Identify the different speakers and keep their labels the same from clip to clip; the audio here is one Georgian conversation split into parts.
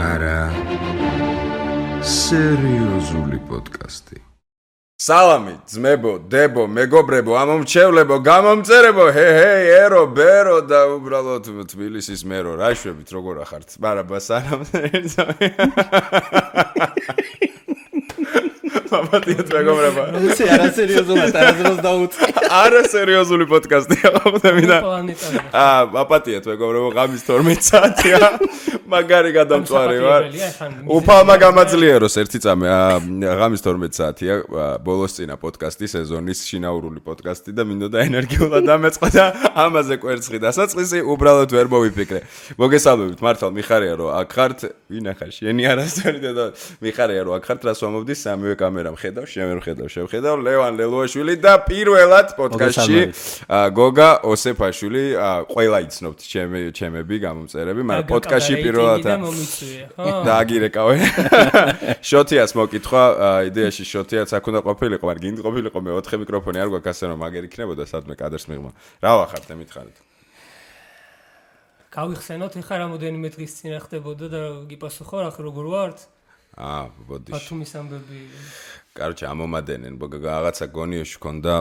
Speaker 1: არა სერიოზული პოდკასტი.
Speaker 2: სალამი, ძმებო, დებო, მეგობრებო, ამომრჩევლებო, გამომწერებო, ჰეი, ერო, ბერო და უბრალოდ თბილისის მერო, რა შვებით, როგორ ახართ? ბარაბა, სალამ. მაპატიეთ მეგობრებო.
Speaker 3: როცა არასერიოზულად არასდროს დაუწყე.
Speaker 2: არასერიოზული პოდკასტია, ხვდები და. მაპატიეთ მეგობრებო, ღამის 12 საათია. მაგარი გადამწვარი ვარ. უფალმა გამაძლიეროს ერთი წამი, ღამის 12 საათია, ბოლოს წინა პოდკასტი, სეზონის შინაურული პოდკასტი და მინდოდა ენერგიულად დამეწყო და ამაზე კვერცხი დასაწყისი უბრალოდ ვერ მოვიფიქრე. მოგესალმებით, მართლა მიხარია რომ აქ ხართ, ვინ ახარ შენი არასწორი და მიხარია რომ აქ ხართ, რას ვამობდი სამივე კამერამ ხედავ, შევხედავ ლევან ლელუაშვილი და პირველად პოდკასტში გოგა ოსეფაშვილი, ყველა იცნობთ ჩემები გამომწერები, მაგრამ პოდკასტში პირველად დააგირეკავე. შოთიას მოკითხვა, იდეაში შოთიაც აქ უნდა ყოფილიყო, მაგრამ გინდ ყოფილიყო მე 4 მიკროფონი არ გვაქვს ასე რომ მაგერ იქნებოდა სადმე კადრს მიღმა. რა ვახართ მითხარით?
Speaker 4: გავიხსენოთ ეხლა რამოდენიმე დღის წინ ხდებოდა და გიპასუხო რა როგორ ვართ?
Speaker 2: ბოდიში.
Speaker 4: ბათუმის ამბები.
Speaker 2: კაროჩე ამომადენენ, რაღაცა გონიოში ქონდა,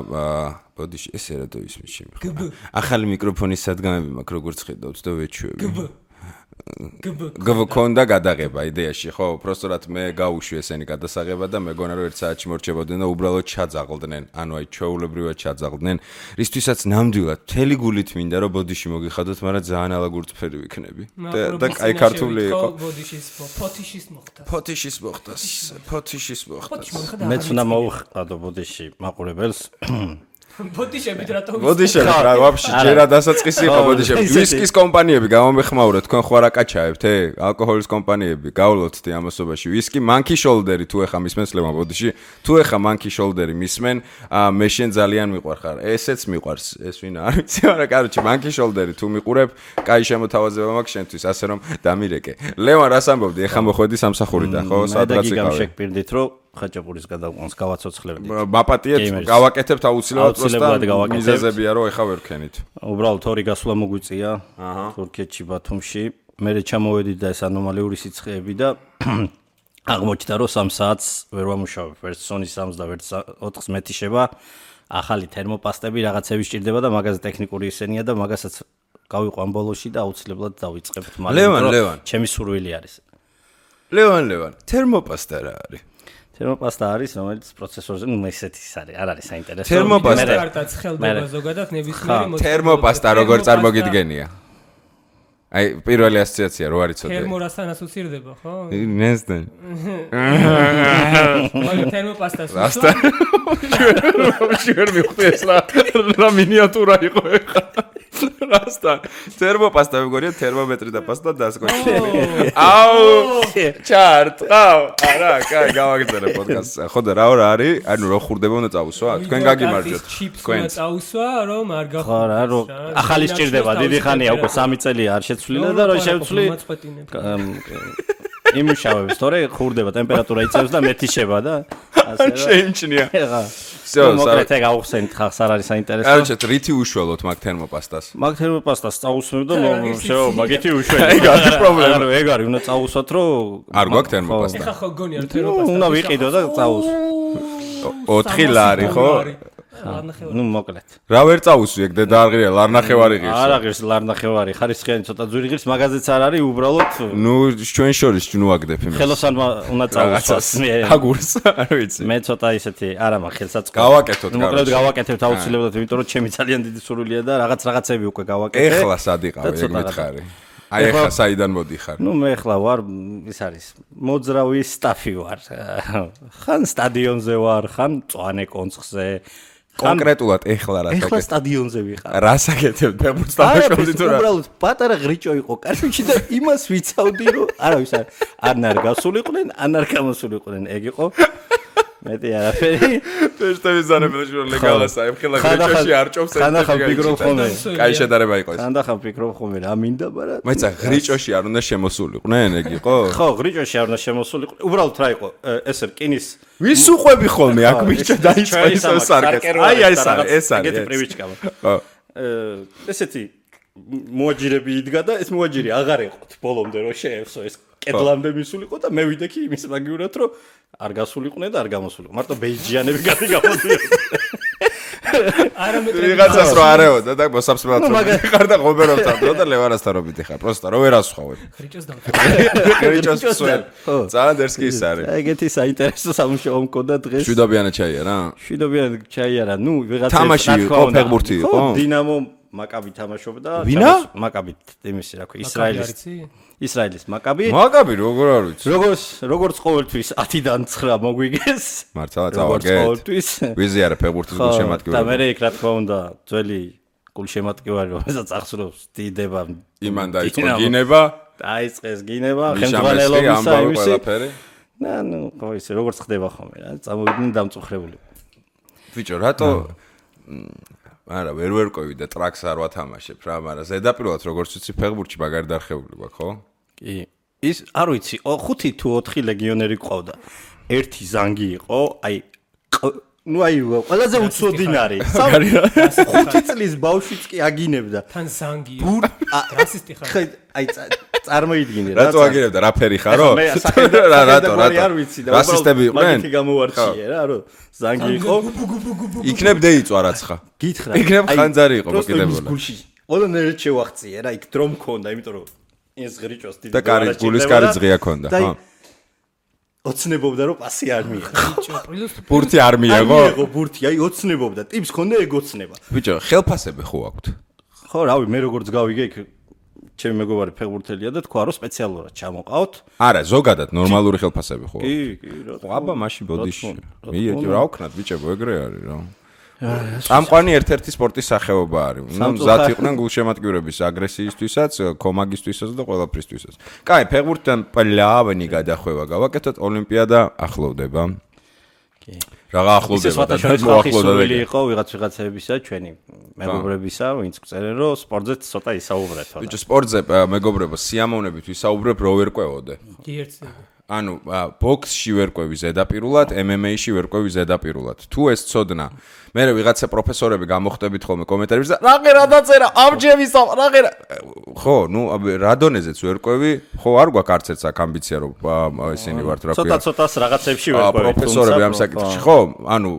Speaker 2: ბოდიში ესე რა დაისმის შემიხარა. ახალი მიკროფონის სადგამები მაქვს როგორც ხედავთ და ვეჩვევი. გქონდა გადაღება იდეაში, ხო, უბრალოდ მე გავუშვი ესენი გადასაღება და მეგონა რომ 1 საათში მორჩებოდნენ და უბრალოდ ჩაძაღლდნენ, ანუ აი ჩვეულებრივად ჩაძაღლდნენ, რისთვისაც ნამდვილად მთელი გულით მინდა რომ ბოდიში მოგიხადოთ, მაგრამ ძალიან ალაგურწფერი ვიქნები. და აი ქართული იყო. ფოთიშის მოხდა.
Speaker 3: მეც უნდა მოვხადო ბოდიში მაყურებელს.
Speaker 4: ბოდიშებით რატომ
Speaker 2: ბოდიშები რა ვაფშე ჯერა დასაწყისი იყო ბოდიშები ვისკის კომპანიები გამომეხმაურეთ თქვენ ხო არა კაჩაებთ ალკოჰოლის კომპანიები გავლოცდი ამასობაში ვისკი მანკი შოლდერი თუ ეხა მისმენს ლევან ბოდიში თუ ეხა მანკი შოლდერი მისმენ მე შენ ძალიან მიყვარხარ ესეც მიყვარს ეს ვინ არ ვიცი მაგრამ კაროჩი მანკი შოლდერი თუ მიყურებ კაი შემოთავაზება მაქვს შენთვის ასე რომ დამირეკე ლევან რას ამბობდი ეხა მოხვედი სამსახურიდან ხო სადღაც იყავი
Speaker 3: შეგპირდით რომ ხაჭაპურის გადაყვანს გავაცოცხლებდით.
Speaker 2: მაპატიეთ, გავაკეთებთ აუცილებლად მიზეზებია რომ ეხა ვერ ქენით.
Speaker 3: უბრალოდ 2 გასვლა მოგვიწია თურქეთში ბათუმში. მე ჩამოვედი და ეს ანომალიური სიცხეები და აღმოჩნდა რომ 3 საათს ვერ ვამუშავებ. ვერც სონის 3-ს და ვერც 4-ს მეტიშება. ახალი თერმოპასტები რაღაცები სჭირდება და მაგაზე ტექნიკური ისენია და მაგასაც გავიყვან ბოლოში და აუცილებლად დავიწყებთ.
Speaker 2: ლევან,
Speaker 3: ჩემი სურვილი არის.
Speaker 2: ლევან, თერმოპასტა რა არის?
Speaker 3: თერმოპასტა არის, რომელიც პროცესორზე, ესეთი არის, არ არის საინტერესო.
Speaker 2: თერმოპასტა
Speaker 4: კარტაც ხელდება ზოგადად ნებისმიერი მოწყობა.
Speaker 2: თერმოპასტა როგორ წარმოგიდგენია? აი, პირველი ასოციაცია რო არის ცოტა.
Speaker 4: თერმორასთან ასოცირდება, ხო?
Speaker 2: ნესტენ.
Speaker 4: მაგ თერმოპასტას.
Speaker 2: რასთან? შენ მივხვდი ეს რა მინიატურა იყო ეხა. რასთან? თერმოპასტა მეგონია თერმომეტრი და პასტა დასკოში. აუ! ჩარტყავ. არა, კაი, გავაგრძელე პოდკასტს. ხო და რა არის? ანუ რო ხურდება უნდა წავუსვა? თქვენ გაგიმარჯვეთ.
Speaker 4: თქვენ წავუსვა, რომ არ გახო.
Speaker 3: ხო რა, რო ახალი სჭირდება, დიდი ხანია უკვე 3 წელია არ შეცვლილა და რო შევცვლი. იმუშავებს, თორე ხურდება, ტემპერატურა იწევს და მეტიშება და ასე რა.
Speaker 2: შეიმჩნია.
Speaker 3: ეხა. მოკრეთე გავხსენით ხახს არ არის საინტერესო.
Speaker 2: კაროჩე, რითი უშველოთ მაგ თერმოპასტას?
Speaker 3: მაგ თერმოპასტას წავუსმევ და შეო, მაგითი უშველი.
Speaker 2: ეგ არის პრობლემა.
Speaker 3: ანუ ეგ არის, უნდა წავუსვათ, რომ
Speaker 2: არ გვაქვს თერმოპასტა.
Speaker 4: ეხა ხო გონია თერმოპასტა.
Speaker 3: უნდა ვიყიდო და წავუს.
Speaker 2: 4 ლარი ხო?
Speaker 3: ნუ მოკლედ.
Speaker 2: რა ვერ წავუსვი ეგ დედა არ ღირია, ლარნახევარი ღირს.
Speaker 3: არ აღირს ლარნახევარი, ხარისხიანი ცოტა ძვირი ღირს, მაგაზეც არ არის, უბრალოდ
Speaker 2: ნუ ჩვენ შორის ნუ აგდებ იმას.
Speaker 3: ხელოსანმა უნდა წავუსვას.
Speaker 2: აგურს, არ ვიცი.
Speaker 3: მე ცოტა ისეთი არა მაქვს ხელსაწყო.
Speaker 2: გავაკეთოთ კაროჩე.
Speaker 3: მოკლედ გავაკეთებთ აუცილებლად, იმიტომ რომ ჩემი ძალიან დიდი სურვილია და რაღაცები უკვე გავაკეთე.
Speaker 2: ეხლა სად იყავი, ეგ მითხარი. აი ეხლა საიდან მოდიხარ?
Speaker 3: ნუ მე ეხლა ვარ, ის არის, მოძრავი სტაფი ვარ. ხან სტადიონზე ვარ, ხან მწვანე კონცხზე.
Speaker 2: კონკრეტულად ეხლა რა საკეთებ?
Speaker 3: ეხლა სტადიონზე ვიყავ.
Speaker 2: რა საკეთებ? ფეხბურთს დამაშავდი თუ რა?
Speaker 3: უბრალოდ პატარა ღრიჭო იყო კარში და იმას ვიცავდი რომ არავის არ გასულიყვნენ, არ გამოსულიყვნენ, ეგ იყო. მეტი არაფერი.
Speaker 2: ფეშტების ზანებელში რომ ლეგალას აიფხილა ღრიჭოში არ ჭობს ეს.
Speaker 3: ხანდახან ფიქრობ ხოლმე.
Speaker 2: კაი შედარება იყო ეს.
Speaker 3: ხანდახან ფიქრობ ხოლმე რა მინდა, მაგრამ
Speaker 2: მაიცა ღრიჭოში არ უნდა შემოსულიყვნენ, ეგ იყო?
Speaker 3: ხო, ღრიჭოში არ უნდა შემოსულიყვნენ. უბრალოდ რა იყო? ესე რკინის
Speaker 2: ვის უყვები ხოლმე აქ მიჭა დაიწყო ის სარკეს. აი ეს არის.
Speaker 3: ეგეთი პრივიჩკა. ხო. ესეთი მოაჯირები იდგა და ეს მოაჯირი აღარ ეყოთ ბოლომდე რომ შეევსო ეს კედლამდე მისულიყო და მე ვიდექი იმის მაგივრად რომ არ გასულიყვნენ და არ გამოსულიყო. მარტო ბეიჯიანები გადმოდიოდნენ.
Speaker 2: ვიღაცას რო არეოდა და მოსაბსმელად ხარ და ღობერობთან დრო და ლევანასთან რო მიდიხარ. პროსტა რო ვერასხვავებ.
Speaker 4: ხრიჭოს და
Speaker 2: ხრიჭოს სვენ. ძალიან დერსკი ის არის.
Speaker 3: ეგეთი საინტერესო სამუშაო მქონდა დღეს.
Speaker 2: შვიდობიანად ჩაიარა?
Speaker 3: შვიდობიანად ჩაიარა. ნუ ვიღაცა
Speaker 2: თამაში იყო, ფეხბურთი იყო?
Speaker 3: დინამო მაკაბი თამაშობდა.
Speaker 2: ვინა?
Speaker 3: მაკაბი იმისი რა ქვია, ისრაელის მაკაბი.
Speaker 2: მაკაბი როგორ არ ვიცი.
Speaker 3: როგორც ყოველთვის 10-დან 9 მოგვიგეს.
Speaker 2: მართლა წავაგეთ.
Speaker 3: ყოველთვის.
Speaker 2: ვიზიარე ფეხბურთის გულშემატკივარი.
Speaker 3: და მე იქ რა თქმა უნდა ძველი გულშემატკივარი რომელსაც ახსოვს დიდება.
Speaker 2: იმან დაიწყო გინება.
Speaker 3: დაიწყეს გინება, ხელმძღვანელობისა იმისი.
Speaker 2: ყველაფერი.
Speaker 3: ნუ ხო ისე როგორც ხდება ხოლმე რა, წამოვიდნენ დამწუხრებული.
Speaker 2: ბიჭო, რატო არა, ვერ ვერკვევი და ტრაქს არ ვათამაშებ რა, მაგრამ ზედაპირულად როგორც ვიცი ფეხბურთში მაგარი დარხეული გვაქვს, ხო?
Speaker 3: კი. ის არ ვიცი, 5 თუ 4 ლეგიონერი ყავდა. ერთი ზანგი იყო, აი ნუ აი ყველაზე უცოდინარი. 5 წლის ბავშვიც კი აგინებდა.
Speaker 4: თან ზანგი. რასისტი ხარ.
Speaker 3: აი წარმოიდგინე რა.
Speaker 2: რატო აგინებდა? რა ფერი ხარო?
Speaker 3: რატო? არ ვიცი და
Speaker 2: რასისტები იყვნენ?
Speaker 3: მაგითი გამოვარჩიე რა, რომ ზანგი იყო.
Speaker 2: იქნებ დეიწვა რაცხა.
Speaker 3: გითხრა.
Speaker 2: იქნებ ხანძარი იყო მოკიდებული.
Speaker 3: ყველანაირად შევახციე რა, იქ დრო მქონდა, იმიტომ რომ ეს ღრიჭოს დიდი
Speaker 2: და კარი გულის კარი ზღია ქონდა, ხო?
Speaker 3: ოცნებობდა რომ პასი არ მიიღო.
Speaker 2: ბურთი არ მიიღო?
Speaker 3: მიიღო ბურთი, აი ოცნებობდა. ტიპს ქონდა ეგოცნება.
Speaker 2: ბიჭო, ხელფასები ხო აქვთ?
Speaker 3: ხო, რავი, მე როგორც გავიგე იქ ჩემი მეგობარი ფეხბურთელია და თქვა რომ სპეციალურად ჩამოყავთ.
Speaker 2: არა, ზოგადად ნორმალური ხელფასები ხო?
Speaker 3: კი, რა.
Speaker 2: აბა, მაშინ ბოდიში. მიეჭი რა ვქნათ ბიჭებო, ეგრე არის რა. წამყვანი ერთ-ერთი სპორტის სახეობა არის. ნუ მზად იყვნენ გულშემატკივრების აგრესიისთვისაც, კომაგისთვისაც და ყველაფრისთვისაც. კაი, ფეხბურთთან პლავენი გადახვევა გავაკეთოთ, ოლიმპიადა ახლოვდება.
Speaker 3: კი.
Speaker 2: რაღა ახლოვდება და
Speaker 3: მოახლოვდება. იყო ვიღაცებისა, ჩვენი მეგობრებისა, ვინც წერენ რომ სპორტზე ცოტა ისაუბრეთ.
Speaker 2: ბიჭო, სპორტზე მეგობრებო, სიამოვნებით ვისაუბრებ, რო ვერკვევოდე.
Speaker 4: კი ერთზე.
Speaker 2: ანუ ბოქსში ვერკვევი ზედაპირულად, MMA-ში ვერკვევი ზედაპირულად. თუ ეს ცოდნა, მე ვიღაცა პროფესორები გამოხდებით ხოლმე კომენტარებში და რა დაწერა, ამჯერს რა ხო, ნუ რა დონეზეც ვერკვევი, ხო არ გვაქვს არც ერთ ამბიცია რომ ისინი ვართ რა ქვია.
Speaker 3: ცოტა-ცოტას რაღაცებში ვერკვევი.
Speaker 2: პროფესორები ამ საკითხში, ხო? ანუ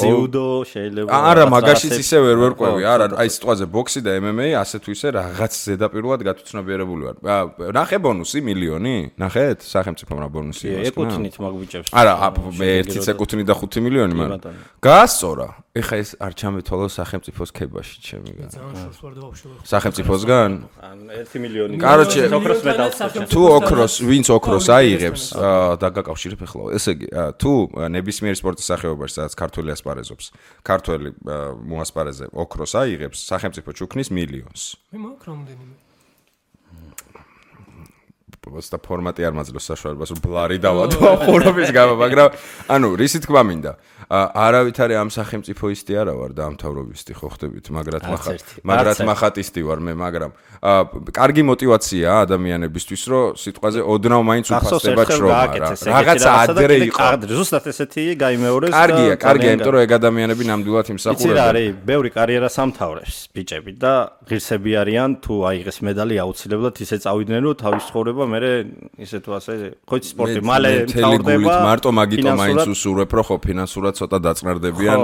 Speaker 3: ჯიუდო შეიძლება.
Speaker 2: არა, მაგაშიც ისე ვერ ვერკვევი, არა, აი სიტყვაზე ბოქსი და MMA ასე თუ ისე რაღაც ზედაპირულად გათუცნობიერებული ვარ. ნახე ბონუსი მილიონი? ნახეთ სახელმწიფომ რა ბონუსი აქვს?
Speaker 3: ეკუთვნით მაგბიჭებს.
Speaker 2: არა, მე 1 ეკუთვნით და 5 მილიონი მაგრამ. გაასწორა. ეხა ეს არ ჩამეთვალო სახელმწიფოს ქებაში ჩემიგან. სახელმწიფოსგან?
Speaker 3: 1 მილიონი.
Speaker 2: კაროჩე,
Speaker 3: ოქროს მედალს.
Speaker 2: თუ ოქროს, ვინც ოქროს აიღებს და გაკავშირებ ეხლა. ესე იგი, თუ ნებისმიერ სპორტის სახეობაში, სადაც ქართველი ასპარეზობს, ქართველი მოასპარეზე ოქროს აიღებს, სახელმწიფო ჩუქნის მილიონს.
Speaker 4: მე მაქვს რამდენიმე.
Speaker 2: და ფორმატი არ მაძლევს საშუალებას რომ ბლარი დავადო ხურობის გამო, მაგრამ ანუ რისი თქმა მინდა. არავით არის ამ სახელმწიფო ისტი არა ვარ და ამთავრობისტი ხო ხდებით, მაგრად მახატისტი ვარ მე, მაგრამ კარგი мотиваციაა ადამიანებისთვის, რომ სიტყვაზე ოდნავ მაინც უფასდება შრომა რა. რაღაცა ადრე იყო.
Speaker 3: ზუსტად ესეთი გაიმეორეს.
Speaker 2: კარგია, იმიტომ რომ ეგ ადამიანები ნამდვილად იმსახურებენ.
Speaker 3: იცი რა არის, ბევრი კარიერას ამთავრებს ბიჭები და ღირსები არიან, თუ აიღეს медаლი აუცილებლად ისე წავიდნენ, რომ თავის ცხოვრება მე ისე თუ ასე ხოც სპორტი მალე თავდება.
Speaker 2: მარტო მაგიტო მაინც უსურვებ, რომ ხო ფინანსურად ცოტა დაწნარდებიან.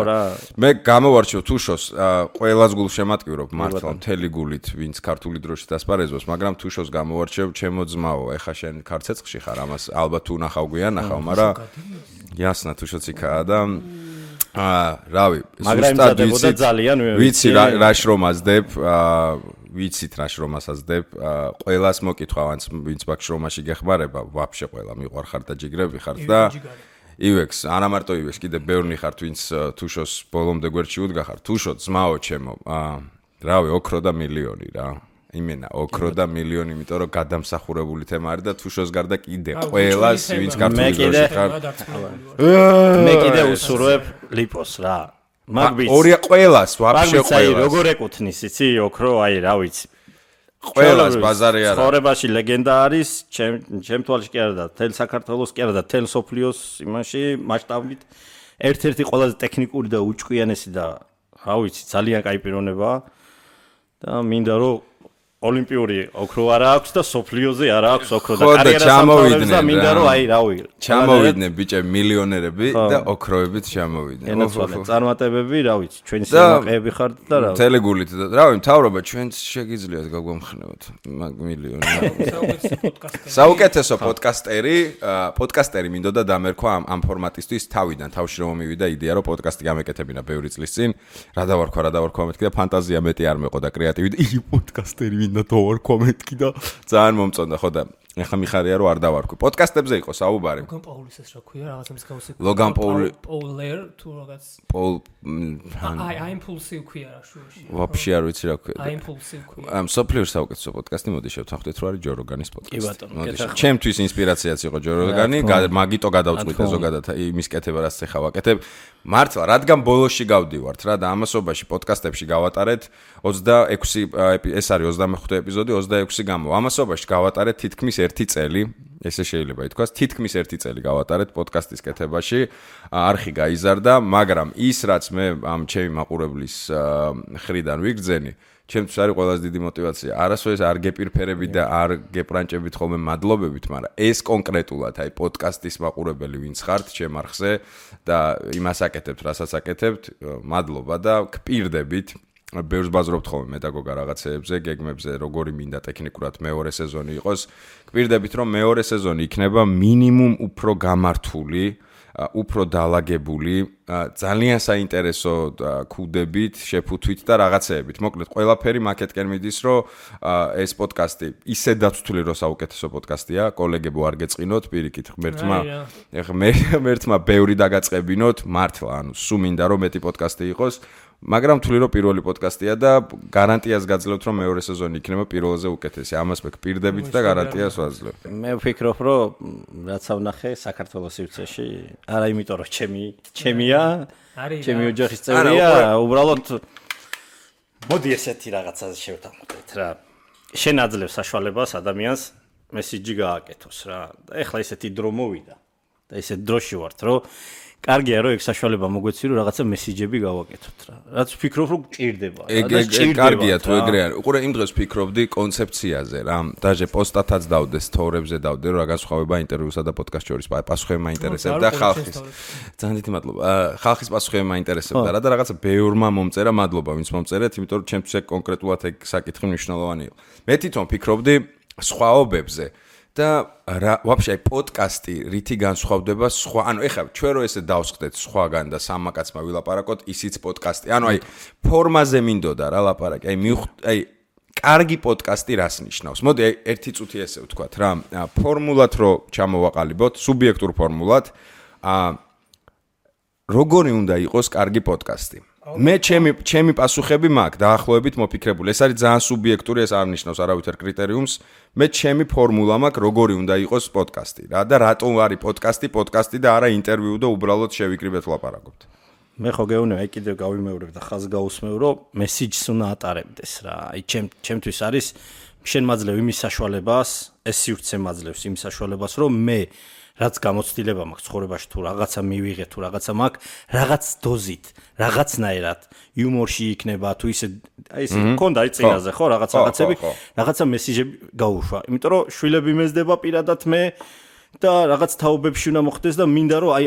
Speaker 2: მე გამოვარჩევ თუშოს ყველას გულშემატკივრობ მართლა მთელი გულით, ვინც ქართული დროშით ასპარეზობს, მაგრამ თუშოს გამოვარჩევ ჩემო ძმაო, ეხა შენ ქარცეცხლში ხარ, ამას ალბათ თუ ნახავ გვიან, ნახავ, მაგრამ იასნა თუშოც იქაა და რავი,
Speaker 3: ზუსტად
Speaker 2: ვიცი რა შრომაზდებ, ვიცით რა შრომასაზდებ, ყველას მოკითხავ, ვინც მაგ შრომაში გეხმარება, ვაფშე ყველა მიყვარხარ და ჯიგრები ხართ და ივექს, არა მარტო ივექს, კიდე ბევრნი ხართ, ვინც თუშოს ბოლომდე გვერდში უდგახარ. თუშო ძმაო ჩემო, რავი, ოქრო და მილიონი რა. იმენა, ოქრო და მილიონი, იმიტომ რომ გადამსახურებული თემა არის და თუშოს გარდა კიდე ყველას, ვინც ქართული დროში ხარ.
Speaker 3: მე კიდე უსურვებ ლიპოს რა. მაგბიც.
Speaker 2: ორია ყველას, ვაფშე ყველას.
Speaker 3: როგორ ეკუთვნის, იცი, ოქრო, აი რა ვიცი.
Speaker 2: ყველას ბაზარი არა.
Speaker 3: ცხოვრებაში ლეგენდა არის, ჩემ თვალში კი არა და თელ საქართველოს კი არა და თელ სოფლიოს იმაში მასშტაბით ერთ-ერთი ყველაზე ტექნიკური და უჭკვიანესი და რა ვიცი, ძალიან კაი პიროვნებაა და მინდა რომ ოლიმპიური ოქრო არა აქვს და სოფლიოზე არა აქვს ოქრო და კარიერას ამთავრებს და მინდა რომ აი რავი
Speaker 2: ჩამოვიდნენ ბიჭები მილიონერები და ოქროებით ჩამოვიდნენ.
Speaker 3: ენაცვალე წარმატებები რა ვიცი ჩვენი სიამაყეები ხართ და რა
Speaker 2: თელეგულით და რავი მთავრობა ჩვენც შეგიძლიათ გაგვამხნევოთ მილიონი. საუკეთესო პოდკასტერი მინდოდა დამერქვა ამ ფორმატისთვის თავიდან თავში რომ მივიდა იდეა რომ პოდკასტი გამეკეთებინა ბევრი წლის წინ რა დავარქვა მეთქი და ფანტაზია მეტი არ მეყო და კრეატივი ი პოდკასტერი მინდა დავარქვა მეთქი და ძალიან მომწონდა ხო და ეხლა მიხარია რომ არ დავარქვი პოდკასტებზე იყო საუბარი
Speaker 4: ლოგან პაულის ეს რა ქვია რაღაცა მსგავსი
Speaker 2: ლოგან
Speaker 4: პოულერ თუ რაღაც
Speaker 2: პოლ
Speaker 4: აი იმპულსივ ქვია რა შუაში
Speaker 2: ვაფშე არ ვიცი რა ქვია
Speaker 4: აი იმპულსივ ქვია
Speaker 2: ამ სოფლიურ საუკეთესო პოდკასტი მოდი შევთანხმდეთ რომ არის ჯო როგანის პოდკასტი
Speaker 3: კი ბატონო
Speaker 2: ჩემთვის ინსპირაციაც იყო ჯო როგანი მაგიტო გადავწყვიტე ზოგადად იმის კეთება რაც ეხა ვაკეთებ მართლა რადგან ბოლოში გავდივართ რა და ამასობაში პოდკასტებში გავატარეთ 26 ეს არის 25 ეპიზოდი 26 გამო ამასობაში გავატარეთ თითქმის 1 წელი ესე შეიძლება ითქვას თითქმის 1 წელი გავატარეთ პოდკასტის კეთებაში არხი გაიზარდა მაგრამ ის რაც მე ამ ჩემი მაყურებლის ხრიდან ვიგრძენი ჩემთვის არის ყველაზე დიდი мотиваცია არასოდეს არ გეპირფერებით და არ გეპრანჭებით ხოლმე მადლობებით მაგრამ ეს კონკრეტულად აი პოდკასტის მაყურებელი ვინც ხართ ჩემ არხზე და იმას აკეთებთ რასაც აკეთებთ მადლობა და გპირდებით ბევრს ბაზრობთ ხოლმე მედაგოგა რაღაცეებზე, გეგმებზე, როგორი მინდა ტექნიკურად მეორე სეზონი იყოს. გპირდებით რომ მეორე სეზონი იქნება მინიმუმ უფრო გამართული, უფრო დაალაგებული, ძალიან საინტერესო ქუდებით, შეფუთვით და რაღაცეებით. მოკლედ, ყველაფერი მაკეთკენ მიდის, რომ ეს პოდკასტი ისე დაცული რომ საუკეთესო პოდკასტია, კოლეგებო არ გეწყინოთ, პირიქით, ღმერთმა ბევრი დაგაწყებინოთ, მართლა, ანუ სულ მინდა რომ მეტი პოდკასტი იყოს. მაგრამ თვლი რომ პირველი პოდკასტია და გარანტიას გაძლევთ რომ მეორე სეზონი იქნება პირველზე უკეთესი. ამას მე გპირდებით და გარანტიას ვაძლევ.
Speaker 3: მე ვფიქრობ რომ რაც ავნახე საქართველოს სივრცეში, არა იმიტომ რომ ჩემია, ჩემი ოჯახის წევრია, უბრალოდ მოდი ესეთი რაღაცაზე შევთანხმდეთ რა. შენ აძლევ საშუალებას ადამიანს მესიჯი გააკეთოს რა. და ეხლა ესეთი დრო მოვიდა და ესეთ დროში ვართ რომ კარგია რომ ეგ საშუალება მოგვეცი რომ რაღაცა მესიჯები გავაკეთოთ რა. რაც ვფიქრობ რომ გჭირდება
Speaker 2: რა. კარგია თუ ეგრე არის. უყურე იმ დროს ვფიქრობდი კონცეფციაზე რა. დაჟე პოსტათაც დავდე, სტორებზე დავდე რომ რა განსხვავება ინტერვიუსა და პოდკასტ შორის პასუხები მაინტერესებდა ხალხის. ძალიან დიდი მადლობა. ხალხის პასუხები მაინტერესებდა რა და რაღაცა ბევრმა მომწერა, მადლობა ვინც მომწერეთ, იმიტომ რომ ჩემთვის ეგ კონკრეტულად ეგ საკითხი მნიშვნელოვანი იყო. მე თვითონ ვფიქრობდი სხვაობებზე. და რა ვაფშე აი პოდკასტი რითი განსხვავდება სხვა ანუ ეხლა ჩვენ რო ესე დავსხდეთ სხვაგან და სამაკაცმა ვილაპარაკოთ ისიც პოდკასტი ანუ აი ფორმაზე მინდოდა რა ლაპარაკი აი კარგი პოდკასტი რას ნიშნავს მოდი აი ერთი წუთი ესე ვთქვათ რა ფორმულად რო ჩამოვაყალიბოთ სუბიექტურ ფორმულად როგორი უნდა იყოს კარგი პოდკასტი მე ჩემი პასუხები მაქვს დაახლოებით მოფიქრებული. ეს არის ძალიან სუბიექტური, ეს არ ნიშნავს არავითარ კრიტერიუმს. მე ჩემი ფორმულა მაქვს, როგორი უნდა იყოს პოდკასტი რა და რატომ არის პოდკასტი და არა ინტერვიუ და უბრალოდ შევიკრიბეთ ვლაპარაკობთ.
Speaker 3: მე ხო გეუბნები, აი კიდევ გავიმეორებ და ხაზ გაუსმევ, რომ მესიჯს უნდა ატარებდეს რა. აი ჩემთვის არის შენ მაძლევ იმის საშუალებას, ეს სივრცე მაძლევს იმის საშუალებას, რომ მე რაც გამოცდილება მაქვს ცხოვრებაში თუ რაღაცა მივიღე თუ რაღაცა მაქვს რაღაც დოზით რაღაცნაირად იუმორში იქნება თუ ისე აი ესე მქონდა აი წინაზე ხო რაღაცები რაღაცა მესიჯები გაუშვა იმიტომ რომ შვილები მეზდება პირადად მე და რაღაც თაობებში უნდა მოხდეს და მინდა რომ აი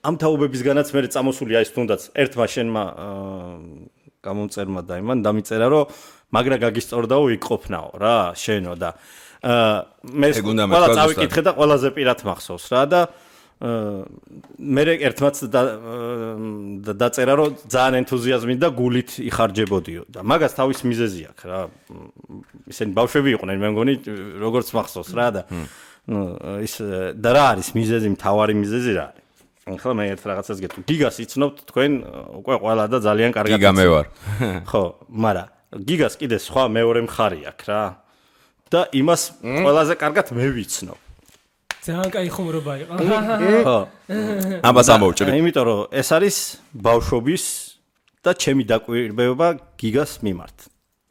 Speaker 3: ამ თაობებისგანაც მე წამოსული აი თუნდაც ერთმა შენმა გამომწერმა და იმან დამიწერა რომ მაგრა გაგისწორდაო იქ ყოფნაო რა შენო და მე ყველა წავიკითხე და ყველაზე პირად მახსოვს რა და მე ერთმაც დაწერა რომ ძალიან ენთუზიაზმით და გულით იხარჯებოდიო და მაგას თავის მიზეზი აქვს რა ისინი ბავშვები იყვნენ მე მგონი როგორც მახსოვს რა და ის და რა არის მიზეზი მთავარი მიზეზი რა არის ახლა მე ერთ რაღაცას გეტყვი გიგას იცნობთ თქვენ უკვე ყველა და ძალიან კარგად
Speaker 2: გიგა მე ვარ
Speaker 3: ხო მაგრამ გიგას კიდე სხვა მეორე მხარი აქვს რა და იმას ყველაზე კარგად მე ვიცნობ.
Speaker 4: ძალიან კაი ხუმრობა იყო.
Speaker 3: ხო.
Speaker 2: ამას ამოვჭრი.
Speaker 3: იმიტომ რომ ეს არის ბავშვობის და ჩემი დაკვირვება გიგას მიმართ.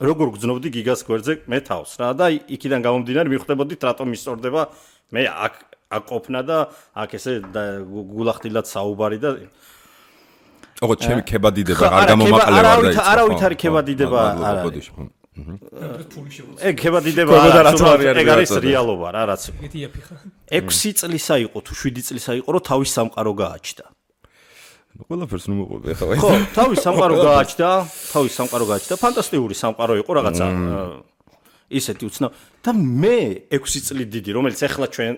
Speaker 3: როგორ გძნობდი გიგას გვერდზე მე თავს რა და იქიდან გამომდინარე მიხვდებოდით რატომ ისწორდება მე აქ ყოფნა და აქ ესე გულახდილად საუბარი და
Speaker 2: ოღონდ ჩემი ქებადიდება არ გამომაყლე ვარ და იცი.
Speaker 3: არავით არის ქებადიდება არ არის. ეგ ქებადიდება ეგ არის რეალობა რა რაც. 6 წლისა იყო თუ 7 წლისა იყო რომ თავის სამყარო გააჩნდა.
Speaker 2: ყველაფერს ნუ მოყვები ხა.
Speaker 3: ხო, თავის სამყარო გააჩნდა, ფანტასტიკური სამყარო იყო რაღაცა ისეთი უცნაური და მე 6 წელი დიდი, რომელიც ახლა ჩვენ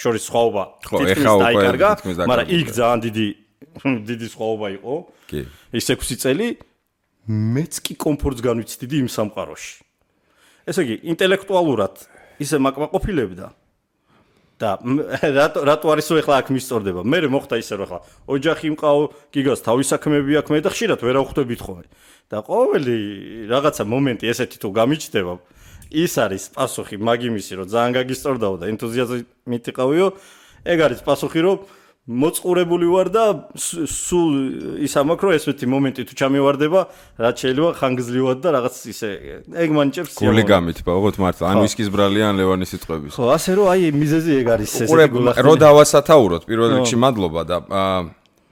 Speaker 3: შორის სხვაობა თითქმის დაიკარგა, მაგრამ იქ ძალიან დიდი სხვაობა იყო. კი. ის 6 წელი მეც კი კომფორტს განვიცდიდი იმ სამყაროში. ესე იგი, ინტელექტუალურად ისე მაკმაყოფილებდა და რატო არის ახლა აქ მისწორდება? მე მოხდა ისე რომ ახლა ოჯახი მყავ, გიგას თავის საქმეები აქვს, მე და ხშირად ვერ ავხვდებით ხოლმე. და ყოველი რაღაცა მომენტი ესეთი თუ გამიჩნდება, ის არის პასუხი მაგიმისი, რომ ძალიან გაგისწორდაო და ენთუზიაზმით იყავიო. ეგ არის პასუხი, რომ მოწყურებული ვარ და სულ ის ამაქვს, რომ ესეთი მომენტი თუ ჩამივარდება, რაც შეიძლება ხანგრძლივად და რაღაც ისე ეგ მანჭებს სიამოვნებად.
Speaker 2: გული გამით, ბაღოთ მართლა, ან ვისკის ბრალი, ან ლევანის სიტყვების.
Speaker 3: ხო, ასე რომ აი მიზეზი ეგ არის ესე
Speaker 2: გულახდენი. რო დავასათაუროთ, პირველ რიგში მადლობა და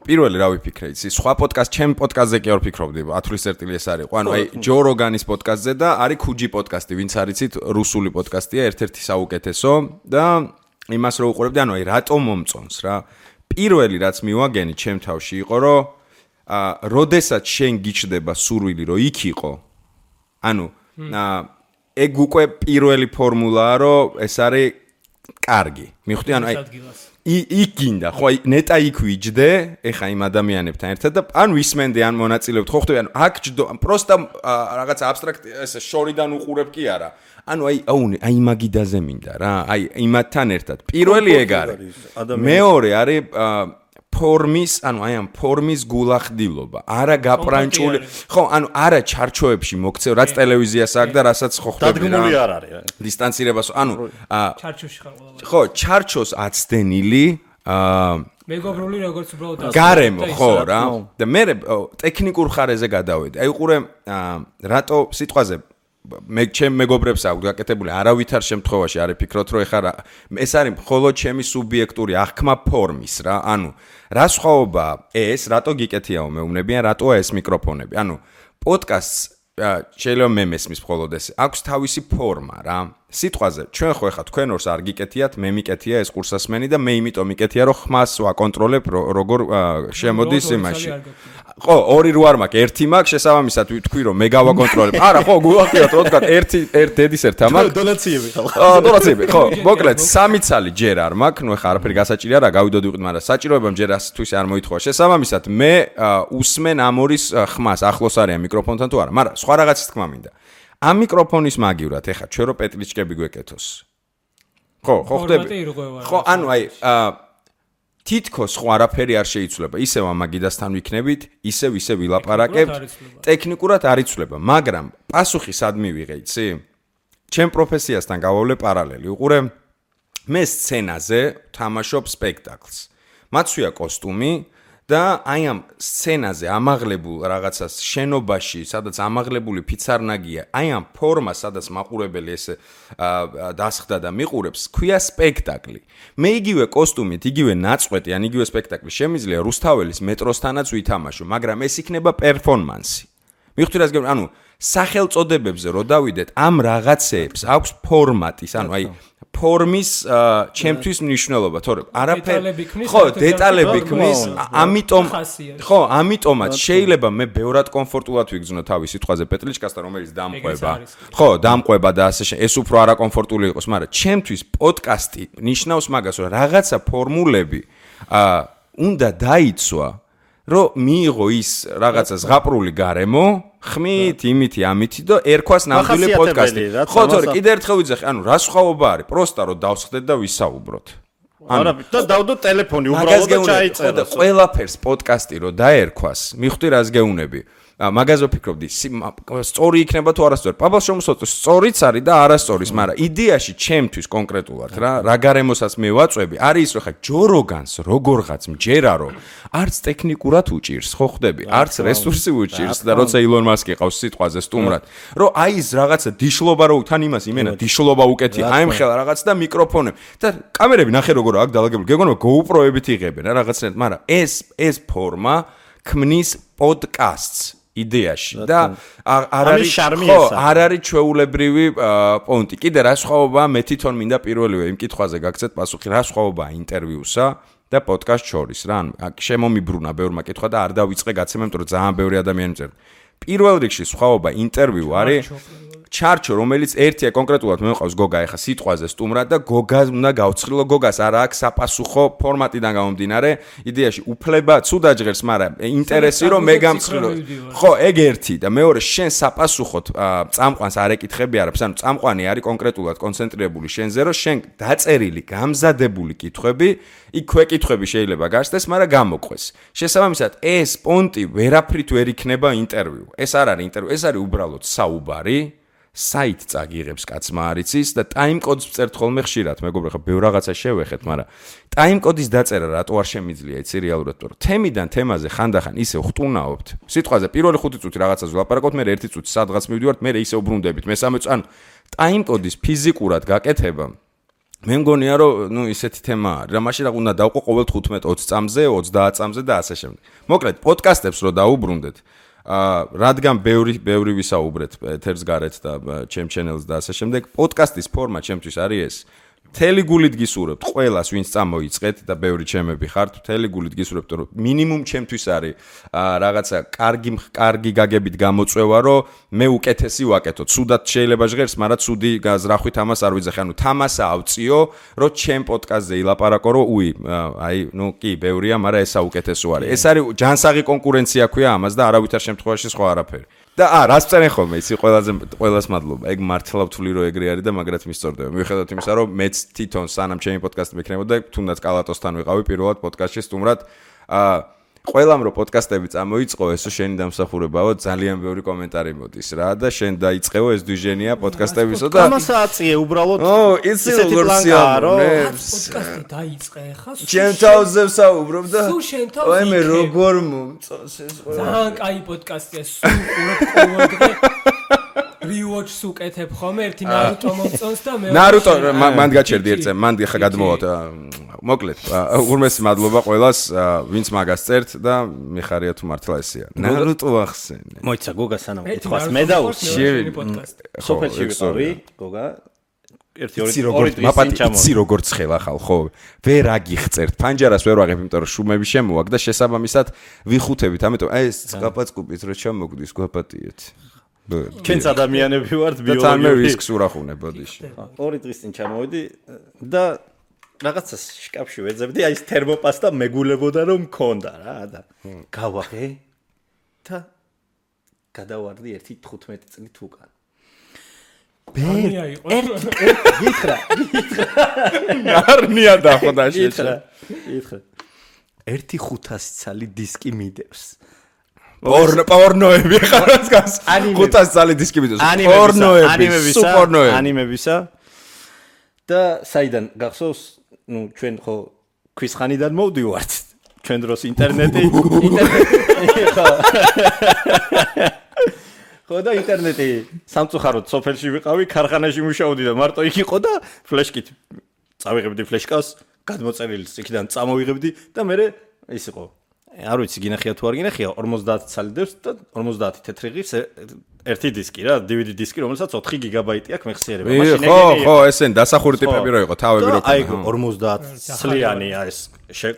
Speaker 2: პირველი რა ვიფიქრე, იცი, სხვა პოდკასტ, ჩემ პოდკასტზე კი არ ვფიქრობდი, ათვლის წერტილი ეს არის. ანუ აი ჯო როგანის პოდკასტზე და არის ქუჯი პოდკასტი, ვინც არიცით, რუსული პოდკასტია, ერთ-ერთი საუკეთესო და იმას რო უყურებდი, ანუ აი რატომ მომწონს რა. პირველი რაც მივაგენი ჩემ თავში იყო, რომ როდესაც შენ გიჩნდება სურვილი, რომ იქ იყო, ანუ ეგ უკვე პირველი ფორმულაა, რომ ეს არის კარგი. მიხვდი, ანუ აი იქ გინდა, ხო, ნეტა იქ ვიჯდე, ეხა იმ ადამიანებთან ერთად და ან ვისმენდე, ან მონაწილეობთ, ხო ხვდები, ანუ აქ ჯდო, პროსტა რაღაც აბსტრაქტი ესე შორიდან უყურებ კი არა. ანუ აი მაგიდაზე მინდა რა, აი იმათთან ერთად. პირველი ეგ არის. მეორე არის ფორმის, ანუ აი ამ ფორმის გულახდილობა, არა გაპრანჭული, ხო, ანუ არა ჩარჩოებში მოქცევ, რაც ტელევიზიას აქვს და რასაც ხო ხვდები რა.
Speaker 3: დადგმული არ არის.
Speaker 2: დისტანცირებას, ანუ
Speaker 4: ჩარჩოში ხარ ყველა.
Speaker 2: ხო, ჩარჩოს აცდენილი
Speaker 4: მეგობრული როგორც უბრალოდ
Speaker 2: გარემო, ხო რა. და მე ტექნიკურ ხარეზე გადავედი. აი უყურე რატო სიტყვაზე მე ჩემ მეგობრებს აქვს გაკეთებული არავითარ შემთხვევაში არ იფიქროთ რომ ეხლა ეს არის მხოლოდ ჩემი სუბიექტური აღქმა ფორმის რა ანუ რა სხვაობა ეს რატო გიკეთიაო მეუბნებიან რატოა ეს მიკროფონები ანუ პოდკასტს შეიძლება მე მესმის მხოლოდ ეს აქვს თავისი ფორმა რა სიტყვაზე ჩვენ ხო ეხლა თქვენ ორს არ გიკეთიათ მე მიკეთია ეს კურსასმენი და მე იმიტომ მიკეთია რომ ხმას ვაკონტროლებ როგორ შემოდის იმაში ხო, ორი რო არ მაქვს, ერთი მაქვს, შესაბამისად ვთქვი რომ მე გავაკონტროლებ. არა, ხო, გულახდილად რო თქვა, ერთი დედის ერთა მაქვს.
Speaker 3: დონაციები ხალხ.
Speaker 2: დონაციები, ხო. მოკლედ, სამი ცალი ჯერ არ მაქვს, ნუ ეხა არაფერი გასაჭირი არა, გავიდოდი ვიყიდ, მაგრამ საჭიროებამ ჯერ ასთვის არ მოითხოვა. შესაბამისად, მე უსმენ ამ ორის ხმას, ახლოს არიან მიკროფონთან თუ არა, მაგრამ სხვა რაღაცის თქმა მინდა. ამ მიკროფონის მაგივრად, ეხა ჩვენ რო პეტლიჩკები გვეკეთოს. ხო, ხვდები. ხო, ანუ აი თითქოს ხო არაფერი არ შეიცვლება. ისევ ამაგიდასთან ვიქნებით, ისევ ვილაპარაკებთ. ტექნიკურად არ იცვლება, მაგრამ პასუხი სად მივიღე, იცი? ჩემ პროფესიასთან გავავლე პარალელი. უყურე, მე სცენაზე თამაშობ სპექტაკლს. მაცვია კოსტუმი და აი ამ სცენაზე ამაღლებულ რაღაცას შენობაში, სადაც ამაღლებული ფიცარნაგია, აი ამ ფორმას, სადაც მაყურებელი ესე დასხდა და მიყურებს, ქვია სპექტაკლი. მე იგივე კოსტუმით, იგივე ნაწყვეტი, ან იგივე სპექტაკლი შემიძლია რუსთაველის მეტროსთანაც ვითამაშო, მაგრამ ეს იქნება პერფორმანსი. მივხვდი რას გეუბნები, ანუ სახელწოდებებზე რო დავიდეთ, ამ რაღაცეებს აქვს ფორმატის, ანუ აი ფორმის ჩემთვის მნიშვნელობა, თორემ არაფერი ხო, დეტალები ქმნის, ამიტომაც შეიძლება მე ბევრად კომფორტულად ვიგრძნო თავის სიტყვაზე პეტლიჩკასთან, რომელიც დამყვება. ხო, დამყვება და ასე ეს უფრო არაკომფორტული იყოს, მაგრამ ჩემთვის პოდკასტი ნიშნავს მაგას, რომ რაღაცა ფორმულები უნდა დაიცვა, რომ მიიღო ის რაღაცა ზღაპრული გარემო ხმით, იმითი, ამითი და ერქვას ნამდვილი პოდკასტი. ხო, თორე კიდე ერთხელ ვიძახი, ანუ რა სხვაობა არის? პროსტა რომ დავსხდეთ და ვისაუბროთ.
Speaker 3: არა, და დავდო ტელეფონი უბრალოდ და ჩაიწერო.
Speaker 2: ყველაფერს პოდკასტი რომ დაერქვას, მიხვდი რას გეუნები? მაგაზე ვფიქრობდი, სწორი იქნება თუ არასწორი. პაბალ შემოსწორ, სწორიც არის და არასწორის, მაგრამ იდეაში ჩემთვის კონკრეტულად რა გარემოსაც მე ვაწვევი, არის ის რომ ხა ჯო როგანს როგორღაც მჯერა რომ არც ტექნიკურად უჭირს, ხო ხვდები? არც რესურსი უჭირს და როცა ილონ მასკი ყავს სიტყვაზე სტუმრად, რომ აი ეს რაღაცა დიშლობა რო თან იმას იმენა დიშლობა უკეთია, აი მხელა რაღაც და მიკროფონები და კამერები ნახე როგორ აქვს დალაგებული. გეგონება GoPro-ებით იღებენ რა რაღაცნაირად, მაგრამ ეს ფორმა ქმნის პოდკასტს იდეაში და არ არის ჩვეულებრივი პონტი. კიდე რა სხვაობაა მე თვითონ მინდა პირველივე იმ კითხვაზე გაგცეთ პასუხი, რა სხვაობაა ინტერვიუსა და პოდკასტ შორის რა. შემომიბრუნა ბევრმა კითხვა და არ დავიწყე გაცემა, იმიტომ რომ ძალიან ბევრი ადამიანი მწერდა. პირველ რიგში სხვაობა ინტერვიუ არის ჩარჩო, რომელიც ერთია კონკრეტულად მე მყავს გოგა ეხა სიტყვაზე სტუმრად და გოგას უნდა გავცხილო, გოგას არა აქვს საპასუხო ფორმატიდან გამომდინარე, იდეაში უფლება ცუდა ჟღერს, მაგრამ ინტერესი რომ მე გამცხილო. ხო, ეგ ერთი და მეორე შენ საპასუხოდ წამყვანს არ ეკითხები არაფერს, ანუ წამყვანი არის კონკრეტულად კონცენტრირებული შენზე, რომ შენ დაწერილი, გამზადებული კითხვები, იქ ქვეკითხვები შეიძლება გასცდეს, მაგრამ გამოყვეს. შესაბამისად, ეს პონტი ვერაფრით ვერ იქნება ინტერვიუ. ეს არ არის ინტერვიუ, ეს არის უბრალოდ საუბარი. საით წაგიღებს კაცმა არიცის და ტაიმკოდს წერთ ხოლმე ხშირად, მეგობრებო, ხა ბევრ რაღაცა შევეხეთ, მაგრამ ტაიმკოდის დაწერა რატო არ შემიძლია იცი რეალურად, რომ თემიდან თემაზე ხანდახან ისე ხტუნაობთ. სიტყვაზე პირველი 5 წუთი რაღაცაზე ვლაპარაკობთ, მე 1 წუთი სადღაც მივდივართ, მე ისე უბრუნდებით, მესამე წუთი, ანუ ტაიმკოდის ფიზიკურად გაკეთება მე მგონია რომ ისეთი თემა არის, რა მაშინ რა უნდა დავყო ყოველ 15-20 წამზე, 30 წამზე და ასე შემდეგ. მოკლედ, პოდკასტებს რო დაუბრუნდეთ რადგან ბევრი ვისაუბრეთ ეთერს გარეთ და ჩემ ჩენელს და ასე შემდეგ, პოდკასტის ფორმა ჩემთვის არის ეს. მთელი გულით გისურვებთ ყველას, ვინც წამოიწყეთ და ბევრი ჩემები ხართ, მთელი გულით გისურვებთ, რომ მინიმუმ ჩემთვის არის რაღაცა კარგი გაგებით გამოწვევა, რომ მე უკეთესი ვაკეთო. ცუდად შეიძლება ჟღერს, მაგრამ ცუდი გაზრახვით ამას არ ვიძახი. ანუ თამასა ავწიო, რომ ჩემ პოდკასტზე ილაპარაკო, რომ კი, ბევრია, მაგრამ ესა უკეთესო არის. ეს არის ჯანსაღი კონკურენცია ქვია ამას და არავითარ შემთხვევაში სხვა არაფერი. და რას წერენ ხოლმე იცი ყველას მადლობა. ეგ მართლა ვთვლი რომ ეგრე არის და მაგრად მისწორდება. მიუხედავად იმისა რომ მეც თვითონ სანამ ჩემი პოდკასტი მექნებოდა, თუნდაც კალატოსთან ვიყავი პირველად პოდკასტში სტუმრად. ყველამ რომ პოდკასტები წამოიწყო, ესო შენი დამსახურებაო, ძალიან ბევრი კომენტარი მოდის რა და შენ დაიწყეო ეს დიჟენია პოდკასტებისო და
Speaker 3: ამას აწიე უბრალოდ.
Speaker 2: იცი როგორ სიამოვნე.
Speaker 4: პოდკასტი დაიწყე ხა.
Speaker 2: ჩემ თავზე ვსაუბრობ და
Speaker 4: აი
Speaker 2: მე როგორ მომწონს ეს ყველა.
Speaker 4: ძალიან კაი პოდკასტია, სულ ყოველდღე rewatch-ს უკეთებ ხომ ერთი ნარუტო მომწონს და მე
Speaker 2: ნარუტო მან გაჩერდი ერთ წამს, მან ხა გადმოვოთ. მოკლედ, უღრმესი მადლობა ყველას, ვინც მაგას წერთ და მიხარია თუ მართლა ესეა. ნარუტო ახსენე.
Speaker 3: მოიცა გოგა სანამ კითხავს მე დავუსწრე პოდკასტი. სოფელში ვიყავი, გოგა. ერთი ორი
Speaker 2: იცი როგორ ცხელა ხალ, ხო? ვერ აგიხწერთ. ფანჯარას ვერ ვაღებ, იმიტომ რომ შუმები შემოაქვს და შესაბამისად ვიხუთებით, ამიტომ აი ეს წყაპაწკუპით რო ჩამოგდის, გვაპატიეთ.
Speaker 3: ჩვენც ადამიანები ვართ
Speaker 2: ბიოლოგიური. და თან მე ვისკს ურახუნე ბოდიში.
Speaker 3: 2 დღის წინ ჩამოვედი და რაღაცას შკაფში ვეძებდი, აი ეს თერმოპასტა მეგულებოდა რომ მქონდა რა და გავაღე და გადავარდი 15 წლით უკან.
Speaker 4: ბერნია იყო.
Speaker 3: გითხრა.
Speaker 2: ნარნია დახვდა შეჭრა.
Speaker 3: გითხრა. 1500 ცალი დისკი მიდევს.
Speaker 2: პორნოები ხარაც გას 500 წალი დისკი მიდევს. პორნოები,
Speaker 3: ანიმებისა და საიდან გახსოვს, ჩვენ ხო ქვისხანიდან მოვდივართ. ჩვენ დროს ინტერნეტი ხო და ინტერნეტი სამწუხაროდ სოფელში ვიყავი, ქარხანაში მუშაობდი და მარტო იქ იყო და ფლეშკით წავიღებდი ფლეშკას, გადმოწერილს იქიდან წამოვიღებდი და მე ის იყო. არ ვიცი გინახია თუ არ გინახია 50 ცალი დევს და 50 თეთრი ღირს ერთი დისკი რა, DVD დისკი, რომელსაც 4 გიგაბაიტი აქვს მეხსიერება.
Speaker 2: მაშინ ხო, ესენ დასახური ტიპები რო იყო, თავები რო.
Speaker 3: აი 50 ცლიანია ეს.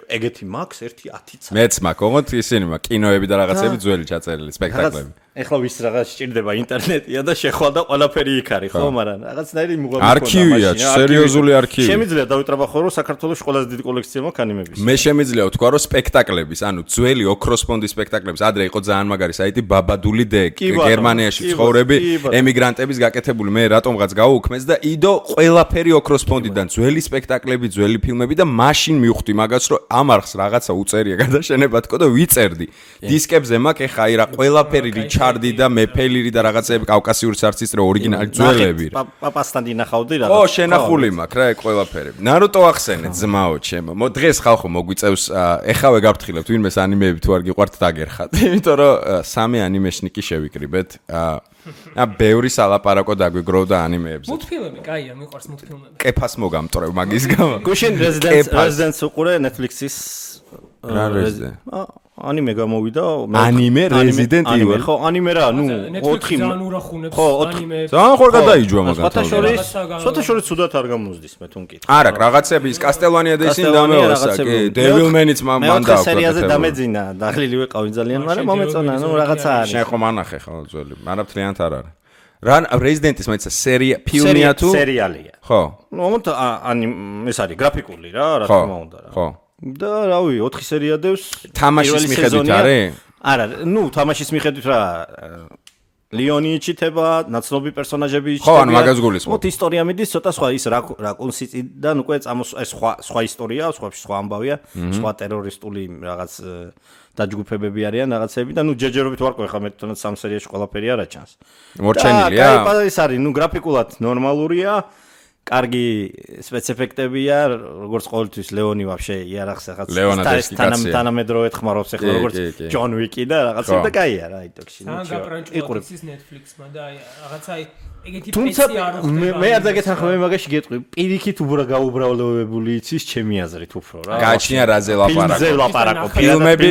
Speaker 3: ეგეთი მაქვს 10 ცალი.
Speaker 2: მეც მაქვს, ოღონდ ისინი მაქვს კინოები და რაღაცები ძველი ჩაწერილი, სპექტაკლები.
Speaker 3: ეხლა ვის რაღაც სჭირდება ინტერნეტია და შეხვალ და ყველაფერი იქ არის, ხო, მაგრამ რაღაცნაირი მუღაბი
Speaker 2: ქონდა. არქივია, სერიოზული არქივი.
Speaker 3: შემიძლია დავიტრაბახო რომ საქართველოს ყველაზე დიდი კოლექცია მაქვს ანიმების.
Speaker 2: მე შემიძლია ვთქვა რომ სპექტაკლების, ანუ ძველი ოქროს ფონდის სპექტაკლების, ადრე იყო ძალიან მაგარი საიტი ბაბადული დეკ, გერმანიაში ცხოვრები, ემიგრანტების გაკეთებული, მე რატომღაც გავუქმეს და იდო ყველაფერი ოქროს ფონდიდან, ძველი სპექტაკლები, ძველი ფილმები და მაშინ მივხვდი მაგას რომ ამ არხს რაღაცა უწერია გადაშენება თქო და ვიწერდი. დისკებზე მაქვს ეხა აი რა ყველაფერი რიჩარდი და მეფელირი და რაღაცეები კავკასიური სარცის რო ორიგინალი ძველები.
Speaker 3: პაპასთან დინახავდი რაღაც.
Speaker 2: ო, შენახული მაქვს რა ეგ ყველაფერი. ნარუტო ახსენე ძმაო ჩემო. დღეს ხალხო მოგვიწევს ეხავე გავფრთხილებთ ვინმეს ანიმეები თუ არ გიყვართ დაგერხათ. იმიტომ რომ 3 ანიმეშნიკი შევიკრიბეთ. ბევრი სალაპარაკო დაგვიგროვდა ანიმეებზე.
Speaker 4: მულტფილმები, კაია, მიყვარს მულტფილმები.
Speaker 2: კეფას მოგამტრევ მაგის გამო.
Speaker 3: გუშინ Residence უყურე Netflix-ის
Speaker 2: რა Resident?
Speaker 3: ანიმე გამოვიდა.
Speaker 2: ანიმე Resident Evil.
Speaker 3: ხო, ანიმე რა, 4
Speaker 4: ძალიან ურახუნებს
Speaker 2: ანიმეებს. ძალიან ხარ გადაიჯვა მაგათ.
Speaker 3: სოთაშორის სუდათ არ გამოსდის მე თუ მკითხ.
Speaker 2: არა, რაღაცები ის Castlevania და ისინი დამეორსა, კი, Devil May-იც მან დააკვირდა.
Speaker 3: სერიაზე დამეძინა, დაღლილი ვიყავი ძალიან, მაგრამ მომეწონა, რაღაცა არის.
Speaker 2: შენ ხომ ანახე ხო ძველი, არაფრიანთ არ არის. რა Resident-ის მეცა სერია, ფილმია თუ
Speaker 3: სერიალია.
Speaker 2: ხო.
Speaker 3: მომენტ ეს არის გრაფიკული რა თქმა უნდა რა.
Speaker 2: ხო.
Speaker 3: და რავი 4 სერია დევს
Speaker 2: თამაშის მიხედვით არის?
Speaker 3: არა, თამაშის მიხედვით რა ლიონი იჩითება, ნაცნობი პერსონაჟები იჩითება.
Speaker 2: ხო, ანუ მაგას გულისხმობ.
Speaker 3: მოთ ისტორია მიდის, ცოტა სხვა ის რა კონსისტიდან უკვე ეს სხვა ისტორია, სხვა ამბავია, სხვა ტერორისტული რაღაც დაჯგუფებები არიან რაღაცები და ჯეჯერობით ვარ ყო ხა მე თვითონაც სამ სერიაში ყველაფერი არა ჩანს.
Speaker 2: მორჩენილია?
Speaker 3: და ეს არის, გრაფიკულად ნორმალურია. კარგი სპეციფექტებია, როგორც ყოველთვის ლეონი ვაფშე იარახს ახაც თანამედროვე ხმარობს ახლა როგორც ჯონ ვიკი და რაღაცა და კაია რა იტოქში.
Speaker 4: იყურებს ის Netflix-მა და რაღაცა ეგეთი
Speaker 3: თუმცა მე არ დაგეთანხმე მე მაგაში გეტყვი, პირიქით გაუბრალებული იცის ჩემი აზრით უფრო რა.
Speaker 2: გააჩნია რაზე ლაპარაკო. ფილმები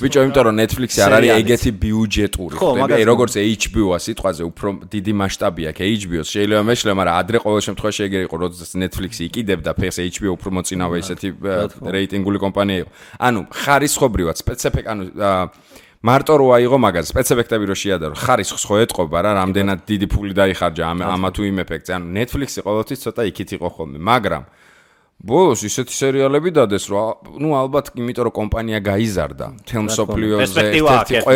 Speaker 2: ბიჭო, იმიტომ რომ Netflix-ი არ არის ეგეთი ბიუჯეტური. ხდები, როგორც HBO-ა სიტყვაზე უფრო დიდი მასშტაბია კი HBO-ს. შეიძლება მეშლე, მაგრამ ადრე ყოველ შემთხვევაში ეგრე იყო, როდესაც Netflix-ი იყიდებდა ფეხს HBO უფრო მოწინავე ესეთი რეიტინგული კომპანია იყო. ანუ ხარისხობრივად მარტო რო აიღო მაგას სპეციფექტები რო შეადარო ხარისხს ხო ეთყობა რა რამდენად დიდი ფული დაიხარჯა ამა თუ იმ ეფექტზე ანუ Netflix-ი ყოველთვის ცოტა იქით იყო ხოლმე მაგრამ ბოლოს ისეთი სერიალები დადეს რომ ალბათ იმიტომ რომ კომპანია გაიზარდა თელმსოფლიოზე ერთ-ერთი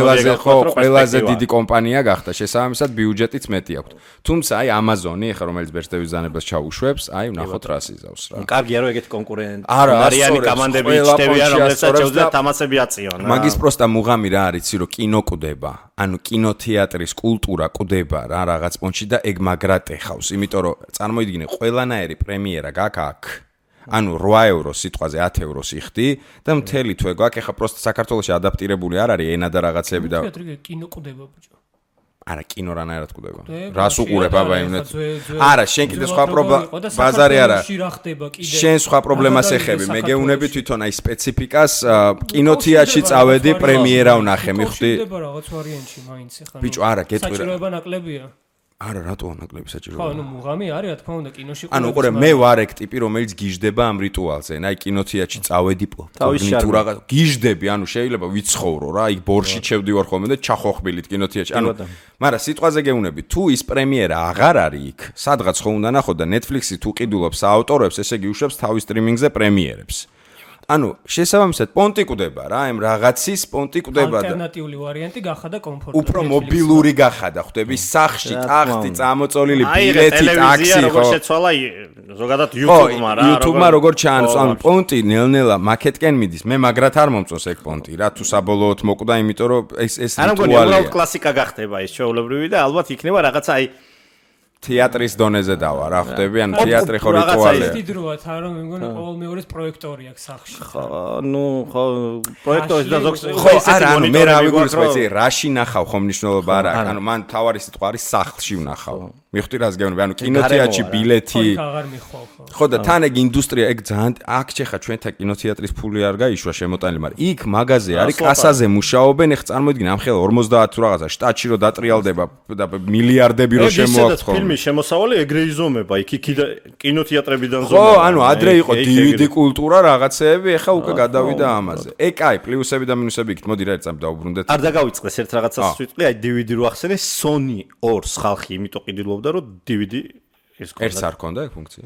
Speaker 2: ყველაზე დიდი კომპანია გახდა შესაბამისად ბიუჯეტიც მეტი აქვს თუმცა აი Amazon-ი ხა რომელიც ბერძნების ზანებას ჩაუშვებს აი ვნახოთ რა სიზავს რა
Speaker 3: კარგია რომ ეგეთი კონკურენტი არიანი კომანდები იჩნევიან რომელსაც შეუძლია თამასები აწიონ
Speaker 2: მაგის პროსტა მუღამი რა არის იცი რომ კინო კვდება ანუ კინოთეატრის კულტურა კვდება რა რაღაც პონჩი და ეგ მაგრატე ხავს იმიტომ რომ წარმოიდგინე ყველანაირი პრემიერა გაქვს აქ ანუ 8 ევრო სიტყვაზე 10 ევროს იხდი და მთელი თვე გვაქვს ეხა პროსტა საქართველოში ადაპტირებული არ არის ენა და რაღაცები და
Speaker 4: კინო კვდება ბიჭო
Speaker 2: არა კინო რანაირად კვდება რას უყურებ აბა იმნეთ არა შენ კიდე სხვა პრობლემა ბაზარი არა შენ სხვა პრობლემას ეხები მე გეუნები თვითონ აი სპეციფიკას კინოთეატრში წავედი პრემიერა ვნახე მიხვდი
Speaker 4: რაღაც ვარიანტში მაინც ეხა
Speaker 2: ბიჭო არა გეტყვი რა
Speaker 4: საჭიროება ნაკლებია
Speaker 2: არა რატო ნაკლები საჭიროა
Speaker 4: ხო ანუ მუღამი არის რა თქმა უნდა კინოში
Speaker 2: ანუ უყურე მე ვარ ეგ ტიპი რომელიც გიждდება ამ რიტუალზე აი კინოთეატრში წავედი თუ რაღაც გიждდები ანუ შეიძლება ვიცხოვრო რა იქ ბორში ჩევდივარ ხოლმე და ჩახოხბილით კინოთეატრში ანუ მაგრამ სიტყვაზე გეუნები თუ ის პრემიერა აღარ არის იქ სადღაც ხო უნდა ნახო და Netflix-ი თუ ყიდულობს აავტორებს ესე იგი უშვებს თავის სტრიმინგზე პრემიერებს ანუ შესაბამისად პონტი კვდება რა ამ რაღაცის პონტი კვდება და
Speaker 4: ალტერნატიული ვარიანტი გახადა კომფორტული
Speaker 2: უფრო მობილური გახადა ხვდები სახში ტახტი წამოწოლილი ბილეთი ტაქსი ხო
Speaker 3: შეცვალა ზოგადად YouTube-მა რა
Speaker 2: YouTube-მა როგორ ჩაანს ანუ პონტი ნელ-ნელა მაკეტკენ მიდის მე მაგრად არ მომწონს ეგ პონტი რა თუ საბოლოოდ მოკვდა იმიტომ რომ ეს
Speaker 3: რიტუალია კლასიკა გახდება ეს ჩვეულებრივი და ალბათ იქნება რაღაცა აი
Speaker 2: თეატრის დონეზე დავა რა ხვდები ანუ თეატრი ხო რიტუალია
Speaker 4: ის დიდროა თან რომ მე მგონი ყოველ მეორეს პროექტორი აქვს სახში
Speaker 3: ხო ნუ ხო პროექტორი და ზოგს
Speaker 2: ხო არა ანუ მე რა ვიგულისხმობ იცი რაში ნახავ ხომ მნიშვნელობა არა აქვს ანუ მან თავარი სიტყვა არის სახლში ვნახავ მიხვდი რას გეუბნები ანუ კინოთეატრში ბილეთი
Speaker 4: აღარ მიხვალ
Speaker 2: ხო და თან ეგ ინდუსტრია ეგ ძალიან აქ ჩეხა ჩვენთან კინოთეატრის ფული არ გაიშვა შემოტანილი მაგრამ იქ მაღაზია არის კასაზე მუშაობენ ეხ წარმოიდგინე ამ ხელა 50 თუ რაღაცა შტატში რო დატრიალდება და მილიარდები რო შემოაქვს ხო
Speaker 3: ფილმის შემოსავალი ეგრე იზომება იქ კინოთეატრებიდან
Speaker 2: ზომა ხო ანუ ადრე იყო DVD კულტურა რაღაცეები ეხა უკვე გადავიდა ამაზე ეგ აი პლუსები და მინუსები იქით მოდი რა ერთად დავუბრუნდეთ
Speaker 3: არ დაგავიწყდეს ერთ რაღაცას ვიტყვი აი DVD რო ახსენე Sony 2-ს ხალხი იმიტომ ყიდულობდა რომ DVD ეს
Speaker 2: კონდა ერთს არ ქონდა ეგ ფუნქცია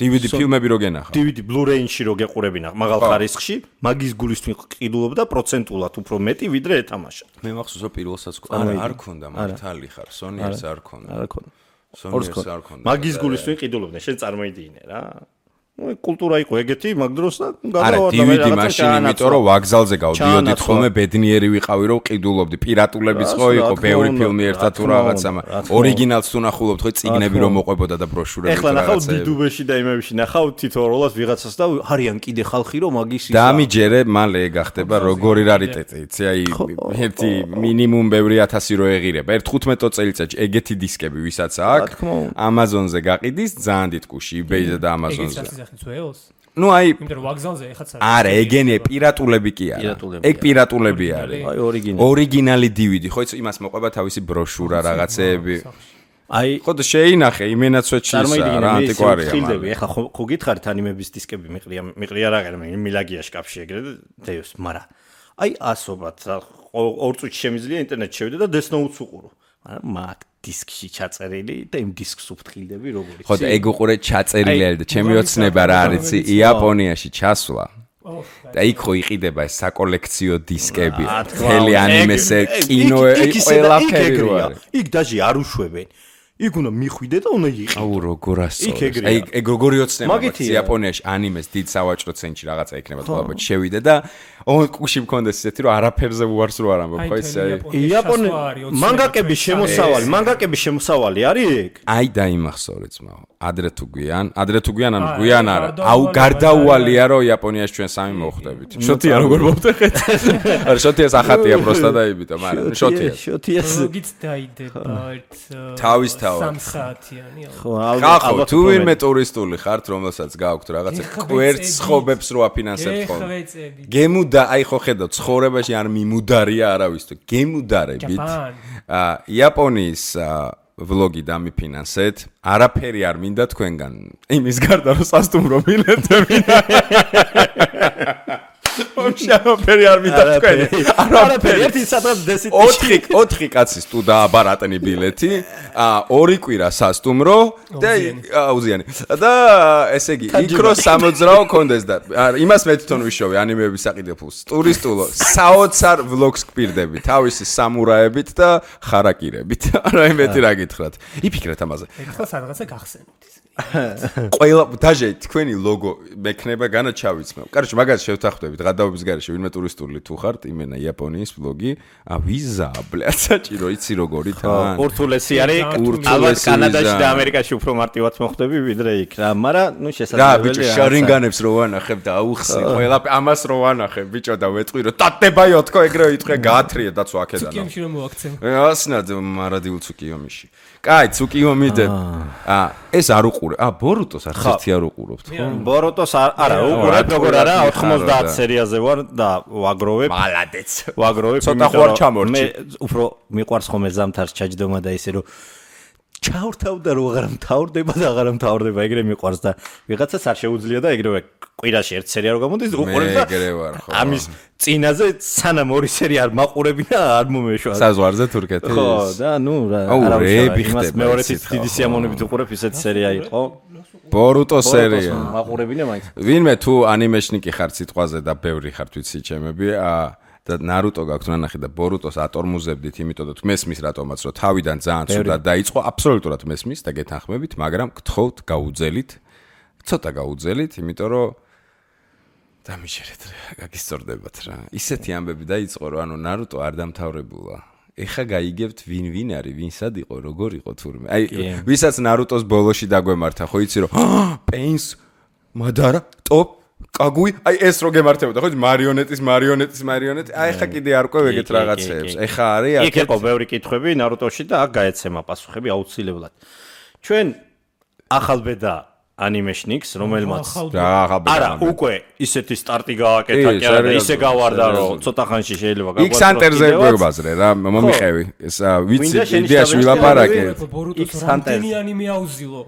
Speaker 2: DVD ფილმები რო გენახა
Speaker 3: DVD Blu-ray-ში რო გეყურებინა მაღალ ხარისხში მაგის გულისთვის ყიდულობდა პროცენტულად უფრო მეტი ვიდრე ეთამაშა
Speaker 2: მე მახსოვს რომ პირველსაც არ ქონდა მართალი ხარ Sony ერთს არ ქონდა
Speaker 3: მაგის გულისთვის ყიდულობდნენ შენ წარმოიდგინე რა კულტურა იყო ეგეთი მაგ დროს და
Speaker 2: გადავარდა მე რაღაცა მაშინ იმიტომ რომ ვაგზალზე გავდიოდით ხოლმე ბედნიერი ვიყავი რომ ყიდულობდი პირატულებიც ხო იყო ბევრი ფილმი ერთად თუ რაღაცა ორიგინალს თუ ნახულობთ ხო წიგნები რომ მოყვებოდა და ბროშურები
Speaker 3: ეხლა ნახავ დიდუბეში და იმებში ნახავ თითოეულას ვიღაცას და არიან კიდე ხალხი რომ მაგის ისა
Speaker 2: დამიჯერე მალე გახდება როგორი რარიტეტი იცი აი ერთი მინიმუმ ბევრი 1000 რო ეღირება ერთ 15 წელიწადში ეგეთი დისკები ვისაც აქვს Amazon-ზე გაყიდის ძალიან დიდ კუში eBay-ზე და Amazon-ზე ну აი
Speaker 4: იმიტომ რომ ვაგზალზე ეხაც
Speaker 2: არა ეგენი პირატულები კი არა ეგ პირატულები არის
Speaker 3: აი
Speaker 2: ორიგინალი DVD ხო იცი იმას მოყვება თავისი ბროშურა რაღაცეები
Speaker 3: აი
Speaker 2: ხო და შეინახე იმენაც ვეჩისა რა ანტიკვარია
Speaker 3: მაგრამ ეხა ხო გითხარით ანიმების დისკები მიყრია რა ღერმე მილაგია შკაფში ეგრე დეოს მაგრამ აი ასობად ორ წუთში შემიძლია ინტერნეტში შევიდე და Death Note-ს უყურო მაგრამ მაგ დისკში ჩაწერილი და იმ დისკს უფრთხილდები როგორიც
Speaker 2: ხო და ეგ უყურე ჩაწერილი არის და ჩემი ოცნება რა არის იაპონიაში ჩასვლა და იქ ხო იყიდება ეს საკოლექციო დისკები მთელი ანიმესე კინო ყველაფერი რო არის
Speaker 3: იქ დაჟე არ უშვებენ იქ უნდა მიხვიდე და უნდა იყიდე
Speaker 2: აუ როგორ ასწორებს აი ეგ როგორი ოცნება იაპონიაში ანიმეს დიდ სავაჭრო ცენტრში რაღაცა იქნება თქო შევიდე და ონკუში მქონდეს ისეთი რომ არაფერზე უარს რო არ ამბობ ხო ესე
Speaker 3: იაპონიაში მანგაკების შემოსავალი არის ეგ
Speaker 2: აი დაიმახსოვრე ძმაო ადრე თუ გვიან ანუ გვიან არა აუ გარდაუვალია რომ იაპონიაში ჩვენ სამი მოხვდებით შოთია როგორ მოვტეხეთ არა შოთიას ახატია პროსტა დაიბიტა მაგრამ
Speaker 3: შოთიას
Speaker 4: როგორიც დაიდება
Speaker 2: თავის
Speaker 4: სამსაათიანი
Speaker 2: ხო თუ ვინმე ტურისტული ხართ რომელსაც გააქვთ რაღაცა კვერცხ ხობებს რო აფინანსებთ ხოლმე გემუდა აი ხო ხედავ ცხოვრებაში არ მიმუდარია არავის თუ გემუდარებით იაპონიის ვლოგი დამიფინანსეთ არაფერი არ მინდა თქვენგან იმის გარდა რომ სასტუმრო ბილეთები არაფერი არ მინდა თქვენ
Speaker 3: არაფერი ერთი სადღაც დესიტი
Speaker 2: 4 კაცის თუ დააბარატნი ბილეთი 2 კვირა სასტუმრო და აუზიანი და ესე იგი იქ რო სამოძრაო კონდეს და იმას მე თვითონ ვიშოვე ანიმეების საყიდელს ტურისტულო საოცარ ვლოგს გპირდები თავისი სამურაებით და ხარაკირებით არა იმეთი რა გითხრათ იფიქრეთ ამაზე
Speaker 4: ეხლა სადღაცა გახსენებთ
Speaker 2: ყველა დაჟე თქვენი ლოგო მექნება განაჩავიცმევ. კაროჩე მაგას შევთანხმდებით გადაობის გარეშე ვინმე ტურისტული თუ ხართ იმენა იაპონიის ვლოგი ვიზა ბლად საჭირო იცი როგორი თან
Speaker 3: ურთულესი არის ალბათ კანადაში და ამერიკაში უფრო მარტივად მოხდები ვიდრე იქ რა მაგრამ ნუ შესაძლებელია
Speaker 2: რა ბიჭო შარინგანებს რო ვანახებ და აუხსნი ყველა ამას რო ვანახებ ბიჭო და ვეტყვი რომ დატებაიო თქო ეგრევე იტყვე გაათრიე დაცვა აქედან
Speaker 4: ცუკიომში რომ მოაქცევ
Speaker 2: ასნად მარადილ ცუკიომში კაი ცუკიომიდე ეს არ უყურე ბორუტოს არც ერთი არ უყურებთ ხო
Speaker 3: ბორუტოს არა უყურებ როგორ არა 90 სერიაზე ვარ და ვაგროვებ
Speaker 2: მალადეც
Speaker 3: ვაგროვებ
Speaker 2: ცოტა ხوار ჩამორჩი
Speaker 3: მე უფრო მიყვარს ხომ ეს ზამთარს ჩაჯდომა და ისე რომ ჩავრთავდა რომ აღარ მთავრდება და აღარ მთავრდება ეგრე მიყვარს და ვიღაცას არ შეუძლია და ეგრევე კვირაში ერთ სერია რო გამოდის უყურებ და ამის წინაზე სანამ ორი სერია არ მაყურები და არ მომეშვა
Speaker 2: საზღვარზე თურქეთის
Speaker 3: ხო და ნუ რა
Speaker 2: არავის
Speaker 3: იმას მეორე დიდი სიამოვნებით უყურებ ისეთ სერია იყო
Speaker 2: ბორუტო სერია
Speaker 3: მაყურებინა მაინც
Speaker 2: ვინმე თუ ანიმეშნიკი ხარ სიტყვაზე და ბევრი ხარ თვითი ჩემები და ნარუტო გაქვთ ნანახი და ბორუტოს ატორმუზებდით იმიტომ რომ მესმის რატომაც რომ თავიდან ძალიან ცუდად დაიწყო აბსოლუტურად მესმის და გეთანხმებით მაგრამ გთხოვთ გაუძელით ცოტა გაუძელით იმიტომ რომ დამიჯერეთ რა გაგისწორდებათ რა ისეთი ამბები დაიწყო რომ ანუ ნარუტო არ დამთავრებულა ეხა გაიგებთ ვინ არის ვინსად იყო როგორ იყო თურმე აი ვისაც ნარუტოს ბოლოში დაგვემართა ხო იცი რომ პეინს მადარა ტოპ კაგუი აი ეს რო გემართებოდა ხო მარიონეტის აი ხა კიდე არ ყვევ ეგეთ რაღაცეებს ეხა არის
Speaker 3: იქ იყო ბევრი კითხვები ნარუტოში და აქ გაეცემა პასუხები აუცილებლად ჩვენ ახალბედა ანიმეშნიკს რომელმაც არა უკვე ისეთი სტარტი გააკეთა კი არა ისე გავარდა რომ ცოტა ხანში შეიძლება
Speaker 2: გაგვაწყო X-Hunter-ზე გვებაზრე რა მომიყევი ეს ვიცი იდეაში ვილაპარაკე
Speaker 4: X-Hunter-ი ანიმე აუზილო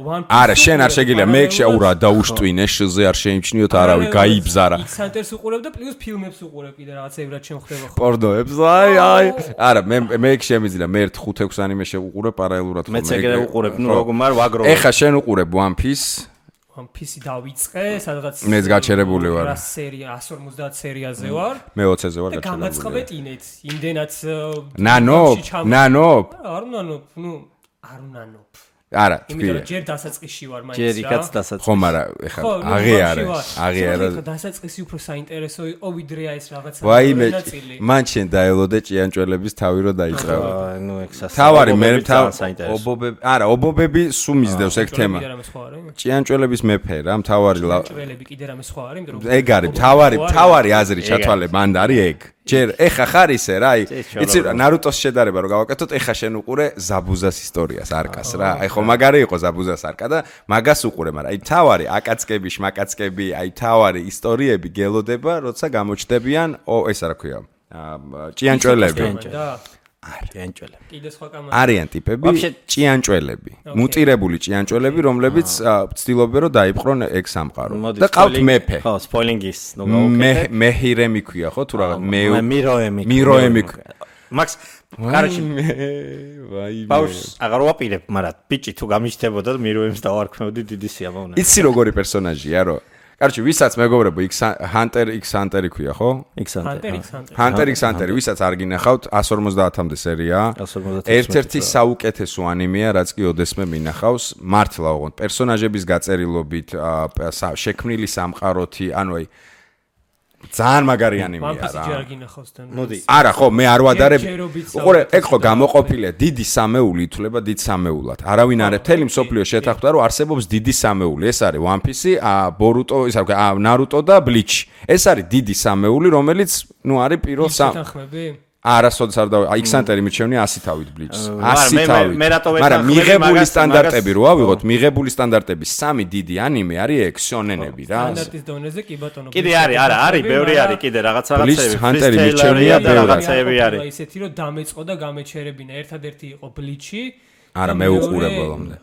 Speaker 2: არა შენ არ შეგიძლია მე შეურა დაუშტვინე შზე არ შეიმჩნიოთ არავი გაიბზარა
Speaker 4: X-Hunter-ს უყურებ და პლუს ფილმებს უყურებ კიდე რაღაცეებად შემხდება ხო
Speaker 2: პორნოებს აი არა მე შემიძლია მე 5-6 ანიმე შევუყურებ პარალელურად
Speaker 3: მეც ეგრე უყურებ ნუ როგორ მარ ვაგროვებ
Speaker 2: ეხა შენ უყურებ One Piece
Speaker 4: One Piece-ი დავიწყე, სადღაც
Speaker 2: მეც გაჩერებული ვარ.
Speaker 4: რა სერია 150 სერიაზე ვარ.
Speaker 2: მე 20-ზე ვარ გაჩერებული.
Speaker 4: გამაწყობეთ ინეთ, იმდენაც
Speaker 2: ნანო?
Speaker 4: არ უნანო.
Speaker 2: არა,
Speaker 4: იმიტომ რომ ჯერ დასაწყისში ვარ მაინც რა.
Speaker 3: ჯერ იქაც დასაწყისში.
Speaker 2: ხო, მაგრამ ეხლა აღიარა.
Speaker 4: დასაწყისი უფრო საინტერესო იყო ვიდრე ეს რაღაცა.
Speaker 2: ვაიმე, მან შენ დაელოდე ჭიანჭველების თავი რო დაიწყავა.
Speaker 3: ნუ ეგ სასა.
Speaker 2: თავარი მე ობობები, არა, ობობები სულ მისდევს ეგ თემა. ჭიანჭველების მეფე რა, მთავარი
Speaker 4: ჭიანჭველები კიდე რამე სხვა არის, იმიტომ რომ
Speaker 2: ეგ არის, მთავარი აზრი ჩათვალე მანდ არის ეგ. ჯერ ეხა ხარ ისე რა, იცი ნარუტოს შედარება რომ გავაკეთოთ, ეხა შენ უყურე ზაბუზას ისტორიას არკას რა. აი ხო მაგარი იყო ზაბუზას არკა და მაგას უყურე, მაგრამ აი თავარი აკაცკები, შმაკაცკები, აი თავარი ისტორიები გელოდება, როცა გამოჩნდებიან, ეს რა ქვია, ჭიანჭველები.
Speaker 3: ჭიანჭველები.
Speaker 4: კიდე სხვა კამარა.
Speaker 2: არიან ტიპები ჭიანჭველები, მუტირებული ჭიანჭველები, რომლებიც ცდილობენ რომ დაიპყრონ ეგ სამყარო. და ყავთ მეფე.
Speaker 3: ხო, სპოილინგის ნუ გავაკეთე.
Speaker 2: მეჰირემი ქვია ხო თუ რა
Speaker 3: მიროემი. მაქს კაროჩი
Speaker 2: ვაი
Speaker 3: ბაუს აღარ ვაპირებ, მაგრამ ბიჭი თუ გამიჩნდებოდა მიროემს დავარქმევდი დიდი სიამოვნა.
Speaker 2: იცი როგორი პერსონაჟია რო? კაროჩი, ვისაც მეგობრებო, Hunter x Hunter ქვია, ხო? Hunter x Hunter, ვისაც არ გინახავთ, 150-მდე სერია. ერთ-ერთი საუკეთესო ანიმეა, რაც კი ოდესმე მინახავს, მართლა ოღონდ პერსონაჟების გაწერილობით, შექმნილი სამყაროთი, ანუ აი ძალიან მაგარი ანიმეა რა.
Speaker 3: მოდი.
Speaker 2: არა, ხო, მე არ ვადარებ. უყურე, ეგ ხო გამოყოფილია, დიდი სამეული ითვლება დიდ სამეულად. არავინ არ მთელი მსოფლიო შეთანხმდა, რომ არსებობს დიდი სამეული. ეს არის One Piece, Boruto, ისე ვქო, Naruto და Bleach. ეს არის დიდი სამეული, რომელიც, ნუ არის პირველ
Speaker 4: შეთანხმები?
Speaker 2: არასოდეს არ და X-Hunter-ი მიჩვენია 100 თავით Bleach-ს. 100 თავით. მაგრამ მიღებული სტანდარტები რო ავიღოთ, მიღებული სტანდარტების 3 დიდი ანიმე არის ეგ შონენები რა.
Speaker 4: სტანდარტის დონეზე კი ბატონო.
Speaker 3: კიდე არის, ბევრი არის კიდე რაღაცები.
Speaker 2: Bleach Hunter-ი მიჩვენია
Speaker 3: რაღაცები არის.
Speaker 4: ისეთი რომ დამეწყო და გამეჩერებინა. ერთადერთი იყო Bleach-ი.
Speaker 2: არა, მე უყურე ბოლომდე.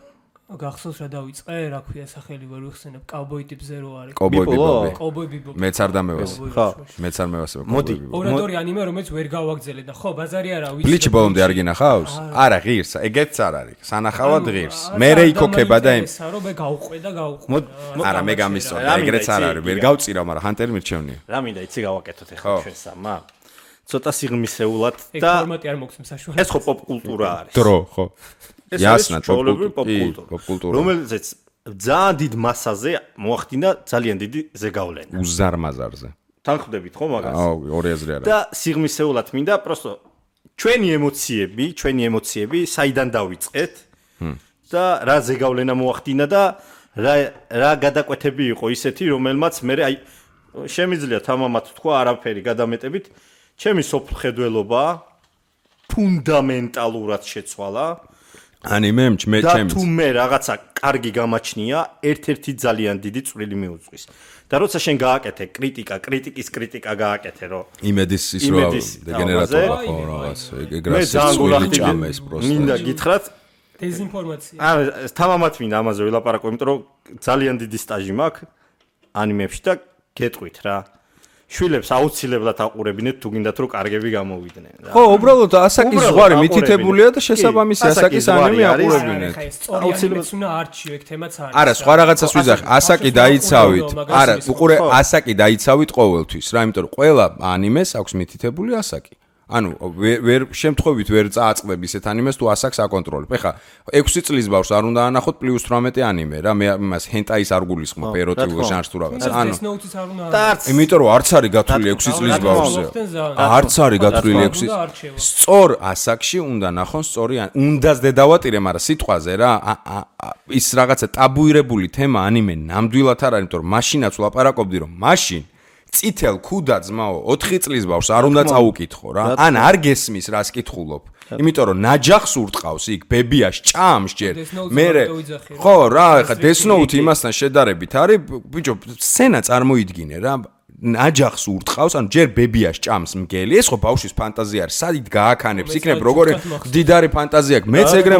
Speaker 4: გახსოვს რა დავიწყე, რა ქვია სახელი ვერ ვიხსენებ, Cowboy ტიპზე რო არის.
Speaker 2: Cowboy
Speaker 4: Bebop.
Speaker 2: მეც არ დამევას.
Speaker 3: ხო,
Speaker 2: მეც არ მევასებ.
Speaker 3: მოდი.
Speaker 4: ორადორი ანიმე რომელიც ვერ გავაგზელე და ხო, ბაზარი არა ვიცი.
Speaker 2: Bleach ბოლომდე არ გინახავს? არა, ღირს, ეგეც არ არის. სანახავად ღირს. მე რეიქოქება და იმ
Speaker 4: რა რომ მე გავყვე და გავყვე.
Speaker 2: არა, მე გამისწორდა, ეგრეც არ არის. ვერ გავწირავ, მაგრამ Hunter-ი მირჩევნია.
Speaker 3: რა მინდა იცი გავაკეთოთ ახლა ჩვენ სამა. ცოტა სიღრმისეულად
Speaker 4: და
Speaker 3: და
Speaker 4: ფორმატი არ მოგცემ საშუალებას.
Speaker 3: ეს ხო პოპ კულტურა არის.
Speaker 2: დრო, ხო.
Speaker 3: იასნა
Speaker 2: პოპ
Speaker 3: კულტურა. რომელზეც ძალიან დიდ მასაზე მოახდინა ძალიან დიდი ზეგავლენა.
Speaker 2: უზარმაზარზე.
Speaker 3: თანხმდებით ხო მაგას?
Speaker 2: აუ, ორი აზრი არა.
Speaker 3: და სიღრმისეულად მინდა პროსტო ჩვენი ემოციები საიდან დავიწყეთ და რა ზეგავლენა მოახდინა და რა გადაკვეთები იყო ისეთი, რომელმაც მე აი შემიძლია თამამად თქვა არაფერი გადამეტებით, ჩემი სოფლხედველობა ფუნდამენტალურად შეცვალა.
Speaker 2: ანიმემ ჩემს
Speaker 3: და თუ მე რაღაცა კარგი გამაჩნია, ერთ-ერთი ძალიან დიდი წვრილი მიუძღვის. და როცა შენ გააკეთე კრიტიკის კრიტიკა გააკეთე, რომ
Speaker 2: იმედის ის რო დეგენერატორა ხო რაღაც ეგ რა სიცხვილი ჭამეს პროსტა.
Speaker 3: მინდა გითხრათ
Speaker 4: დეზინფორმაცია.
Speaker 3: არა, თამამად მინდა ამაზე ვილაპარაკო, იმიტომ რომ ძალიან დიდი სტაჟი მაქვს ანიმებში და გეტყვით რა. შვილებს აუცილებლად აყურებინეთ თუ გინდათ რომ კარგები გამოვიდნენ რა.
Speaker 2: ხო, უბრალოდ ასაკის ზღვარი მითითებულია და შესაბამისი ასაკის ანიმე აყურებინეთ.
Speaker 4: აუცილებლად უნდა არჩიო ეგ თემაც არის.
Speaker 2: არა, სხვა რაღაცას ვიზახ, ასაკი დაიცავით. არა, უყურე, ასაკი დაიცავით ყოველთვის რა, იმიტომ რომ ყველა ანიმეს აქვს მითითებული ასაკი. ანუ ვერ შემთხვევით ვერ წააწყდები ისეთ ანიმეს თუ ასაკს აკონტროლებ. ეხლა 6 წლის ბავშვს არ უნდა ანახოთ +18 ანიმე რა, მე იმას ჰენტაის არ გულისხმობ ეროტიკულ ჟანრს თუ რაღაც. ანუ იმიტომ რომ არც არის გათვლილი 6 წლის ბავშვზე. არც არის გათვლილი 6. სწორ ასაკში უნდა ნახონ სწორი უნდას დედავატირე, მაგრამ სიტყვაზე რა ის რაღაცა ტაბუირებული თემა ანიმე ნამდვილად არ არის, იმიტომ რომ მაშინაც ვლაპარაკობდი რომ მაშინ წითელ ქუდა ძმაო 4 წლის ბავშვს არ უნდა წაუკითხო რა. ან არ გესმის რას კითხულობ. იმიტომ რომ ნაჯახს ურტყავს იქ ბებიას ჭამს ჯერ. მე ხო რა, ეხა Death Note იმასთან შედარებით არის, ბიჭო, სცენა წარმოიდგინე რა. ნაჯახს ურტყავს, ანუ ჯერ ბებიას ჭამს მგელი. ეს ხო ბავშვის ფანტაზია არის. სადით გააქანებს იქნებ როგორი დიდარი ფანტაზია აქვს. მეც ეგრე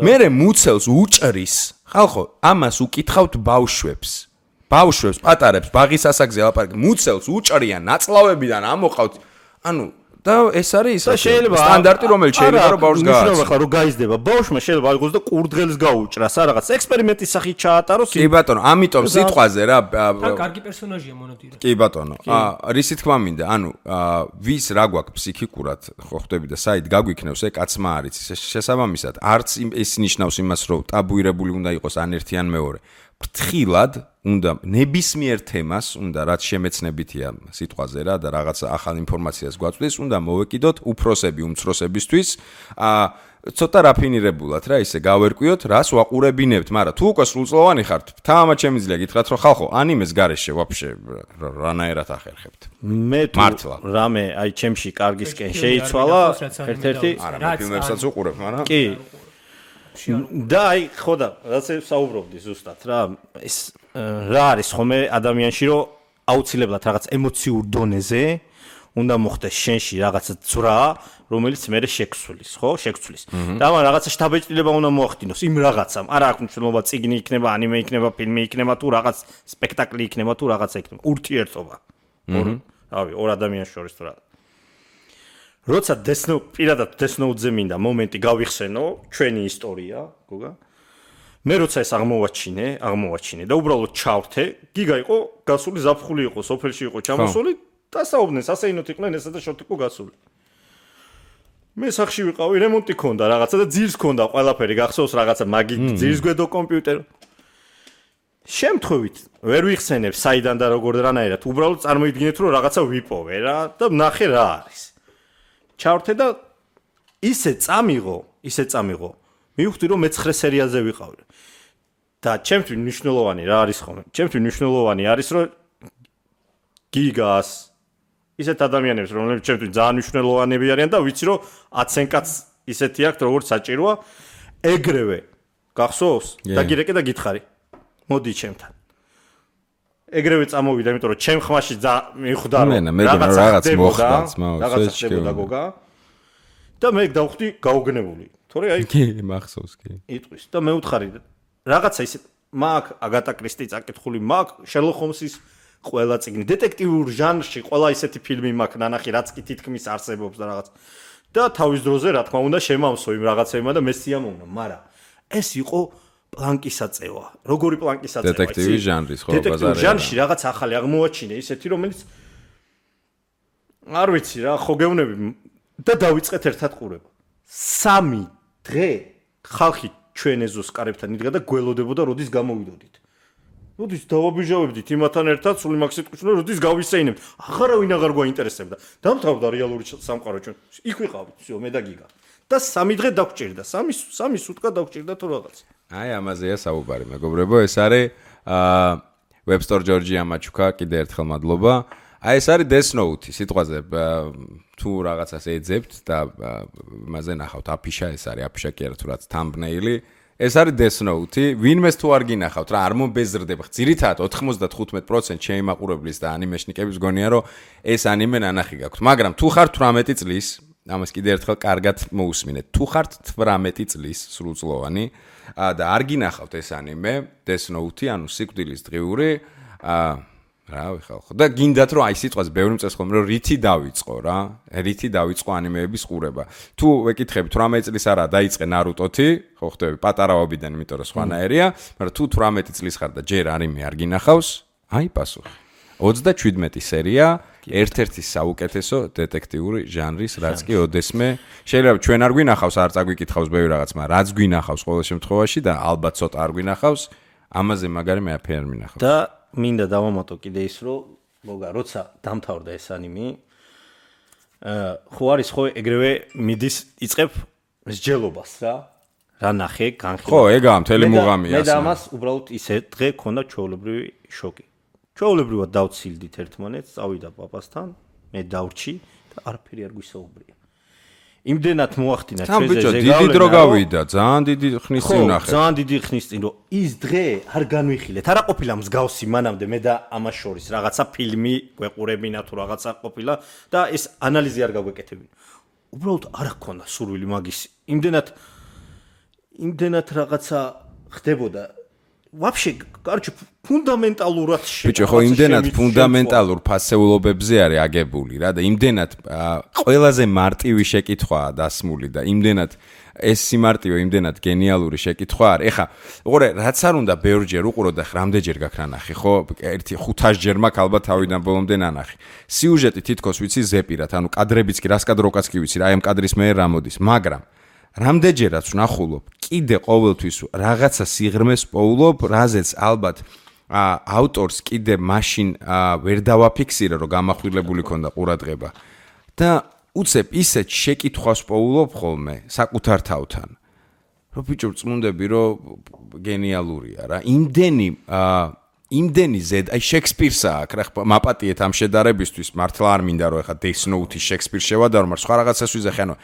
Speaker 2: მე მუცელს უჭრის. ხალხო, ამას უკითხავთ ბავშვებს. ბავშვებს პატარებს ბაღის ასაკზე ლაპარაკი მუცელს უჭრიან ნაწლავებიდან ამოყავთ ანუ და ეს არის სტანდარტი რომელიც შეიძლება რომ ბავშვს გააჩნდეს
Speaker 3: ხო რომ გაიზრდება ბავშვმა შეიძლება აიღოს და კურდღელს გაუჭრას რა რაღაც ექსპერიმენტის სახით ჩაატაროს
Speaker 2: კი ბატონო ამიტომ სიტყვაზე რა
Speaker 4: კარგი პერსონაჟია მონოტირა
Speaker 2: კი ბატონო რისი თქმა მინდა ანუ ვის რა გვაქვს ფსიქიკურად ხო ხვდები და საით გაგვიქნევს ე კაცმა არის შესაბამისად არც ეს ნიშნავს იმას რომ ტაბუირებული უნდა იყოს ან ერთი ან მეორე ფრთხილად უნდა ნებისმიერ თემას უნდა რაც შემეცნებითია სიტყვაზე რა და რაღაც ახალ ინფორმაციას გვაწვდის უნდა მოვეკიდოთ უფროსები უმცროსებისთვის ცოტა რაფინირებულად რა ისე გავერკვიოთ რას ვაყურებინებთ მაგრამ თუ უკვე სრულწლოვანი ხართ თამამად შემიძლია გითხრათ რომ ხალხო ანიმეს გარეშე ვაფშე რანაირად ახერხებთ
Speaker 3: მე თუ რამე აი ჩემში კარგისკენ შეიცვალა ერთ-ერთი
Speaker 2: არა ფილმებსაც უყურებ მაგრამ
Speaker 3: კი და აი ხო და რაც საუბრობდი ზუსტად რა ეს რა არის ხომე ადამიანში რომ აუცილებლად რაღაც ემოციურ დონეზე უნდა მოხდეს შენში რაღაცა ძვრა რომელიც მე შეგვცვლის ხო შეგვცვლის და ამ რაღაცა შთაბეჭდილება უნდა მოახდინოს იმ რაღაცამ არა აქვს მნიშვნელობა წიგნი იქნება ანიმე იქნება ფილმი იქნება თუ რაღაც სპექტაკლი იქნება თუ რაღაცა იქნება ურთიერთობა რავი ორ ადამიანს შორის თუ რა როცა პირადად დესნოუდზე მინდა მომენტი გავიხსენო ჩვენი ისტორია გოგა მე როცა ეს აღმოვაჩინე და უბრალოდ ჩავრთე გიგა იყო გასული ზაფხული იყო სოფელში იყო ჩამოსული და საუბნეს ასეინოთ იყვნენ ესა და შორტი იყო გასული მე სახში ვიყავი რემონტი ქონდა რაღაცა და ძირს ქონდა ყველაფერი გახსოვს რაღაცა მაგი ძირს გვედო კომპიუტერი შემთხვევით ვერ ვიხსენებ საიდან და როგორ რანაირად უბრალოდ წარმოიდგინეთ რომ რაღაცა ვიპოვე რა და ნახე რა არის ჩავრთე და ისე წამიღო მივხვდი რომ მე-9 სერიაზე ვიყავი და ჩემთვის მნიშვნელოვანი რა არის ხოლმე ჩემთვის მნიშვნელოვანი არის რომ გიგას ისეთ ადამიანებს რომლებიც ჩემთვის ძალიან მნიშვნელოვანები არიან და ვიცი რომ 10-იან კაც ისეთი აქვს როგორც საჭიროა ეგრევე გახსოვს და გირეკე და გითხარი მოდი ჩემთან ეგრევე წამოვიდა იმიტომ რომ ჩემ ხმაში მიხვდა რომ რაღაც ხდება გოგა და მე დავხვდი გაუგნებული თორე აი
Speaker 2: კი მახსოვს კი
Speaker 3: იტყვის და მე ვთხარი რაღაცა ისე მაგ აგატა კრისტი წაკითხული მაგ შერლოკ ჰომსის ყველა წიგნი დეტექტიურ ჟანრში ყველა ისეთი ფილმი მაქვს ნანახი რაც კი თითქმის არსებობს და რაღაც და თავის დროზე რა თქმა უნდა შემავსო იმ რაღაცებმა და მე სიამოვნა მაგრამ ეს იყო პლანკისაწევა როგორი პლანკისაწევა
Speaker 2: დეტექტივის ჟანრის ხო
Speaker 3: ბაზარია დეტექტიურ ჟანრში რაღაც ახალი აღმოაჩინე ისეთი რომელიც არ ვიცი რა ხო გევნები და დავიწყეთ ერთად ყურება 3 დღე ხალხი ჩვენ ეზოს კარებთან იდგა და გველოდებოდა როდის გამოვიდოდით როდის დავაბიჟავებდით იმათთან ერთად სული მაგ სიტყვით რომ როდის გავისეინებთ აღარავინ აღარ გვაინტერესებდა დამთავრდა რეალური სამყარო ჩვენ იქ ვიყავით всё მე და გიგა და 3 დღე დაგჭირდა 3 სუტკა დაგჭირდა თუ რაღაც
Speaker 2: აი ამაზეა საუბარი მეგობრებო ეს არის ვებსტორ ჯორჯია მაჩუკა კიდე ერთხელ მადლობა აი ეს არის Death Note სიტყვაზე თუ რაღაცას ეძებთ და იმაზე ნახავთ აფიშა ეს არის აფიშა კი არა თუ რაც thumbnail-ი ეს არის Death Note ვინმეს თუ არ გინახავთ რა არ მომბეზრდება ძირითადად 95% შეიმაყურებლის და ანიმეშნიკების გონია რომ ეს ანიმე ნანახი გაქვთ მაგრამ თუ ხართ 18 წლის ამას კიდე ერთხელ კარგად მოусმინეთ თუ ხართ 18 წლის სრულწლოვანი და არ გინახავთ ეს ანიმე Death Note ანუ სიკვდილის დღიური რავი ხალხო და გინდათ რომ აი სიტყვას ბევრი მწეს ხომ რომ რითი დავიწყო რა რითი დავიწყო ანიმეების ყურება თუ ვეკითხებით 18 წლის არა დაიწყე ნარუტოთი ხო ხდები პატარავობიდან იმიტომ რომ სხვანაირია მაგრამ თუ 18 წლის ხარ და ჯერ ანიმე არ გინახავს აი პასუხი 37 სერია ერთ-ერთი საუკეთესო დეტექტიური ჟანრის რაც კი ოდესმე შეიძლება ჩვენ არ გვინახავს არ წაგვიკითხავს ბევრი რაღაც მაგრამ რაც გვინახავს ყოველ შემთხვევაში და ალბათ ცოტა არ გვინახავს ამაზე მაგარი მე აფერ მინახავს
Speaker 3: და მინდა დავამატო კიდე ის რომ მოგა როცა დამთავრდა ეს ანიმე ხო არის ხო ეგრევე მიდის იწებ მსჯელობას რა ნახე განხილვა
Speaker 2: ხო ეგაა მთელი მუღამია
Speaker 3: მე და ამას უბრალოდ ისე დღე ქონდა ჩვეულებრივი შოკი ჩვეულებრივად დავცილდით ერთმანეთს წავიდა პაპასთან მე დავრჩი და არაფერი არ გვისაუბრია იმდენად მოახდინა ჩვენზე
Speaker 2: დიდი დრო გავიდა ძალიან დიდი ხნის წინ ნახე
Speaker 3: ძალიან დიდი ხნის წინ რომ ის დღე არ განვიხილეთ არა ყოფილა მსგავსი მანამდე მე და ამას შორის რაღაცა ფილმი გვეყურებინა თუ რაღაცა ყოფილა და ეს ანალიზი არ გაგვეკეთებინა უბრალოდ არ ჰქონდა სურვილი მაგის იმდენად რაღაცა ხდებოდა ვაფშე კარჩი ფუნდამენტალურად
Speaker 2: ბიჭო ხო იმდენად ფუნდამენტალურ ფასეულობებზე არის აგებული რა და იმდენად ყველაზე მარტივი შეკითხვაა დასმული და იმდენად ეს სიმარტივე იმდენად გენიალური შეკითხვა არის ეხა უყურე რაც არ უნდა ბევრჯერ უყურო და რამდენჯერ გაქვს ნანახი ხო 500-ჯერ მაქვს ალბათ თავიდან ბოლომდე ნანახი სიუჟეტი თითქოს ვიცი ზეპირად ანუ კადრებიც კი რას კადროკაც კი ვიცი რა აი ამ კადრის მე რა მოდის მაგრამ რამდენჯერაც ვნახულობ, კიდე ყოველთვის რაღაცა სიღრმეს პოულობ, რაზეც ალბათ ავტორს კიდე მაშინ ვერ დავაფიქსირე, რომ გამახვილებული ქონდა ყურადღება. და უცებ ისეთ შეკითხვას პოულობ ხოლმე საკუთარ თავთან. რომ ბიჭო წმუნდები, რომ გენიალურია რა. იმდენი ზედ, აი შექსპირსა აქ რა მაპატიეთ ამ შედარებისთვის, მართლა არ მინდა რომ ეხა Death Note-ის შექსპირს შევადარო, მაგრამ სხვა რაღაცას ვიზახე, ანუ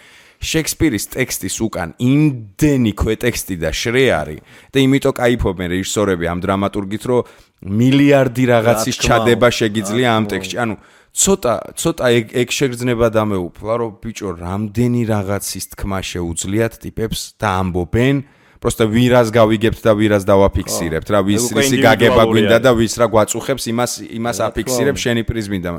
Speaker 2: შექსპირის ტექსტის უკან იმდენი ქვეტექსტი და შრეარი და იმიტომ кайფობენ რეჟისორები ამ დრამატურგით, რომ მილიარდი რაღაცის ჩადება შეგიძლია ამ ტექსტში. ანუ ცოტა ეგ შეგრძნება დამეუფლა, რომ ბიჭო რამდენი რაღაცის თქმა შეუძლიათ ტიპებს და ამბობენ, просто ვირას გავიგებთ და ვირას დავაფიქსირებთ რა, ვისი გაგება გვინდა და ვის რა გვაწუხებს, იმას აფიქსირებ შენი პრიზმიდან.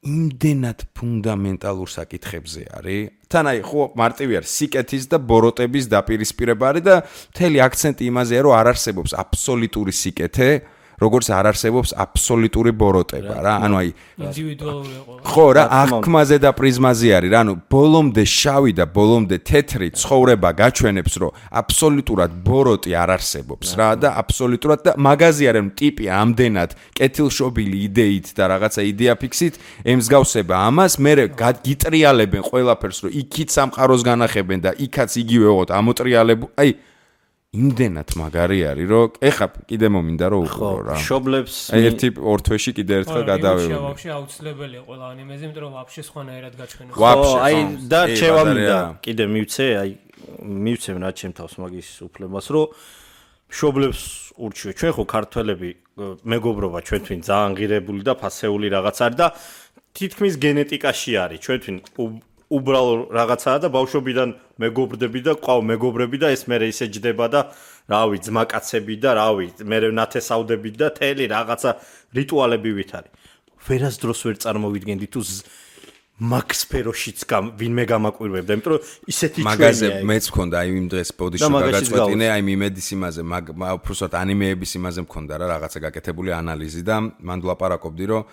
Speaker 2: იმდენად ფუნდამენტალურ საკითხებზე არის. თან აი ხო მარტივი არის სიკეთის და ბოროტების დაპირისპირება არის და მთელი აქცენტი იმაზეა, რომ არ არსებობს აბსოლუტური სიკეთე, როგორც არ არსებობს აბსოლუტური ბოროტება რა. ანუ აი
Speaker 4: ინდივიდუალური ყოლა.
Speaker 2: ხო რა, აღქმაზე და პრიზმაზე არის რა. ანუ ბოლომდე შავი და ბოლომდე თეთრი ცხოვრება გაჩვენებს, რომ აბსოლუტურად ბოროტი არ არსებობს რა და აბსოლუტურად და მაგაზი არის, რომ ტიპი ამდენად კეთილშობილი იდეით და რაღაცა იდეაფიქსით ემსგავსება ამას, მერე გიტრიალებენ ყველაფერს, რომ იქით სამყაროს განახებენ და იქაც იგივე ოღონდ ამოტრიალებულ. აი იმდენად მაგარი არის, რომ ეხა კიდე მომინდა რომ უყურო რა.
Speaker 3: შობლებს
Speaker 2: ერთი ორ თვეში კიდე ერთხელ გადავევი.
Speaker 4: ვაფშე აუცილებელია ყველა ანიმეზე, იმიტომ რომ ვაფშე სხვანაირად გაჩვენებს.
Speaker 2: ვაფშე.
Speaker 3: აი და შევამინდა კიდე მივცე, აი მივცემ რა ჩემ თავს მაგის უფლებას, რომ შობლებს ურჩიო. ჩვენ ხო ქართველები მეგობრობა ჩვენ თვინ ძალიან ღირებული და ფასეული რაღაც არის და თითქმის გენეტიკაში არის. ჩვენ თვინ უბრალო რაღაცაა და ბავშვობიდან მეგობრდები და ყავ მეგობრები და ეს მერე ისე ჯდება და რავი ძმაკაცები და რავი მერე ნათესავდები და თელი რაღაცა რიტუალები ვით არის. ვერასდროს ვერ წარმოვიდგენდი თუ მაგ სფეროშიც ვინმე გამაკვირვებდა, იმიტომ რომ ისეთი ჩვენია.
Speaker 2: მაგაზე მეც მქონდა აი იმ დღეს პოდიში გაგაწყვეტინე, აი მიმედის იმაზე, უბრალოდ ანიმეების იმაზე მქონდა რა რაღაცა გაკეთებული ანალიზი და მან ვლაპარაკობდი რომ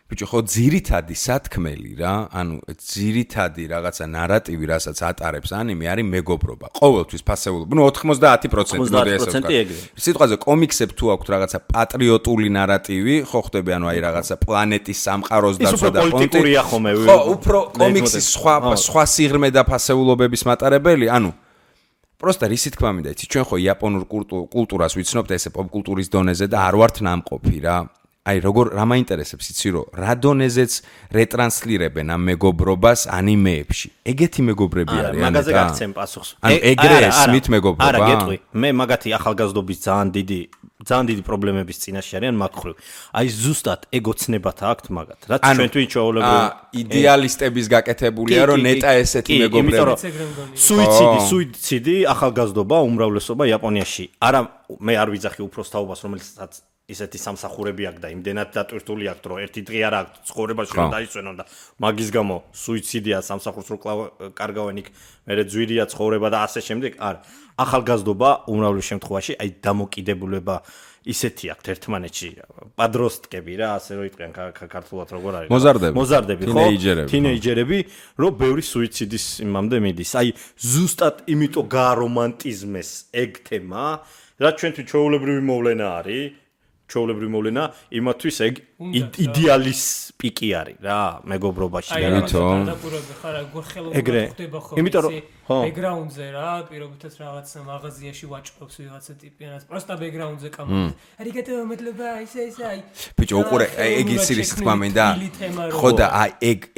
Speaker 2: ბიჭო ხო ძირითადი სათქმელი რა, ანუ ძირითადი რაღაცა ნარატივი, რასაც ატარებს ანიმე, არის მეგობრობა. ყოველთვის ფასეულობა. ნუ 90% მოდი ესე ვთქვა. სიტყვაზე კომიქსებ თუ აქვთ რაღაცა პატრიოტული ნარატივი, ხო ხდები, ანუ აი რაღაცა პლანეტის სამყაროს დაცვა და
Speaker 3: პოლიტიკურია ხომე.
Speaker 2: ხო, უფრო კომიქსის სხვა სიღრმე და ფასეულობების მატარებელი, ანუ просто რისი თქმა მინდა, იცი, ჩვენ ხო იაპონურ კულტურას ვიცნობთ ესე პოპკულტურის დონეზე და არ ვართ ნამყოფი რა. აი როგორ რა მაინტერესებს იცი რომ რა დონეზეც რეტრანსლირებენ ამ მეგობრობას ანიმეებში. ეგეთი მეგობრები არის ან
Speaker 3: მაგაზე გაგცემ პასუხს.
Speaker 2: ან ეგრე ესმით მეგობრობა.
Speaker 3: არა, გეტყვი. მე მაგათი ახალგაზრდობის ძალიან დიდი პრობლემების წინაშე არიან მაგ ხრივ. აი ზუსტად ეგოცნებათა აქვთ მაგათ. რაც ჩვენთვის ჩვეულებრივი
Speaker 2: იდეალისტების გაკეთებულია რომ ნეტა ესეთი მეგობრები.
Speaker 3: სუიციდი ახალგაზრდობა უმრავლესობა იაპონიაში. არა მე არ ვიძახი უფროს თაობას რომელსაც ისეთი სამსახურები აქვს და იმდენად დატვირთული აქვს რომ ერთი დღე არ აქვს ცხოვრებაში რომ დაისვენონ და მაგის გამო სუიციდია სამსახურს რო კარგავენ იქ მერე ძვირია ცხოვრება და ასე შემდეგ. არა, ახალგაზრდობა უმრავლეს შემთხვევაში აი დამოკიდებულება ისეთი აქვს ერთმანეთში, პადროსტკები რა, ასე რო იტყვიან ქართულად როგორ არის? მოზარდები, ხო? თინეიჯერები, რომ ბევრი სუიციდის იმამდე მიდის. აი ზუსტად იმიტომ გაარომანტიზმეს ეგ თემა, რაც ჩვენთვის ჩვეულებრივი მოვლენა არის. ჩვეულებრივი მოვლენა იმათვის ეგ იდეალის პიკი არის რა მეგობრობაში რა. ეგრე. იმიტომ რომ
Speaker 4: ბექგრაუნდზე რა, პირობითაც რაღაცა მაღაზიაში ვაჭრობს ვიღაცა ტიპიანას, просто ბექგრაუნდზე კამერა. არიგატო მადლობა, ისე აი.
Speaker 2: ბიჭო, უყურე, ეგ იცი რის თქმა მინდა. ხო და აი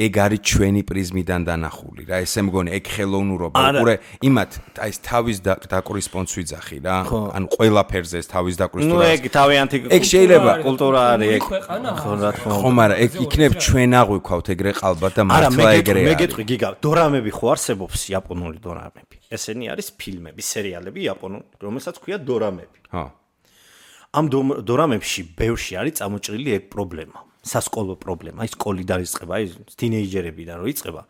Speaker 2: ეგ არის ჩვენი პრიზმიდან დანახული რა. ესე მგონი ეგ ხელოვნურობა. უყურე, იმათ აი თავის დაკვრის პონც ვიძახი რა. ანუ ყველაფერზე ეს თავის დაკვრის თუ რა.
Speaker 3: ეგ თავიანთი
Speaker 2: ეგ შეიძლება
Speaker 3: კულტურა არის ეგ.
Speaker 4: ხო რა თქმა უნდა.
Speaker 2: ხო, მაგრამ ეგ იქნებ ჩვენ აღვიქვავთ ეგრე ყალბად და მართლა ეგრე.
Speaker 3: მე გეტყვი გიგა, დორამები ხო არსებობს იაპონური დორამები. ესენი არის ფილმები, სერიალები იაპონური, რომელსაც ქვია დორამები.
Speaker 2: ხო.
Speaker 3: ამ დორამებში ბევრში არის წამოჭრილი ეგ პრობლემა, სასკოლო პრობლემა, აი სკოლი დაიწყება, აი თინეიჯერებიდან რო იწყება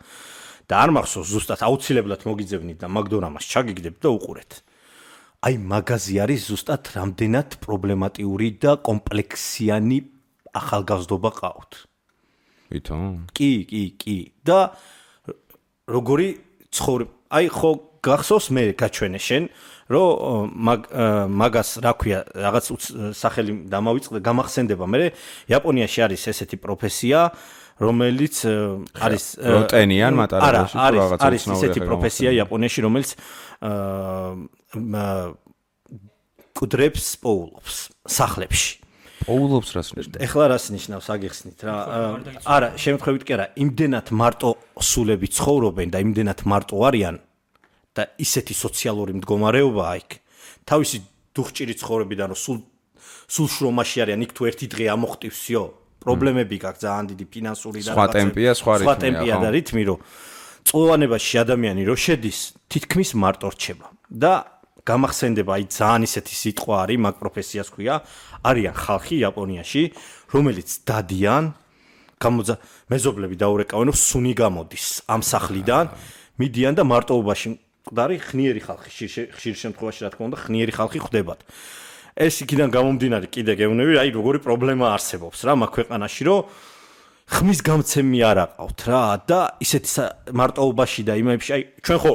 Speaker 3: და არ მახსოვს ზუსტად აუცილებლად მოგიძებნით და მაგ დორამას ჩაგიგდებთ და უყურეთ. აი მაგაზი არის ზუსტად რამდენად პრობლემატიური და კომპლექსიანი ახალგაზრდობა ყავთ.
Speaker 2: ვითომ?
Speaker 3: კი. და როგორი ცხოვრება აი ხო გახსოვს მე გაჩვენე შენ რომ მაგას რა ქვია რაღაც სახელი დამავიწყდა გამახსენდება მე იაპონიაში არის ესეთი პროფესია რომელიც არის
Speaker 2: როტენიან მატარებელში
Speaker 3: რაღაცა არის ესეთი პროფესია იაპონიაში რომელიც კუდრებს პოულობს სახლებში
Speaker 2: პოულობს რას ნიშნავს
Speaker 3: ეხლა რას ნიშნავს აგიხსნით რა არა შემთხვევით კი არა იმდენად მარტო სულები ცხოვრობენ და იმდენად მარტო არიან და ისეთი სოციალური მდგომარეობაა იქ თავისი დუხჭირი ცხოვრებიდან რომ სულ შრომაში არიან იქ თუ ერთი დღე ამოხტივსიო პრობლემები გაქვს ძალიან დიდი ფინანსური და
Speaker 2: სხვა ტემპია
Speaker 3: და რითმი რომ წლოვანებაში ადამიანი რო შედის თითქმის მარტო რჩება და გამახსენდება აი ძალიან ისეთი სიტყვა არის მაგ პროფესიას ქვია არიან ხალხი იაპონიაში რომელიც დადიან მეზობლები დაურეკავენ რომ სუნი გამოდის ამ სახლიდან მიდიან და მარტოობაში მკვდარი ხნიერი ხალხი ხშირ შემთხვევაში რა თქმა უნდა ხნიერი ხალხი ხდებათ ეს იქიდან გამომდინარე კიდე გეუბნები აი როგორი პრობლემა არსებობს რა მაგ ქვეყანაში რომ ხმის გამცემი არ აყავთ რა და ისეთი მარტოობაში და იმებში აი ჩვენ ხო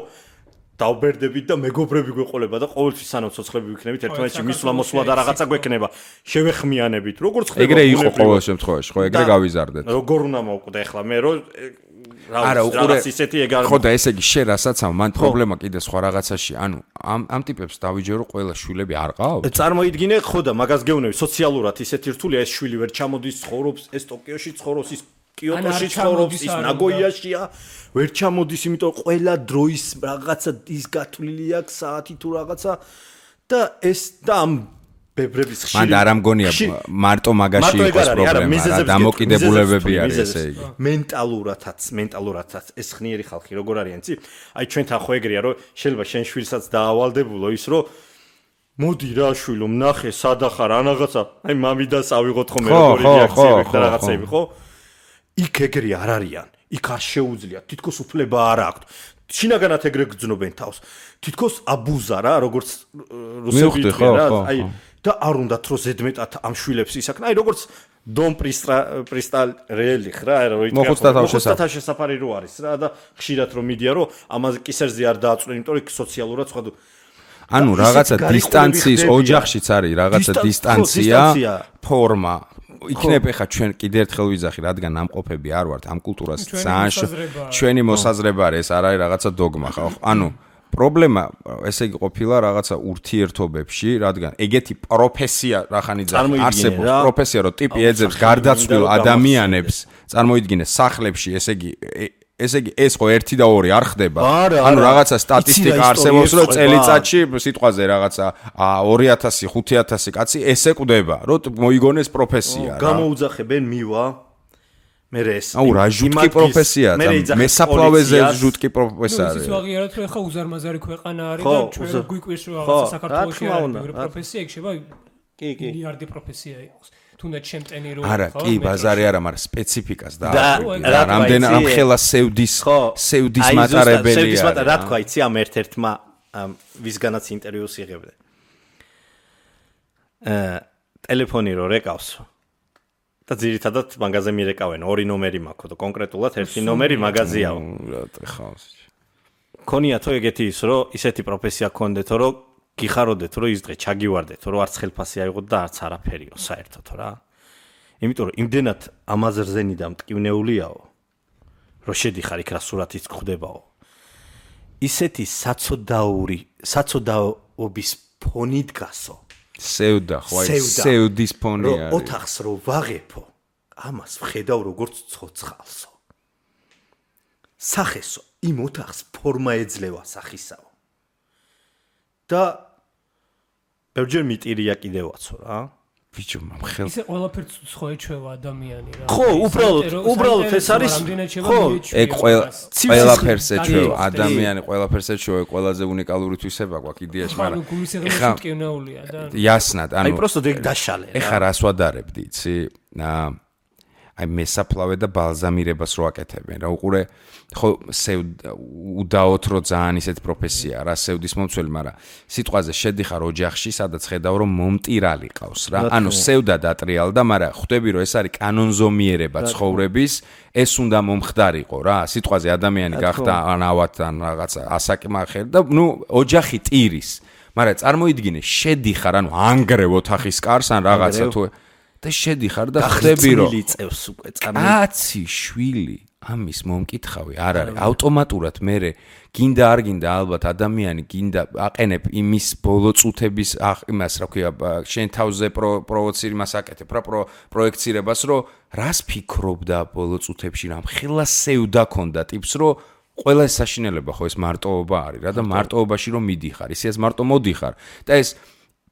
Speaker 3: დავბერდებით და მეგობრები გვეყოლება და ყოველთვის სანამ ცოცხლები ვიქნებით ერთმანეთში მისვლა-მოსვლა და რაღაცა გვექნება შევეხმიანებით როგორც ხდება
Speaker 2: ეგრე იყო ყოველ შემთხვევაში ხო ეგრე გავიზარდეთ
Speaker 3: როგორ უნდა მოვკვდე ახლა მე რომ
Speaker 2: არა უყურე
Speaker 3: ისეთი ეგ არ
Speaker 2: ხო და ესე იგი შენ რასაც ამ მან პრობლემა კიდე სხვა რაღაცაში ანუ ამ ტიპებს დავიჯერო ყველა შვილები არ ყავთ
Speaker 3: წარმოიდგინე ხო და მაგას გეუბნები სოციალურად ისეთი რთულია ეს შვილი ვერ ჩამოდის ცხოვრობს ეს ტოკიოში ცხოვრობს ის კიოტოში ცხოვრობს ის ნაგოიაშია ვერ ჩამოდის იმიტომ ყველა დროის რაღაცა ის გათვლილი აქვს საათი თუ რაღაცა და ეს და ამ ბებრების ხშირი
Speaker 2: მან არ ამგონია მარტო მაგაში იყოს პრობლემა რა დამოკიდებულებები არის ესე იგი
Speaker 3: მენტალურადაც ეს ხნიერი ხალხი როგორ არიან იცი აი ჩვენთან ხო ეგრეა რომ შეიძლება შენ შვილსაც დაავალდებულო ის რომ მოდი რა შვილო ნახე სადახარ რაღაცა აი მამიდას ავიღოთ ხოლმე როგორი რეაქციები და რაღაცები ხო იქ ეგრე არ არიან იქ არ შეუძლიათ თითქოს უფლება არ აქვთ შინაგანად ეგრე გძნობენ თავს თითქოს აბუზა რა როგორც რუსები თქვენ რა აი და არ უნდათ რომ ზედმეტად ამ შვილებს ისაკნა აი როგორც დონ პრისტალ რეელი რა რო
Speaker 2: მოხუცთა
Speaker 3: შესაფარი რო არის რა და ხშირად რომ მიდია რომ ამაზე კისერზე არ დააწყვენ იმიტომ რომ სოციალურად სხვა
Speaker 2: ანუ რაღაცა დისტანციის ოჯახშიც არის რაღაცა დისტანცია ფორმა იქნებ ეხა ჩვენ კიდე ერთხელ ვიძახი რადგან ამყოფები არ ვართ ამ კულტურას ძალიან ჩვენი მოსაზრება არის ეს არ არის რაღაცა დოგმა ხო ანუ პრობლემა ესე იგი ყოფილა რაღაცა ურთიერთობებში რადგან ეგეთი პროფესია რახანიძე არსებობს პროფესია რომ ტიპი ეძებს გარდაცვლილ ადამიანებს წარმოიდგინე სახლებში ესე იგი ეს ხო 1 და 2 არ ხდება ანუ რაღაცა სტატისტიკა არსებობს რომ წელიწადში სიტყვაზე რაღაცა 2000 5000 კაცი ესე კვდება რომ მოიგონეს პროფესია რა
Speaker 3: გამოუძახებენ მივა მე ეს
Speaker 2: აუ რა ჟუტკი პროფესია მესაფლავეზე ჟუტკი პროფესია
Speaker 4: არის ნუ ვაღიაროთ რომ ხა უზარმაზარი ქვეყანა არის და ჩვენ გვიკვირს რომ რაღაცა საქართველოში არის პროფესია იქ შევა მილიარდი პროფესია იყოს თუნდაც ჩემტენი რო
Speaker 2: არა კი ბაზარი არა მაგრამ სპეციფიკას და რამდენ ამ ხელა სევდის მატარებელია
Speaker 3: რა თქვა იცი ამ ერთ-ერთმა ვისგანაც ინტერვიუს იღებდა ტელეფონი რო რეკავს და ძირითადად მაგაზე მირეკავენ 2 ნომერი მაქვს და კონკრეტულად 1 ნომერი მაგაზიაო
Speaker 2: რა ხავს
Speaker 3: ქონია თუ ეგეთი ის რომ ისეთი პროფესია გქონდეთო რომ გიხაროდეთ რომ ის დღე ჩაგივარდეთ რომ არც ხელფასი აიღოთ და არც არაფერიო საერთოდ რა იმიტომ რომ იმდენად ამაზრზენი და მტკივნეულიაო რომ შედიხარ იქ რა სურათიც გხვდებაო ისეთი საცოდაობის ფონი დგასო
Speaker 2: სევდა ხო აი სევდის ფონი არის
Speaker 3: ოთახს რო ვაღებო ამას ვხედავ როგორც ცოცხალსო სახესო იმ ოთახს ფორმა ეძლევა სახისაო და ბევრჯერ მიტირია კიდევაცო რა
Speaker 2: ბიჭო მხელ
Speaker 4: ისე ყველაფერს ხო ეჩვევა ადამიანი რა
Speaker 3: ხო უბრალოდ ეს არის
Speaker 4: ხო
Speaker 2: ეგ ყველაფერს ეჩვევა ადამიანი ყველაფერს ეჩვევა ყველაზე უნიკალური თვისება გვაქვს იდეაში მაგრამ
Speaker 4: ეხა მტკივნეულია და
Speaker 2: იასნად
Speaker 3: აი პროსტოდ ეგ დაშალე
Speaker 2: ეხა რას ვადარებდი იცი აი მესაფლავე და ბალზამირებას რო აკეთებენ რა უყურე ხო უდაოთ რო ძალიან ისეთ პროფესია რა სევდის მომცველი მაგრამ სიტყვაზე შედიხარ ოჯახში სადაც ხედავ რომ მომტირალი ყავს რა ანუ სევდა დატრიალდა მაგრამ ხვდები რომ ეს არის კანონზომიერება ცხოვრების ეს უნდა მომხდარიყო რა სიტყვაზე ადამიანი გახდა ანავად ან რაღაცა ასაკმახერ და ნუ ოჯახი ტირის მაგრამ წარმოიდგინე შედიხარ ანუ ანგრევ ოთახის კარს ან რაღაცა თუ და შედიხარ და ხვდები რომ
Speaker 3: წევს უკვე
Speaker 2: კაცი შვილი ამის მომკითხავი არ არის ავტომატურად მე გინდა არ გინდა ალბათ ადამიანი გინდა აყენებ იმის ბოლო წუთების იმას რა ქვია შენ თავზე პროვოცირებას აკეთებ რა პროექცირებას რომ რას ფიქრობდა ბოლო წუთებში რამ ხელა სევდა ქონდა ტიპს რომ ყველა ეს საშინელება ხო ეს მარტოობა არის რა და მარტოობაში რომ მიდიხარ ისეც მარტო მოდიხარ და ეს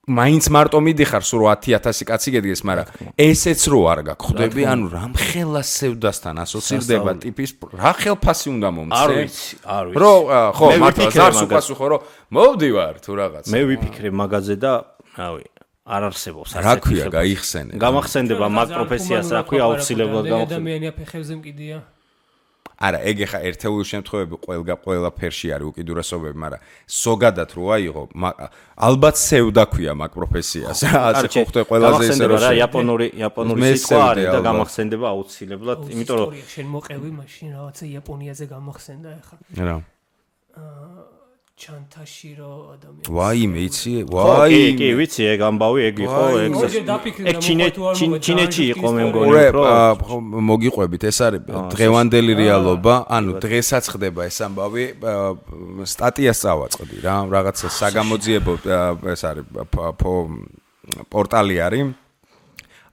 Speaker 2: მაინც მარტო მიდიხარ სულ 10,000 კაცი გედგეს მაგრამ ესეც რო არ გაგხვდები ანუ რამ ხელა სევდასთან ასოცირდება ტიპის რა ხელფასი უნდა მომცე
Speaker 3: არ ვიცი
Speaker 2: რო ხო მართლა ზარს უპასუხო რომ მოვდივარ თუ რაღაც
Speaker 3: მე ვიფიქრე მაგაზე და რავი არ არსებობს
Speaker 2: რა ქვია გაიხსენე
Speaker 3: გამახსენდება მაგ პროფესიას რა ქვია აუცილებლად
Speaker 4: გამახსენდება ადამიანია ფეხებზე მკიდია
Speaker 2: არა ეგ ახლა ერთეული შემთხვევები ყველა ფერში არის უკიდურესობები მაგრამ ზოგადად რო აიღო ალბათ სევდა ქვია მაგ პროფესიას ასე ხო ხდება ყველაზე ისე
Speaker 3: რომ იაპონური სიტყვა არის და გამახსენდება აუცილებლად იმიტომ რომ
Speaker 4: შენ მოყევი მაშინ რაღაცა იაპონიაზე გამახსენდა ახლა
Speaker 2: რა
Speaker 4: ჩანთაში რო ადამიანი
Speaker 2: ვაიმე იცი ვაიმე
Speaker 3: კი ვიცი ეგ ამბავი ეგ იყო ეგ ჩინეთში იყო მე მგონი
Speaker 2: რომ მოგიყვებით ეს არის დღევანდელი რეალობა ანუ დღესაც ხდება ეს ამბავი სტატიას წავაწყდი რა რაღაცა საგამოძიებო ეს არის პორტალი არის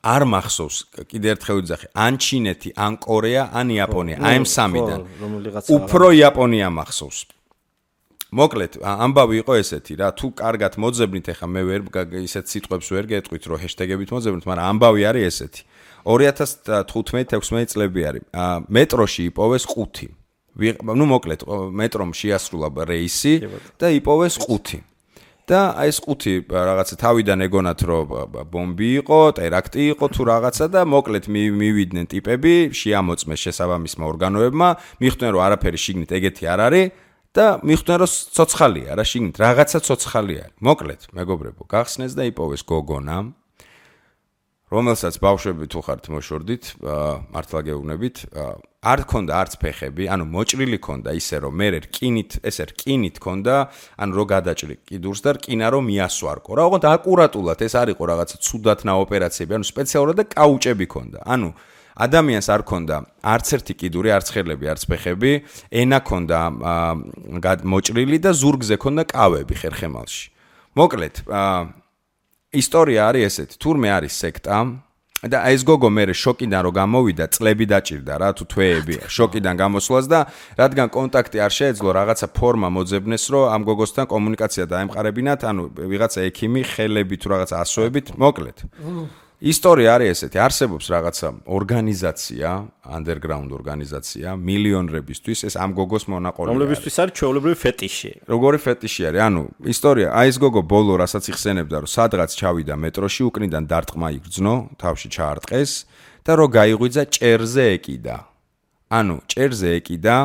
Speaker 2: არ მახსოვს კიდე ერთხელ ვიძახი ან ჩინეთი ან კორეა ან იაპონია აი ამ სამიდან უფრო იაპონია მახსოვს მოკლედ ამბავი იყო ესეთი რა თუ კარგად მოძებნით ეხა მე ვერ ისეთ სიტყვებს ვერ გეტყვით რომ ჰეშტეგებით მოძებნით მაგრამ ამბავი არის ესეთი 2015-16 წლები არის მეტროში იპოვეს 5 ნუ მოკლედ მეტრომ შეასრულა რეისი და იპოვეს 5 და აი ეს 5 რაღაცა თავიდან ეგონათ რომ ბომბი იყო, ტერაქტი იყო თუ რაღაცა და მოკლედ მივიდნენ ტიპები, შეამოწმეს შესაბამისმა ორგანოებმა, მიხვდნენ რომ არაფერი შიგნით ეგეთი არ არის და მიხვდნენ რომ ცოცხალია რა შიგნით, რაღაცა ცოცხალი არის. მოკლედ, მეგობრებო, გახსნეს და იპოვეს გოგონა, რომელსაც ბავშვები თუ ხართ მოშორდით, მართლა გეუბნებით, არ ქონდა არც ფეხები, ანუ მოჭრილი ქონდა ისე რომ მე რკინით, ესე რკინით ქონდა, ანუ რო გადაჭრი კიდურს და რკინა რომ მიასვარკო. რა, ოღონდ აკურატულად ეს არ იყო რაღაცა ცუდათნა ოპერაციები, ანუ სპეციალურად და კაუჭები ქონდა. ანუ ადამიანს არ ქონდა არც ერთი კიდური, არც ხელები, არც ფეხები, ენა ქონდა მოჭრილი და ზურგზე ქონდა კავები ხერხემალში. მოკლედ, ისტორია არის ესეთი, თურმე არის სექტა და ეს გოგო მე შოკიდან რომ გამოვიდა, წლები დაჭირდა რა თუ თვეები შოკიდან გამოსვლას და რადგან კონტაქტი არ შეეძლო რაღაცა ფორმა მოძებნეს რომ ამ გოგოსთან კომუნიკაცია დაემყარებინათ, ანუ ვიღაცა ექიმი ხელები თუ რაღაცა ასოებით, მოკლედ. ისტორია არის ესეთი, არსებობს რაღაცა ორგანიზაცია, underground ორგანიზაცია, მილიონერებისთვის ეს ამ გოგოს მონაყოლია.
Speaker 3: რომლებისთვის არის ჩვეულებრივი ფეტიში.
Speaker 2: როგორი ფეტიში არის? ანუ ისტორია, აი ეს გოგო ბოლო რასაც იხსენებდა, რომ სადღაც ჩავიდა მეტროში, უკნიდან დარტყმა იგრძნო, თავში ჩაარტყეს და რო გაიღვიძა ჭერზე ეკიდა. ანუ ჭერზე ეკიდა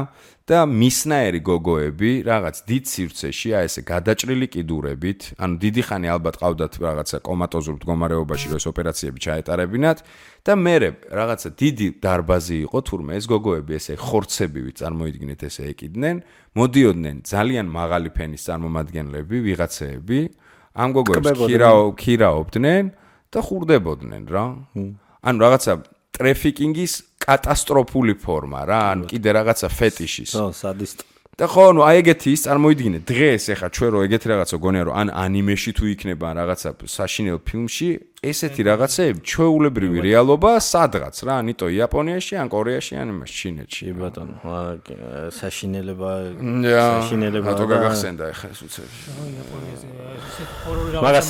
Speaker 2: და მისნაერი გოგოები რაღაც დიდ სივრცეში, აი ესე გადაჭრილი კიდურებით, ანუ დიდი ხანი ალბათ ყავდათ რაღაცა კომატოზურ მდგომარეობაში, რომ ეს ოპერაციები ჩაეტარებინათ და მერე რაღაცა დიდი დარბაზი იყო, თურმე ეს გოგოები ესე ხორცებივით წარმოიდგინეთ ესე ეკიდნენ, მოდიოდნენ ძალიან მაღალი ფენის წარმომადგენლები, ვიღაცეები, ამ გოგოებს ქირაობდნენ და ხურდებოდნენ რა. ანუ რაღაცა ტრეფიკინგის კატასტროფული ფორმა რა, ანუ კიდე რაღაცა ფეტიშის.
Speaker 3: ხო, სადისტ.
Speaker 2: და ხო, ну, აი ეგეთი ის წარმოიდგინე, დღეს ეხა ჩვენ რო ეგეთი რაღაცა გონია რომ ან ანიმეში თუ იქნება რაღაცა საშინელ ფილმში, ესეთი რაღაცეები ჩვეულებრივი რეალობა სადღაც რა, ნიტო იაპონიაში, ან კორეაში, ან ჩინეთში.
Speaker 3: ბატონო, საშინელება
Speaker 2: რატო გაგახსენდა ეხა ეს უცები.
Speaker 4: იაპონიაზე ესეთ ჰორორი
Speaker 3: რაღაცა. მაგას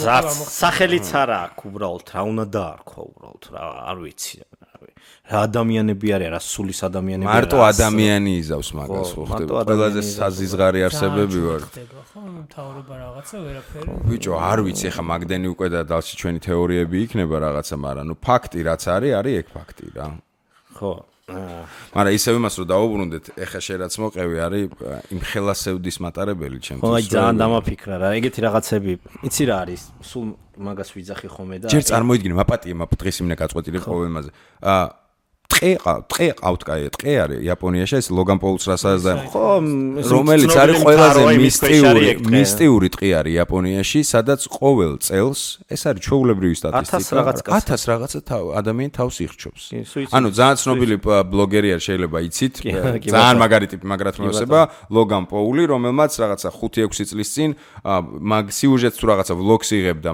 Speaker 3: სახელიც არ აქვს უბრალოდ, რა უნდა დაარქვა უბრალოდ, რა, არ ვიცი. რა ადამიანები არის, რა სულის ადამიანები არის.
Speaker 2: მარტო ადამიანი იზავს მაგას, ხო ხდება. ყველაზე საზიზღარი არსებები ვარ.
Speaker 4: ხო, მთავრობა რაღაცა ვერაფერი.
Speaker 2: ბიჭო, არ ვიცი, ხა მაგდენი უკვე და დალში ჩვენი თეორიები იქნება რაღაცა, მაგრამ ნუ ფაქტი რაც არის ეგ ფაქტი რა.
Speaker 3: ხო
Speaker 2: მაგრამ ისევ იმას რომ დავუბრუნდეთ ეხა შენ რაც მოყევი არის იმ ხელასევდის მატარებელი ჩემთვის
Speaker 3: ხო აი ძალიან დამაფიქრა რა ეგეთი რაღაცები იცი რა არის სულ მაგას ვიძახი ხოლმე და
Speaker 2: ჯერ წარმოიდგინე მაპატიე დღეს იმნე გაწყვეტილი პრობლემაზე ტყე ყავთ კაი ტყე არის იაპონიაში ეს ლოგან პოლს რასაც და
Speaker 3: ხო
Speaker 2: რომელიც არის ყველაზე მისტიური ტყე არის იაპონიაში სადაც ყოველ წელს ეს არის ჩვეულებრივი სტატისტიკა 1000 რაღაცა ადამიანი თავს იხჩობს ანუ ძალიან ცნობილი ბლოგერი არის შეიძლება იცით ძალიან მაგარი ტიპი მაგრად მოესება ლოგან პოლი რომელმაც რაღაცა 5-6 წლის წინ მაგ სიუჟეტს თუ რაღაცა ვლოგს იღებდა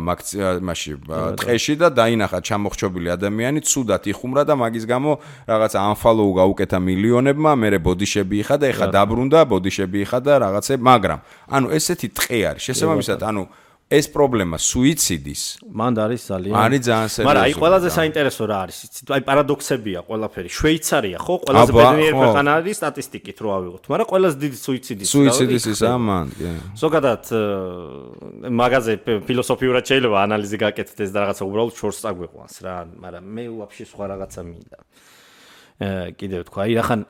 Speaker 2: მაშინ ტყეში და დაინახა ჩამოხრჩობილი ადამიანი ცუდად იხუმრა და მაგის გამო რაღაცა unfollow გაუკეთა მილიონებმა, მერე ბოდიშები იხადა, ეხა დაბრუნდა, ბოდიშები იხადა, რაღაცე, მაგრამ ანუ ესეთი ტყე არის. შესაბამისად, ანუ ეს პრობლემა სუიციდის
Speaker 3: მანდ არის ძალიან
Speaker 2: სერიოზული.
Speaker 3: მაგრამ აი ყველაზე საინტერესო რა არის, იცით? აი პარადოქსებია ყველაფერი. შვეიცარია, ხო? ყველაზე ბედნიერი ქვეყანა არის სტატისტიკით რო ავიღოთ, მაგრამ ყველაზე დიდი
Speaker 2: სუიციდის ის ამან,
Speaker 3: ზოგადად მაგაზე ფილოსოფიურად შეიძლება ანალიზი გაკეთდეს და რაღაცა უბრალოდ შორს წაგვიყვანს რა, მაგრამ მე ვაფშე სხვა რაღაცა მინდა. კიდევ თქვა, აი ახან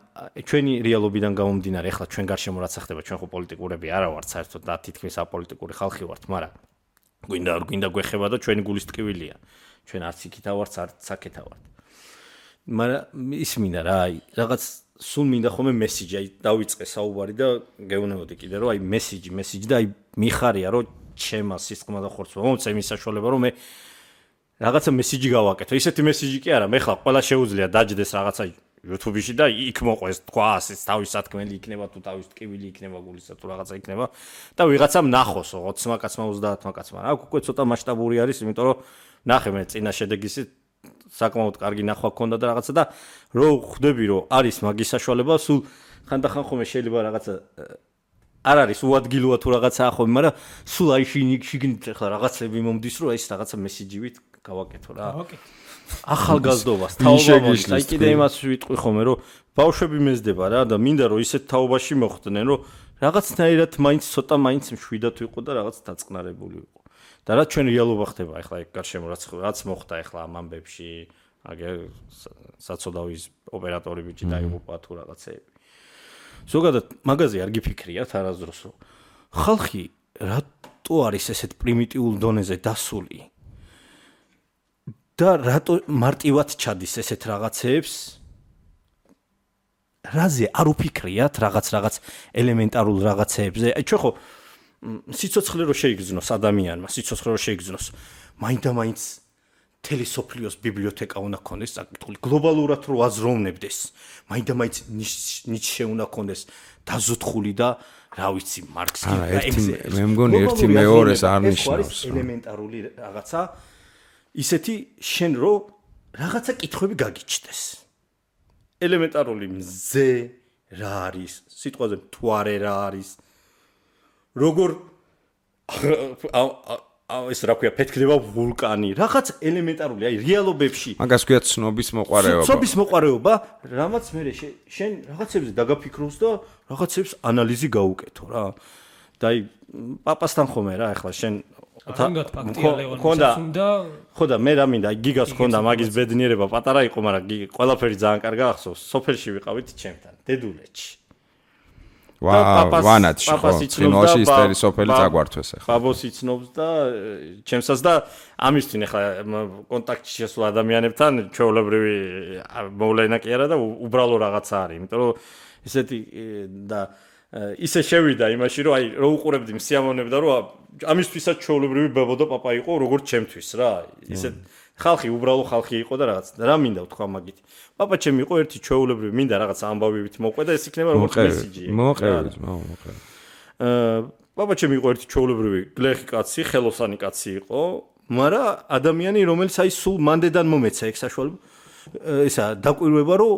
Speaker 3: ჩვენი რეალობიდან გამომდინარე, ახლა ჩვენ გარშემო რაც ხდება, ჩვენ ხო პოლიტიკურები არა ვართ საერთოდ და თითქმის აპოლიტიკური ხალხი ვართ, მაგრამ გვინდა არ გვინდა გვეხება და ჩვენი გულის ტკივილია. ჩვენ არც იქითა ვართ, არც აქეთა ვართ. მაგრამ ის მინდა რა, აი რაღაც სულ მინდა ხოლმე მესიჯი, აი დავიწყე საუბარი და გეუბნებოდი კიდე რომ აი მესიჯი და აი მიხარია რომ ჩემა სისხლმა და ხორცმა მომწე იმის საშუალება რომ მე რაღაცა მესიჯი გავაკეთო. ისეთი მესიჯი კი არა, მე ხლა ყველა შეუძლია დაჯდეს რაღაცა YouTube-ში და იქ მოყვეს თქვა ასე თავის სათქმელი იქნება თუ თავის ტკივილი იქნება გულისა თუ რაღაცა იქნება და ვიღაცამ ნახოსო 20 კაცმა 30 კაცმა. აქ უკვე ცოტა მასშტაბური არის, იმიტომ რომ ნახე მე წინა შედეგისი საკმაოდ კარგი ნახვა ქონდა და რაღაცა და რო ხვდები რომ არის მაგის საშუალება, სულ ხანდახან ხოლმე შეიძლება რაღაცა არ არის უადგილოა თუ რაღაცაა ხოლმე, მაგრამ სულ აი შიგნით ახლა რაღაცები მომდის რომ ეს რაღაცა მესიჯივით გავაკეთო რა. ახალგაზრდობას თაობა მოდის. აი კიდე იმას ვიტყვი ხოლმე რომ ბავშვები მეზდება რა და მინდა რომ ისეთ თაობაში მოხვდნენ რომ რაღაცნაირად მაინც ცოტა მაინც მშვიდად ვიყო და რაღაც დაწყნარებული ვიყო. და რა ჩვენ რეალობა ხდება ახლა ეგ გარშემო რაც მოხდა ახლა ამ ამბებში, აგერ საცოდავის ოპერატორი ბიჭი დაიღუპა თუ რაღაცეები. ზოგადად მაგაზე არ გიფიქრიათ არასდროს რომ ხალხი რატო არის ესეთ პრიმიტიულ დონეზე დასული და რატო მარტივად ჩადის ესეთ რაღაცეებს რაზე არ უფიქრიათ რაღაც ელემენტარულ რაღაცეებზე აი ჩვენ ხო სიცოცხლე რო შეიგრძნოს ადამიანმა სიცოცხლე რო შეიგრძნოს მაინდა-მაინც თელესოფლიოს ბიბლიოთეკა უნდა ქონდეს საკითხული გლობალურად რო აზროვნებდეს მაინდა-მაინც ნიჩე უნდა ქონდეს დაზოთხული და რა ვიცი მარქსი და ეგზე
Speaker 2: მე მგონი ერთი მეორეს არ ნიშნავს
Speaker 3: ელემენტარული რაღაცა ისეთი შენ რო რაღაცა კითხვები გაგიჩნდეს ელემენტარული მზე რა არის სიტყვაზე მთვარე რა არის როგორ ეს რა ქვია ფეთქდება ვულკანი რაღაც ელემენტარული აი რეალობებში
Speaker 2: მაგას ქვია ცნობის მოყარეობა
Speaker 3: ცნობის მოყარეობა რამაც მე შენ რაღაცებზე დაგაფიქროს და რაღაცებს ანალიზი გაუკეთო რა და აი პაპასთან ხომე რა ახლა შენ ხოდა მე რა მინდა გიგას ხონდა მაგის ბედნიერება პატარა იყო მაგრამ ყველაფერი ძალიან კარგი ახსოვს სოფელში ვიყავით ჩემთან დედულეთში
Speaker 2: ვანათში ხო წინოში ისტერი სოფელი წაგვართვეს ახლა
Speaker 3: ბაბოს იცნობს და ჩემსაც და ამისთვის ახლა კონტაქტში შესულ ადამიანებთან ჩვეულებრივი მოვლენა კი არა და უბრალო რაღაცა არის იმიტომ რომ ესეთი და ისე შევიდა იმაში რომ აი რო უყურებდი სიამოვნებდა რომ ამისთვისაც ჩვეულებრივი ბაბო და პაპა იყო როგორც ჩემთვის რა ისე ხალხი უბრალო ხალხი იყო და რაღაც რა მინდა ვთქვა მაგით პაპა ჩემი იყო ერთი ჩვეულებრივი მინდა რაღაც ამბავებით მოყვე და ეს იქნება როგორც მესიჯი
Speaker 2: მოყევით
Speaker 3: პაპა ჩემი იყო ერთი ჩვეულებრივი გლეხი კაცი ხელოსანი კაცი იყო მაგრამ ადამიანი რომელიც აი სულ მანდედან მომეცა ეგ საშუალება ესა დაკვირვება რომ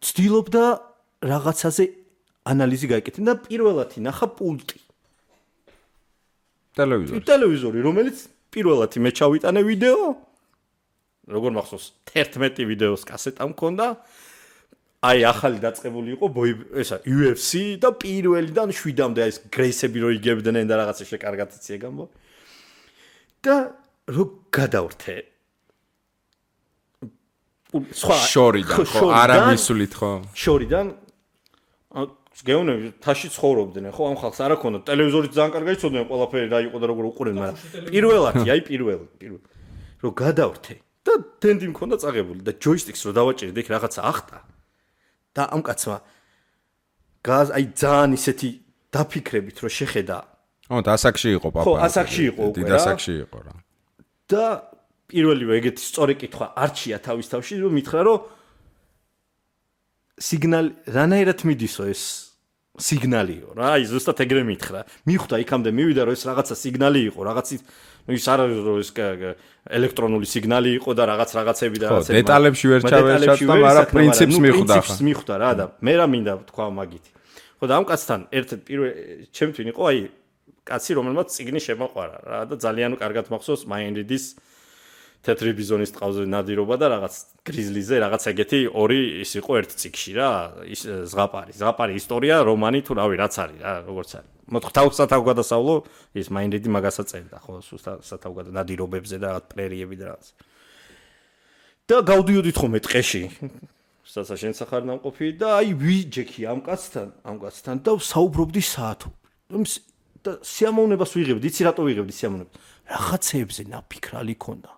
Speaker 3: ცდილობდა რაღაცაზე ანალიზი გაიკეთებინა და პირველად ინახა პულტი ტელევიზორი რომელიც პირველად მე ჩავიტანე ვიდეო როგორ მახსოვს 11 ვიდეოს კასეტა მქონდა აი ახალი დაწყებული იყო ესა UFC და პირველიდან 7-მდე ეს გრეისები რო იგებდნენ და რაღაცა შეკარგად იცი ეგამბო და რო გადავრთე
Speaker 2: სხვა შორიდან ხო არა მისულით ხო
Speaker 3: შორიდან გეუნები თაში ცხოვრობდნენ ხო ამ ხალხს არ აქონდა ტელევიზორი ძალიან კარგად იცოდნენ ყველაფერი რა იყო და როგორ უყურებდნენ მაგრამ პირველი რომ გადავრთე და ტენდი მქონდა წაღებული და ჯოისტიკს რო დავაჭერე იქ რაღაცა ახტა და ამ კაცმა აი ძალიან ისეთი დაფიქრებით რომ შეხედა
Speaker 2: და ასაკში იყო პაპა
Speaker 3: ხო ასაკში იყო უკვე
Speaker 2: დიდ ასაკში იყო რა
Speaker 3: და პირველივე ეგეთი სწორი კითხვა არჩია თავის თავში რომ მითხრა რომ სიგნალი რანაირად მიდისო ეს სიგნალიო რა აი ზუსტად ეგრე მითხრა მიხვდა იქამდე მივიდა რომ ეს რაღაცა სიგნალი იყო რაღაცის ის არ არის რომ ეს ელექტრონული სიგნალი იყო და რაღაცები და
Speaker 2: რაღაცები დეტალებში ვერ ჩავეშალდა მაგრამ პრინციპს
Speaker 3: მიხვდა რა და მე რა მინდა თქვა მაგითი ხო და ამ კაცთან ერთ-ერთ პირველ ჩემთვის იყო აი კაცი რომელმაც წიგნი შემოყვარა რა და ძალიან კარგად მახსოვს მაინრიდის თეთრი ბიზონის ტყავზე ნადირობა და რაღაც გრიზლიზე რაღაც ეგეთი ორი ის იყო ერთ წიგში რა ის ზღაპარი ისტორია რომანი თუ რავი რაც არის რა როგორც არის მოთხ სათავგადასავლო ის მაინრიდი მაგასაც წერდა ხო სათავგადასავლო ნადირობებზე და რაღაც პრერიები და რაღაც და გავდიოდით ხოლმე ტყეში საცა შენ სახარ ნამყოფი და აი ვიჯექი ამ კაცთან და საუბრობდი საათო და სიამოვნებას ვიღებდი იცი რატო ვიღებდი სიამოვნებას რაღაცეებზე ნაფიქრალი ქონდა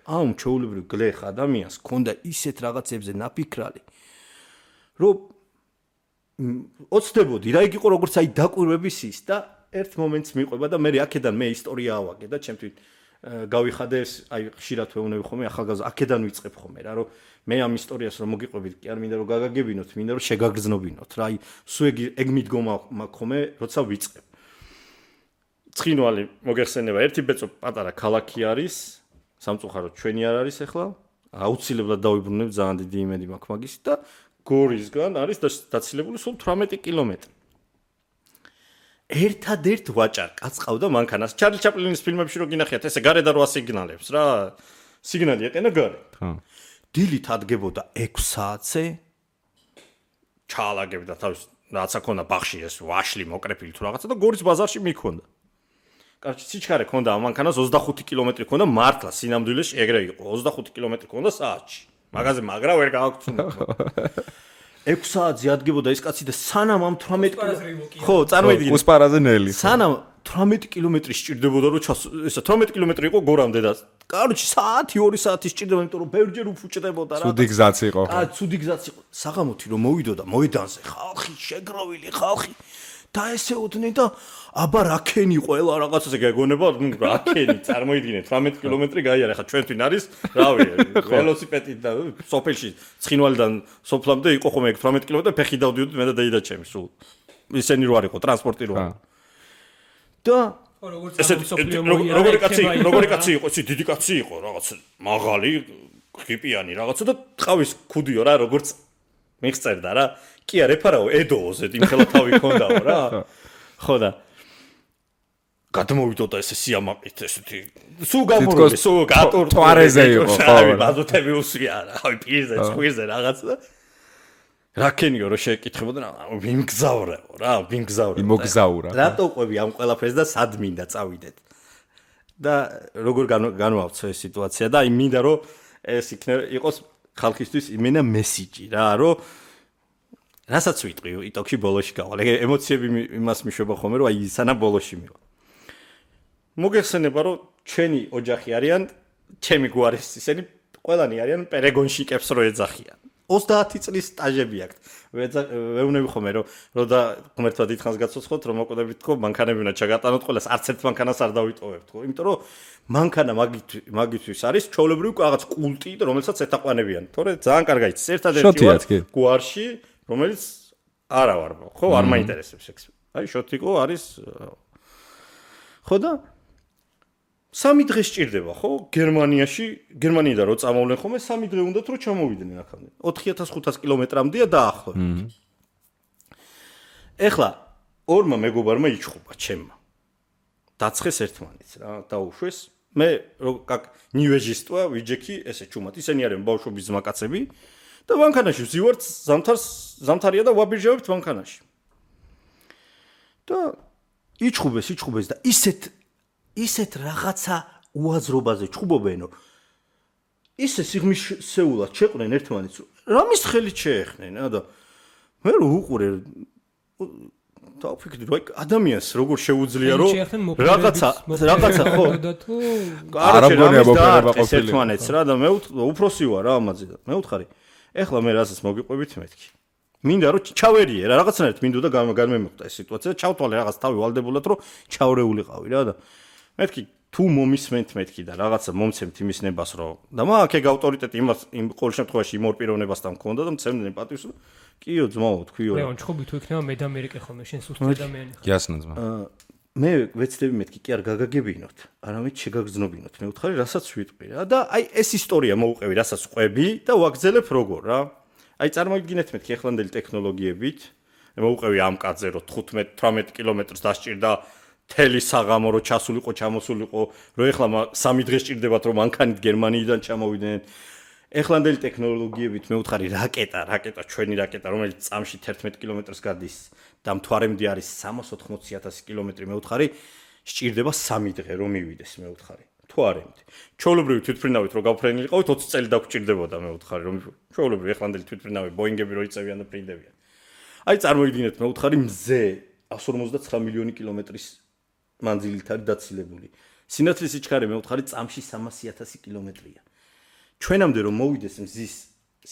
Speaker 3: ამ ჩაულებრივ გლეხ ადამიანს ქონდა ისეთ რაღაცებზე ნაფიქრალი რომ ოცდებოდი რა იგი იყო როგორც აი დაკვირვების ის და ერთ მომენტს მიყვება და მე აქედან მე ისტორია ავაგე და ჩემთვის გავიხადე აი ხშირად ვეუბნები ხოლმე ახალგაზრდა აქედან ვიწყებ ხოლმე რა რომ მე ამ ისტორიას რომ მოგიყვებით კი არ მინდა რომ გაგაგებინოთ მინდა რომ შეგაგრძნობინოთ რა აი სულ ეგ მიდგომა მაქვს ხოლმე როცა ვიწყებ ცხინვალი მოგეხსენება ერთი ბეწო პატარა ქალაქი არის სამწუხაროდ ჩვენი არ არის ახლა აუცილებლად დავიბრუნებ ძალიან დიდი იმედი მაქვს მაგის და გორისგან არის დაცილებული სულ 18 კილომეტრი ერთადერთ ვაჭარ კაც ყავდა მანქანას ჩარლი ჩაპლინის ფილმებში რო გინახიათ ესე გარე და რო ასიგნალებს რა სიგნალი ეყენა გარე ხო დილით ადგებოდა 6 საათზე ჩაალაგებდა თავის რაცა ქონდა ბახში ეს ვაშლი მოკრეფილი თუ რაღაცა და გორის ბაზარში მიქონდა კარჩი სიჩქარე ქონდა ამ მანქანას 25 კილომეტრი ქონდა მართლა სინამდვილეში ეგრე იყო 25 კილომეტრი ქონდა საათში მაგაზე მაგრა ვერ გავაკეთე 6 საათზე ადგებოდა ეს კაცი და სანამ ამ 18 ხო წარმოიდგინე
Speaker 2: უსპარაზე ნელი
Speaker 3: სანამ 18 კილომეტრი სჭირდებოდა რომ ესა 18 კილომეტრი იყო გორამდე და კარჩი საათი 2 საათი სჭირდება იმიტომ რომ ბევრჯერ უფუჭდებოდა რა
Speaker 2: ცუდი გზაც იყო
Speaker 3: ცუდი გზაც იყო საღამოთი რომ მოვიდოდა მოედანზე ხალხი შეგროვილი ხალხი და ესე უთნენ და აბა რაკენი ყველა რაღაცაზე გაგონება რაკენი წარმოიდგინეთ 18 კილომეტრი გაიარა ხა ჩვენთვის არის რავი ველოსიპედით და სოფელში ცხინვალიდან სოფლამდე იყო ხომ ეგ 18 კილომეტრი ფეხი დავდიოდი მე და დაიდა ჩემი სულ ისენი რო არ იყო ტრანსპორტი რო და როგორი კაცი იყო ისი დიდი კაცი იყო რაღაც მაღალი ხიპიანი რაღაცა და ტყავის ქუდიო რა როგორც მიხწერდა რა კი არ ეფარაო ედოზე იმხელა თავი ქონდაო რა ხო და გადმოვიდოდა ესე სიამაყით ესეთი სულ გამორული სულ გატორ
Speaker 2: თვარეზე იყო ხო
Speaker 3: ბაზოთები უსვია რა აი პირზე წვირზე რაღაც და რაკენიო რო შეკითხებოდა ვიმგზავრეო რა ვიმგზავრე
Speaker 2: იმოგზაურა
Speaker 3: რატო ყვები ამ ყველაფერს და სად მინდა წავიდეთ და როგორ განვავცე ეს სიტუაცია და აი მინდა რომ ეს იყოს ხალხისთვის იმენა მესიჯი რა რომ რასაც ვიტყვი იტოქში ბოლოში გავალ ეგ ემოციები იმას მიშვება ხოლმე რომ აი სანამ ბოლოში მივა მოგეხსენება რომ ჩვენი ოჯახი არიან ჩემი გვარის ისინი ყველანი არიან პერეგონშიკებს რო ეძახიან 30 წლის სტაჟები აქვთ ვეუბნები ხოლმე რომ და ღმერთმა დიდხანს გაცოცხლოთ რომ მოკვდებით თქო მანქანები უნდა ჩაგატანოთ ყველას არც ერთ მანქანას არ დავიტოვებთ თქო იმიტომ რომ მანქანა მაგისთვის არის ჩაოლებრივი რაღაც კულტი რომელსაც ეთაყვანებიან თორე ძალიან კარგად იცის ერთადერთი გვარში რომელიც არა ვარ ხო არ მაინტერესებს ეს აი შოტიკო არის ხო და 3 დღე სჭირდება ხო გერმანიიდან რო წამოვლენ ხოლმე 3 დღე უნდათ რომ ჩამოვიდნენ აქამდე 4500 კილომეტრამდეა დაახლოებით ეხლა ორმა მეგობარმა იჩხუბა ჩემმა დაცხეს ერთმანეთს რა დაუშვეს მე как ნიუეჟისტვა ვიჯექი ესე ჩუმად ისინი არიან ბავშვობის ზმაკაცები და მანქანაში ვზივართ ზამთარია და ვაბირჟავებთ მანქანაში და იჩხუბეს და ისეთ რაღაცა უაზრობაზე ჩხუბობენო ისე სიღმისეულად შეყვნენ ერთმანეთს, რამის ხელით შეეხნენ და მე უყურე დავფიქრდი რომ ადამიანს როგორ შეუძლია რომ რაღაცა ხო
Speaker 2: არა მგონია მოპერება ყოფილი
Speaker 3: ერთმანეთს რა და მე უფროსი ვარ რა ამაზე და მე ვთხარი ეხლა მე რასაც მოგიყვებით მეთქი მინდა რომ ჩავერიე რა რაღაცნაირად მინდოდა გამემოხდა ეს სიტუაცია ჩავთვალე რაღაც თავი ვალდებულად რომ ჩავრეულიყავი რა და მეთქი თუ მომისმენთ მეთქი და რაღაცა მომცემთ იმის ნებას რომ და მაგ ეგ ავტორიტეტი იმას იმ ყოველ შემთხვევაში იმ ორ პიროვნებასთან მქონდა და მცემდნენ პატივს კიო ძმაო თქვიო
Speaker 4: რა ჩხობი თუ იქნება მე და ამერიკე ხოლმე შენ სუსტი ადამიანი ხარ
Speaker 2: გიასნა ძმა
Speaker 3: მე ვეცდები მეთქი კი არ გაგაგებინოთ არამედ შეგაგზნობინოთ მე ვთხარი რასაც ვიტყვი რა და აი ეს ისტორია მოუყევი რასაც ყვები და ვაგზელებ როგორ რა აი წარმოიდგინეთ მეთქი ეხლანდელი ტექნოლოგიებით მოუყევი ამ კაცზე რომ 15-18 კილომეტრს დასჭირდა თელი საღამო რო ჩასულიყო ჩამოსულიყო რო ეხლა 3 დღე სჭირდებათ რომ მანქანით გერმანიიდან ჩამოვიდნენ ეხლანდელი ტექნოლოგიებით მე ვთხარი რაკეტა ჩვენი რაკეტა რომელიც წამში 11 კილომეტრს გადის და მთვარემდე არის 380,000 კილომეტრი მე ვთხარი სჭირდება 3 დღე რომ მივიდეს მე ვთხარი მთვარემდე ჩვეულებრივი თვითმფრინავით რო გავფრენილიყავით 20 წელი დაგჭირდებოდა მე ვთხარი რომ ჩვეულებრივი ეხლანდელი თვითმფრინავი ბოინგები რო იწევიან და ფრინდებიან აი წარმოიდგინეთ მე ვთხარი მზე 159 მილიონი კილომეტრის მანძილით არის დაცილებული სინათლის სიჩქარე მე ვთხარი წამში 300,000 კილომეტრია ჩვენამდე რომ მოვიდეს მზის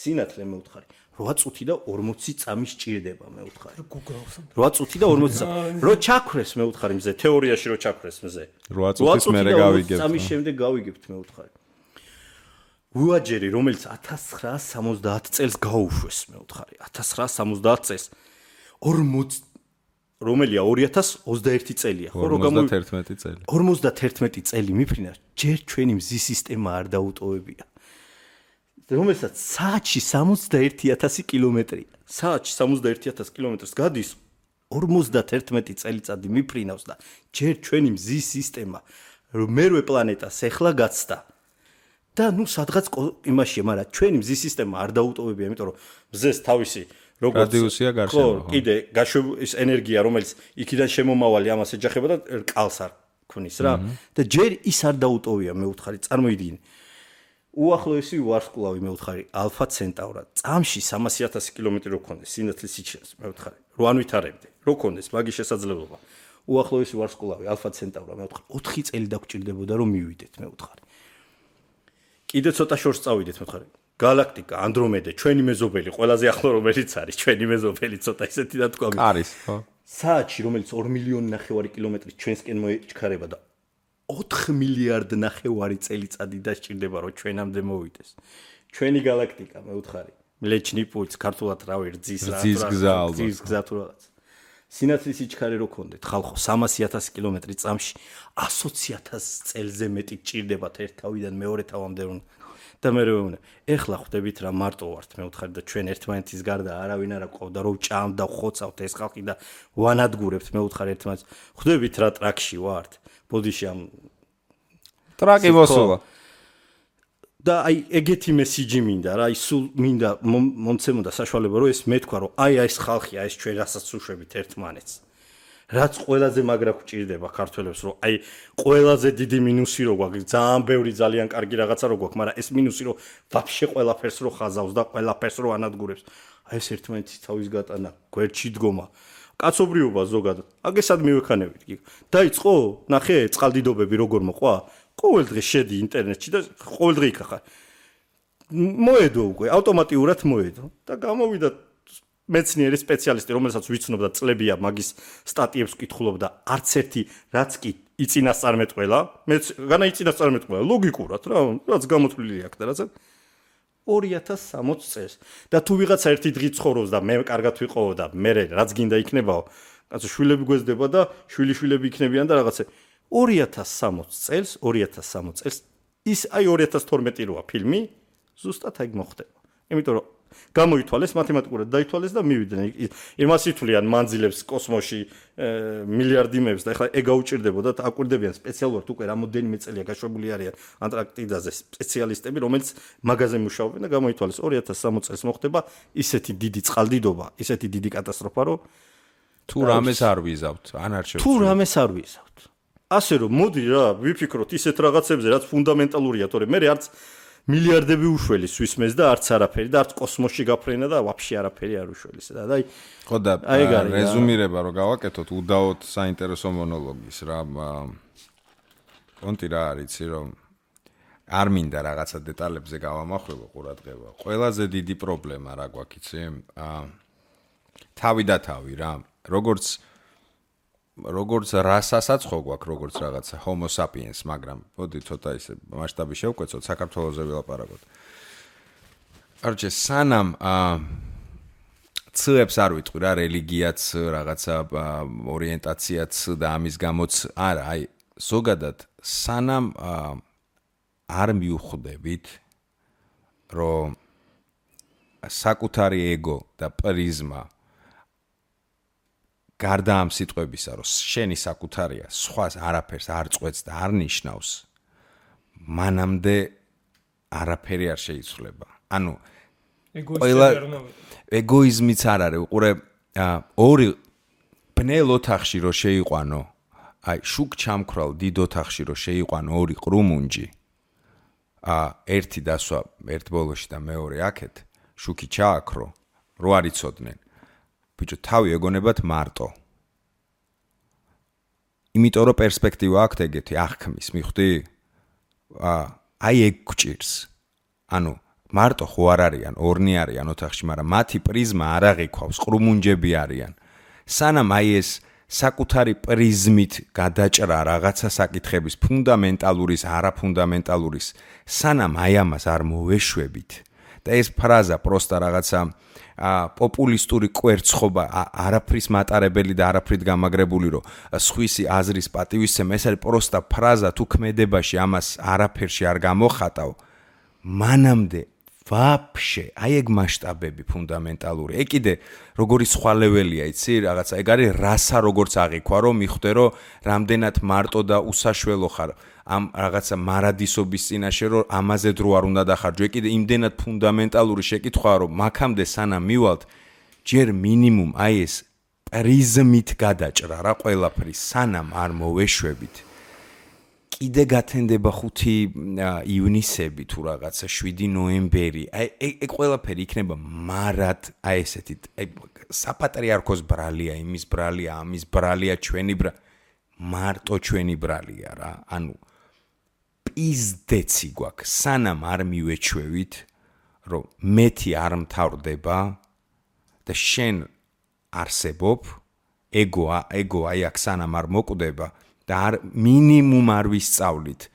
Speaker 3: სინათლე მე ვთხარი 8 წუთი და 40 წამი სჭირდება მე ვთხარი 8 წუთი და 40 წამი რო ჩაქრეს მე ვთხარი მზე თეორიაში რო ჩაქრეს მზე
Speaker 2: 8 წუთის მერე გავიგებთ
Speaker 3: წამის შემდეგ გავიგებთ მე ვთხარი უაჯერი რომელიც 1970 წელს გაუშვეს მე ვთხარი 1970 წელს 40 რომელია 2021 წელია ხო
Speaker 2: რო 51 წელი
Speaker 3: 51 წელი მიფრინა ჯერ ჩვენი მზის სისტემა არ დაუტოვებია რომელსაც საათში 61,000 კილომეტრია საათში 61,000 კილომეტრს გადის 51 წელიწადი მიფრინავს და ჯერ ჩვენი მზის სისტემა მერვე პლანეტას ეხლა გაცდა და ნუ სადღაც იმაშია მაგრამ ჩვენი მზის სისტემა არ დაუტოვებია იმიტომ რომ მზეს თავისი როგორც
Speaker 2: რადიუსია გარშემო
Speaker 3: ხო კიდე გაშვების ენერგია რომელიც იქიდან შემომავალი ამას ეჯახება და რკალს არ ქნის რა და ჯერ ის არ დაუტოვია მე ვთხარი წარმოიდგინე უახლოესი ვარსკვლავი მე ვთხარი ალფა ცენტავრა წამში 300,000 კილომეტრი რო ქონდეს სინათლის სიჩქარეს მე ვთხარი რო არ ვითარებდი რო ქონდეს მაგის შესაძლებლობა უახლოესი ვარსკვლავი ალფა ცენტავრა მე ვთხარი 4 წელი დაგჭირდებოდა რომ მივიდეთ მე ვთხარი კიდე ცოტა შორს წავიდეთ მე ვთხარი galaktika andromeda ჩვენი მეზობელი ყველაზე ახლო რომელიც არის ჩვენი მეზობელი ცოტა ისეთი და თქვა
Speaker 2: არის ხო
Speaker 3: საათში რომელიც 2 მილიონი ნახევარი კილომეტრი ჩვენსკენ მოიჩქარება და 4 მილიარდ ნახევარი წელიწადი დასჭირდება რომ ჩვენამდე მოვიდეს ჩვენი galaktika მე ვთხარი მლეჩნი პულს ქართულად რავი რძის გზა თუ რაღაც სინათლის სიჩქარე რო ქონდეთ ხალხო 300,000 კილომეტრი წამში 120,000 წელზე მეტი ჭირდებათ ერთ თავიდან მეორე თავამდე რომ და მე რომ ეხლა ხვდებით რა მარტო ვართ მე ვთხარი და ჩვენ ერთმანეთის გარდა არავინ არ აყავდა რომ ჭამდა ხოცავთ ეს ხალხი და ვანადგურებთ მე ვთხარი ერთმანეთს ხვდებით რა ტრაკში ვართ ბოდიში ამ
Speaker 2: ტრაკი მოსულა
Speaker 3: და აი ეგეთი მესიჯი მინდა რა აი სულ მინდა მომცემოდა საშუალება რომ ეს მეთქვა რომ აი ეს ხალხია ეს ჩვენ რასაც უშვებით ერთმანეთს რაც ყველაზე მაგრა გვჭირდება ქართველებს რომ აი ყველაზე დიდი მინუსი რო გვაქვს ძალიან ბევრი ძალიან კარგი რაღაცა რო გვაქვს მაგრამ ეს მინუსი რომ ვაფშე ყველაფერს რო ხაზავს და ყველაფერს რო ანადგურებს აი ეს ერთმანეთის თავის გატანა გვერდში დგომა კაცობრიობა ზოგადად აგესად მივექანებით კი დაიწყო ნახე წყალდიდობები როგორ მოყვა ყოველ დღე შედი ინტერნეტში და ყოველ დღე იქ ხარ მოედო უკვე ავტომატურად მოედო და გამოვიდა მეცნიერი სპეციალისტი რომელსაც ვიცნობ და წლებია მაგის სტატიებს ვკითხულობდა არც ერთი რაც კი იწინასწარმეტყველა მეც განა იწინასწარმეტყველა ლოგიკურად რა რაც გამოთვლილი აქვს და რაცა 2060 წელს და თუ ვიღაცა ერთი დღე ცხოვრობს და მე კარგად ვიყო და მე რაც გინდა იქნებაო კაცო შვილები გვეზდება და შვილიშვილები იქნებიან და რაღაცა 2060 წელს ის აი 2012 როა ფილმი ზუსტად აი მოხდება იმიტომ რომ გამოითვალეს მათემატიკურად დაითვალეს და მივიდნენ იმას ითვლიან მანძილებს კოსმოსში მილიარდიმეებს და ეხლა ეგ გაუჭირდებოდა და აკვირდებიან სპეციალურად უკვე რამოდენიმე წელია გაშვებული არიან ანტარქტიდაზე სპეციალისტები რომელიც მაგაზე მუშაობენ და გამოითვალეს 2060 წელს მოხდება ისეთი დიდი წყალდიდობა ისეთი დიდი კატასტროფა რომ
Speaker 2: თუ რამეს არ ვიზავთ ან არ შევწყვეტ
Speaker 3: თუ რამეს არ ვიზავთ ასე რომ მოდი რა ვიფიქროთ ისეთ რაღაცებზე რაც ფუნდამენტალურია თორე მე არც მილიარდები უშველი სვისმეს და არც არაფერი და არც კოსმოსში გაფრენა და ვაფშე არაფერი არ უშველის და აი
Speaker 2: ხო და რეზუმირება რომ გავაკეთოთ უდაოდ საინტერესო მონოლოგის რა კონტი რა არის რომ არ მინდა რაღაცა დეტალებზე გავამახვილო ყურადღება ყველაზე დიდი პრობლემა რა გვაქვს იცი თავი და თავი რა როგორც რასასაც ხო გვაქვს როგორც რაღაცა homo sapiens მაგრამ მოდი ცოტა ისე მასშტაბი შევკვეცოთ საქართველოზე ვილაპარაკოთ არჩე სანამ ცებს არ ვიტყვი რა რელიგიაც რაღაცა ორიენტაციაც და ამის გამოც არა აი ზოგადად სანამ არ მიუხვდებით რომ საკუთარი ეგო და პრიზმა გარდა ამ სიტყვებისა რომ შენი საკუთარია სხვას არაფერს არ წყვეტს და არ ნიშნავს მანამდე არაფერი არ შეიცვლება ანუ ეგოიზმიც არ არის უყურე ორი ბნელ ოთახში რო შეიყვანო აი შუქ ჩამქრალ დიდ ოთახში რო შეიყვანო ორი ყრუმუნჯი ერთი დასვა ერთ ბოლოში და მეორე აქეთ შუქი ჩააქრო რო არ იცოდნენ ბიჭო თავი ეგონებათ მარტო იმიტომ რომ პერსპექტივა აქვს ეგეთი აღქმის მიხვდი აი ეგ გჭირს ანუ მარტო ხო არ არიან ორნი არიან ოთახში მაგრამ მათი პრიზმა არ აღიქვავს ყრუმუნჯები არიან სანამ აი ეს საკუთარი პრიზმით გადაჭრა რაღაცა საკითხების ფუნდამენტალურის არაფუნდამენტალურის სანამ აი ამას არ მოვეშვებით და ეს ფრაზა პროსტა რაღაცა პოპულისტური კვერცხობა არაფრის მატარებელი და არაფრით გამაგრებული რომ სხვისი აზრის პატივისცემა ეს არის პროსტა ფრაზა თუ ქმედებაში ამას არაფერში არ გამოხატავ მანამდე ვაფშე აი ეგ მასშტაბები ფუნდამენტალური ეგ კიდე როგორი სხვა ლეველია იცი რაღაცა ეგ არის რასა როგორც აღიქვა რომ მიხვდე რომ რამდენად მარტო და უსაშველო ხარ ამ რაღაცა მარადისობის წინაშე რომ ამაზე დრო არ უნდა დახარჯო ეგ კიდე იმდენად ფუნდამენტალური შეკითხვაა რომ მაქამდე სანამ მივალთ ჯერ მინიმუმ აი ეს პრიზმით გადაჭრა რა ყველაფრის სანამ არ მოვეშვებით კიდე გათენდება 5 ივნისები თუ რაღაცა 7 ნოემბერი აი ეგ ყველაფერი იქნება მარად აი ესეთი აი საპატრიარქოს ბრალია იმის ბრალია ამის ბრალია ჩვენი მარტო ჩვენი ბრალია რა ანუ პიზდეცი გვაქვს სანამ არ მივეჩვევით რომ მეთი არ მთავრდება და შენ არსებობ ეგო აი აქ სანამ არ მოკვდება და მინიმუმ არ ვისწავლით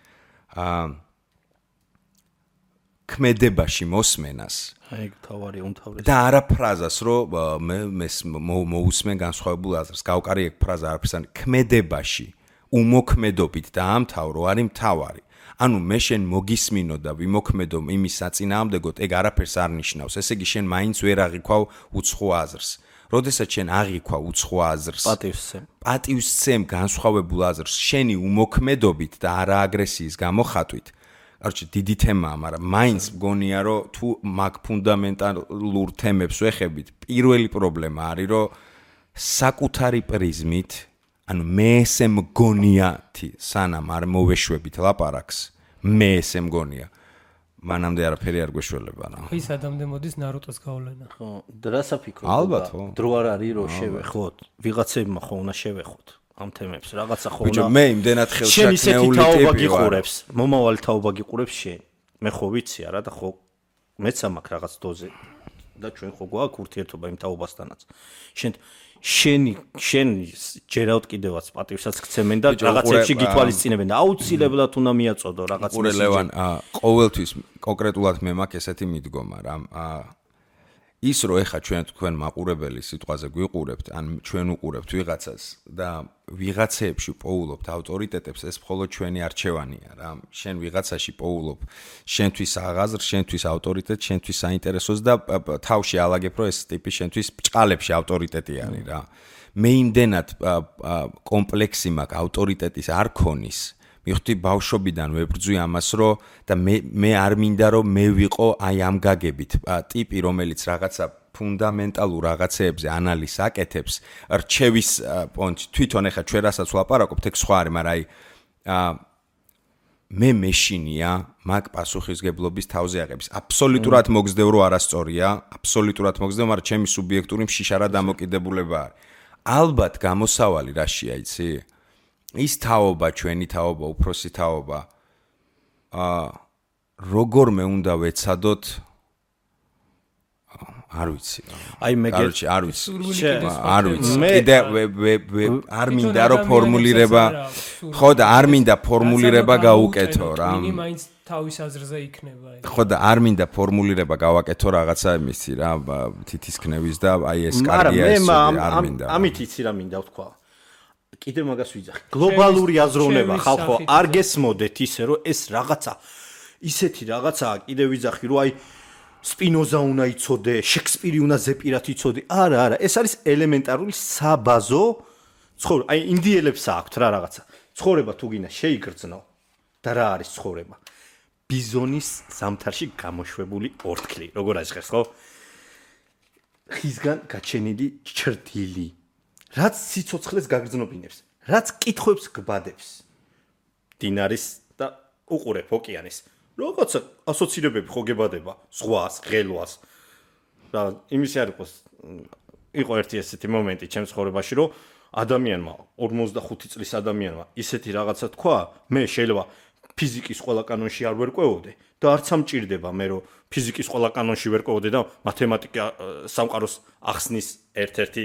Speaker 2: ქმედებაში მოსმენას
Speaker 3: აი თავარი უმთავრესი
Speaker 2: და არა ფრაზას რომ მე მოусმენ განსხვავებულ აზრს გავყარი ეგ ფრაზა არაფერს არ ქმედებაში უმოქმედობით და ამთავრო არის მთავარი ანუ მე შენ მოგისმინო და ვიმოქმედო იმის საწინააღმდეგოდ ეგ არაფერს არ ნიშნავს ესე იგი შენ მაინც ვერ აღიქვავ უცხო აზრს როდესაც შენ აღიქვა უცხო აზრს პატივსცემ განსხვავებულ აზრს შენი უმოქმედობით და არა აგრესიის გამოხატვით არჩი დიდი თემაა მაგრამ მაინც მგონია რომ თუ მაგ ფუნდამენტალურ თემებს ვეხებით პირველი პრობლემა არის რომ საკუთარი პრიზმით ანუ მე ესე მგონიათი სანამ არ მოვეშვებით ლაპარაკს მე ესე მგონია მანამდე არაფერი არ გვეშველება რა.
Speaker 4: ის ადამდე მოდის ნარუტოს გავლენა.
Speaker 3: ხო, დრასაფიქრო.
Speaker 2: ალბათ ხო.
Speaker 3: დრო არ არის რომ შევეხოთ. ვიღაცებმა ხო უნდა შევეხოთ ამ თემებს. რაღაცა ხო უნდა.
Speaker 2: ბიჭო, მე იმდენად ხელშაკნეული
Speaker 3: შენ ისეთი თაობა გიყურებს. მომავალი თაობა გიყურებს შენ. მე ხო ვიცი არა და ხო მეც ამაკ რაღაც დოზე და ჩვენ ხო გვაქვს ურთიერთობა იმ თაობასთანაც. შენ ჯერავთ კიდევაც პატივსაც გცემენ და რაღაცებში გითვალისწინებენ და აუცილებლად უნდა მიაწოდო რაღაც
Speaker 2: მესიჯი. ლევან, ყოველთვის კონკრეტულად მე მაქვს ესეთი მიდგომა რა. ის რომ ეხა თქვენ მაყურებელი სიტყვაზე გვიყურებთ, ან ჩვენ უყურებთ ვიღაცას და ვიღაცეებში პოულობთ ავტორიტეტებს, ეს მხოლოდ ჩვენი არჩევანია რა. შენ ვიღაცაში პოულობ შენთვის აღაზრს, შენთვის ავტორიტეტს, შენთვის საინტერესოს და თავში ალაგებ რომ ეს ტიპი შენთვის ბჭყალებში ავტორიტეტი არის რა. მე იმდენად კომპლექსი მაქვს ავტორიტეტის არქონის მიხდი ბავშვობიდან ვებრძვი ამას რომ და მე არ მინდა რომ მე ვიყო აი ამ გაგებით ტიპი რომელიც რაღაცა ფუნდამენტალურ რაღაცეებზე ანალიზს აკეთებს რჩევის პონჩ თვითონ ეხა ჩვენ რასაც ვლაპარაკობთ ეგ სხვა არის მაგრამ აი მე მეშინია მაგ პასუხისგებლობის თავზე აღების. აბსოლუტურად მოგზდევ რომ არასწორია, აბსოლუტურად მოგზდევ, მაგრამ ჩემი სუბიექტური მშიშარა დამოკიდებულება არის. ალბათ გამოსავალი რაშია, იცი? ის თაობა, ჩვენი თაობა, უფროსი თაობა როგორმე უნდა ვეცადოთ არ ვიცი.
Speaker 3: აი მე
Speaker 2: არ ვიცი. არ ვიცი. კიდე არ მინდა რომ ფორმულირება ხო და არ მინდა ფორმულირება გაუკეთო რა.
Speaker 4: მაინც თავის აზრზე იქნება.
Speaker 2: ხო და არ მინდა ფორმულირება გავაკეთო რაღაცა იმისი რა თითისქნევის და აი ეს კარგია ეს არ მინდა.
Speaker 3: ამით იცი რა მინდა ვთქვა. კიდე მაგას ვიძახი. გლობალური აზროვნება ხალხო არ გესმოდეთ ისე რომ ეს რაღაცა ისეთი რაღაცაა კიდე ვიძახი რომ აი სპინოზა უნდა იცოდე, შექსპირი უნდა ზეპირად იცოდე. არა, ეს არის ელემენტარული საბაზო ცხოვრება. აი ინდიელებს აქვთ რა რაღაცა. ცხოვრება თუ გინდა შეიგრძნო და რა არის ცხოვრება? ბიზონის ზამთარში გამოშვებული ორთქლი, როგორ აჟღერს, ხო? ხისგან გაჩენილი ჩრდილი. რაც სიცოცხლეს გაგრძნობინებს, რაც კითხვებს გბადებს. დინარის და უყურებ ოკეანის. რაღაცა ასოცირებები ხო გებადება ზღვას, ღელვას. და იმის არ იყო ერთი ესეთი მომენტი ჩემს ცხოვრებაში, რომ ადამიანმა 45 წლის ადამიანმა ისეთი რაღაცა თქვა, მე შეიძლება ფიზიკის ყველა კანონში არ ვერკვეოდე და არც ამჭირდება მე რომ ფიზიკის ყველა კანონში ვერკვეოდე და მათემატიკა სამყაროს ახსნის ერთ-ერთი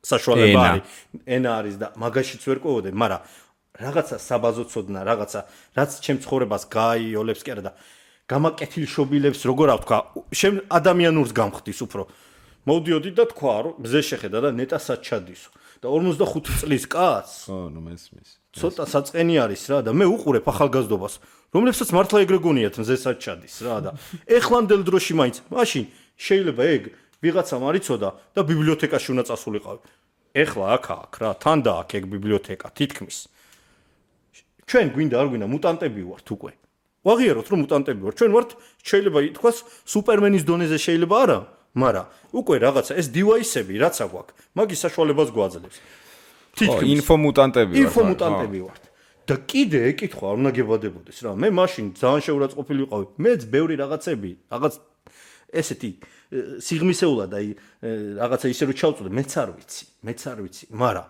Speaker 3: საშუალება არის. ენა არის და მაგაშიც ვერკვეოდე, მაგრამ რაღაცა საბაზო ცოდნა, რაღაცა რაც ჩემ ცხოვრებას გააიოლებს კი არა და გამაკეთილშობილებს როგორ ავთქვა, ადამიანურს გამხდის უფრო. მოვდიოდი და თქვა რომ მზე შეხედა და ნეტასაც ჩადისო და 45 წლის კაცს
Speaker 2: ხო ნუ მესმის
Speaker 3: ცოტა საწყენი არის რა და მე უყურებ ახალგაზრდობას რომლებსაც მართლა ეგრე გონიათ მზესაც ჩადის რა და ეხლანდელ დროში მაინც მაშინ შეიძლება ეგ ვიღაცამ არიცოდა და ბიბლიოთეკაში უნდა წასულიყავი. ეხლა აქ რა თან და აქ ეგ ბიბლიოთეკა თითქმის ჩვენ გვინდა არ გვინდა მუტანტები ვართ უკვე. ვაღიაროთ რომ მუტანტები ვართ. ჩვენ ვართ შეიძლება ითქვას სუპერმენის დონეზე შეიძლება არა, მაგრამ უკვე რაღაცა ეს დივაისები რაც აგვაქვს, მაგის საშუალებას გვაძლევს.
Speaker 2: თითქმის
Speaker 3: ინფომუტანტები ვართ. და კიდე ეკითხვა არ უნდა გებადებოდეს რა. მე მაშინ ძალიან შეურაცხყოფილი ვიყავი. მეც ბევრი რაღაცები, რაღაც ესეთი სიღმისეულად აი რაღაცა ისე რომ ჩავწოდე, მეც არ ვიცი, მაგრამ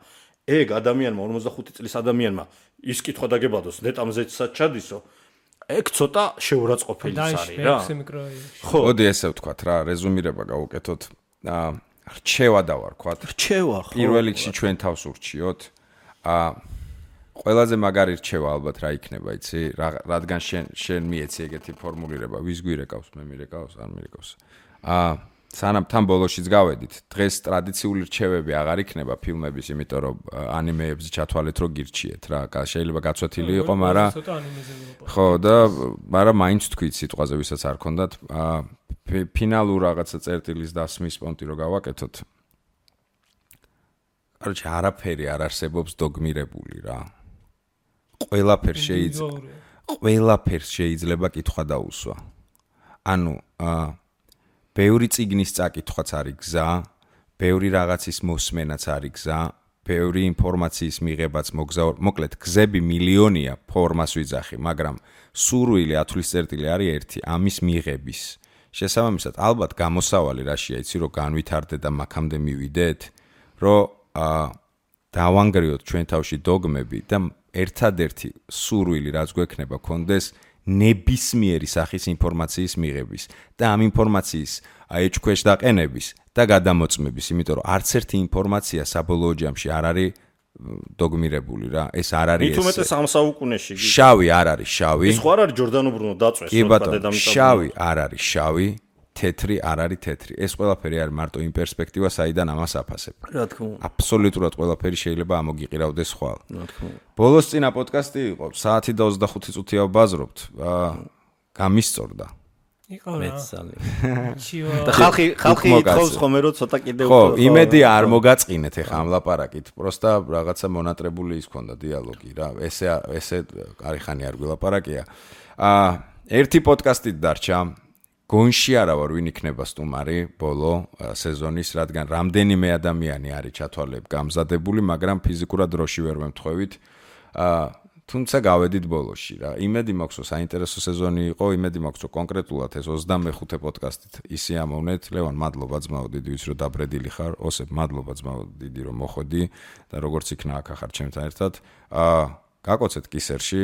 Speaker 3: ეგ ადამიანმა 45 წლის ადამიანმა ის კითხვა დაგებადოს, ნეტამზეცად ჩადისო. ეგ ცოტა შეურაცხყოფილი არის რა.
Speaker 2: ხო, მოდი ესე ვთქვათ რა, რეზუმირება გავუკეთოთ. რჩევა დავარქვათ.
Speaker 3: რჩევა ხო.
Speaker 2: პირველ რიგში ჩვენ თავს ურჩიოთ. ყველაზე მაგარი რჩევა ალბათ რა იქნება, იცი? რადგან შენ მიეცი ეგეთი ფორმულირება, ვის გვირეკავს, მე მირეკავს, არ მირეკავს. სანამ თან ბოლოშიც გავედით, დღეს ტრადიციული რჩევები აღარ იქნება ფილმების, იმიტომ რომ ანიმეებზე ჩათვალეთ რომ გირჩიეთ რა. შეიძლება გაცვეთილი იყო, მაგრამ ხო და მაგრამ მაინც თქვით სიტყვაზე, ვისაც არ ქონდათ, ფინალურ რაღაცა წერტილის დასმის პონტი რო გავაკეთოთ. კაროჩე, არაფერი არ არსებობს დოგმირებული რა. ყველაფერს შეიძლება კითხვა დაუსვა. ანუ ბევრი წიგნის წაკითხვაც არის გზა, ბევრი რაღაცის მოსმენაც არის გზა, ბევრი ინფორმაციის მიღებაც მოგზაურ, მოკლედ გზები მილიონია, ფორმას ვიძახი, მაგრამ სურვილი ათვლის წერტილი არის ერთი, ამის მიღების. შესაბამისად, ალბათ გამოსავალი რაშია, იცი რომ განვითარდე და მაქამდე მივიდეთ, რომ დავანგრიოთ ჩვენ თავში დოგმები და ერთადერთი სურვილი რაც გვექნება კონდეს ნებისმიერი სახის ინფორმაციის მიღების და ამ ინფორმაციის ეჭქვეშ დაყენების და გადამოწმების, იმიტომ რომ არც ერთი ინფორმაცია საბოლოო ჯამში არ არის დოგმირებული რა. ეს არ არის ეს.
Speaker 3: მithumetes ამ საუკუნეში.
Speaker 2: შავი არ არის შავი.
Speaker 3: ის ხო არ არის ჯორდანო ბრუნო დაწვეს
Speaker 2: დედამიწაზე. შავი არ არის შავი, თეთრი არ არის თეთრი. ეს ყველაფერი არის მარტო იმ პერსპექტივა, საიდან ამას აფასებ.
Speaker 3: რა თქმა უნდა.
Speaker 2: აბსოლუტურად ყველაფერი შეიძლება ამოგიყირავდეს ხვალ. რა თქმა უნდა. ბოლოს წინა პოდკასტი იყო, საათი და 25 წუთია ვბაზრობთ. გამისწორდა.
Speaker 3: იყო რა. და ხალხი ითხოვს ხომ რომ ცოტა კიდევ
Speaker 2: ხო, იმედი არ მოგაწყინეთ ეხა ამ ლაპარაკით. პროსტა რაღაცა მონატრებული ის ქონდა დიალოგი რა. ესე არიხანი არ გვილაპარაკია. ერთი პოდკასტით დარჩა. გონში არა ვარ ვინ იქნება სტუმარი ბოლო სეზონის, რადგან რამდენიმე ადამიანი არის ჩათვალებ გამზადებული, მაგრამ ფიზიკურად დროში ვერ ვემთხვევით. თუმცა გავედით ბოლოში რა. იმედი მაქვს, რომ საინტერესო სეზონი იყო, იმედი მაქვს, რომ კონკრეტულად ეს 25 პოდკასტით ისი ამოვნეთ. ლევან, მადლობა ძმაო, დიდი ვიცი რომ დაბრედილი ხარ. ოსებ, მადლობა ძმაო, დიდი რომ მოხვედი და როგორც იქნა აქ ახარ ჩემთან ერთად. გაკოცეთ კისერში.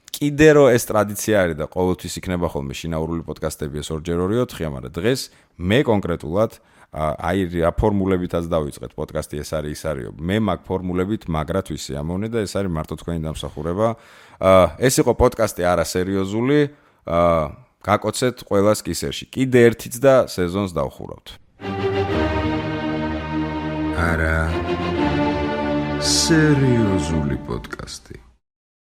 Speaker 2: კიდე რომ ეს ტრადიცია არის და ყოველთვის იქნება ხოლმე შინაურული პოდკასტები ეს 2x2-4-4-ია, მაგრამ დღეს მე კონკრეტულად აი რა ფორმულებითაც დავიწყეთ პოდკასტი ეს არის ის არისო. მე მაგ ფორმულებით მაგრად ვისი ამოვნე და ეს არის მარტო თქვენი დამსახურება. ეს იყო პოდკასტი არასერიოზული. გაკოცეთ ყველას კისერში. კიდე ერთიც და სეზონს დავხურავთ.
Speaker 1: არა სერიოზული პოდკასტი.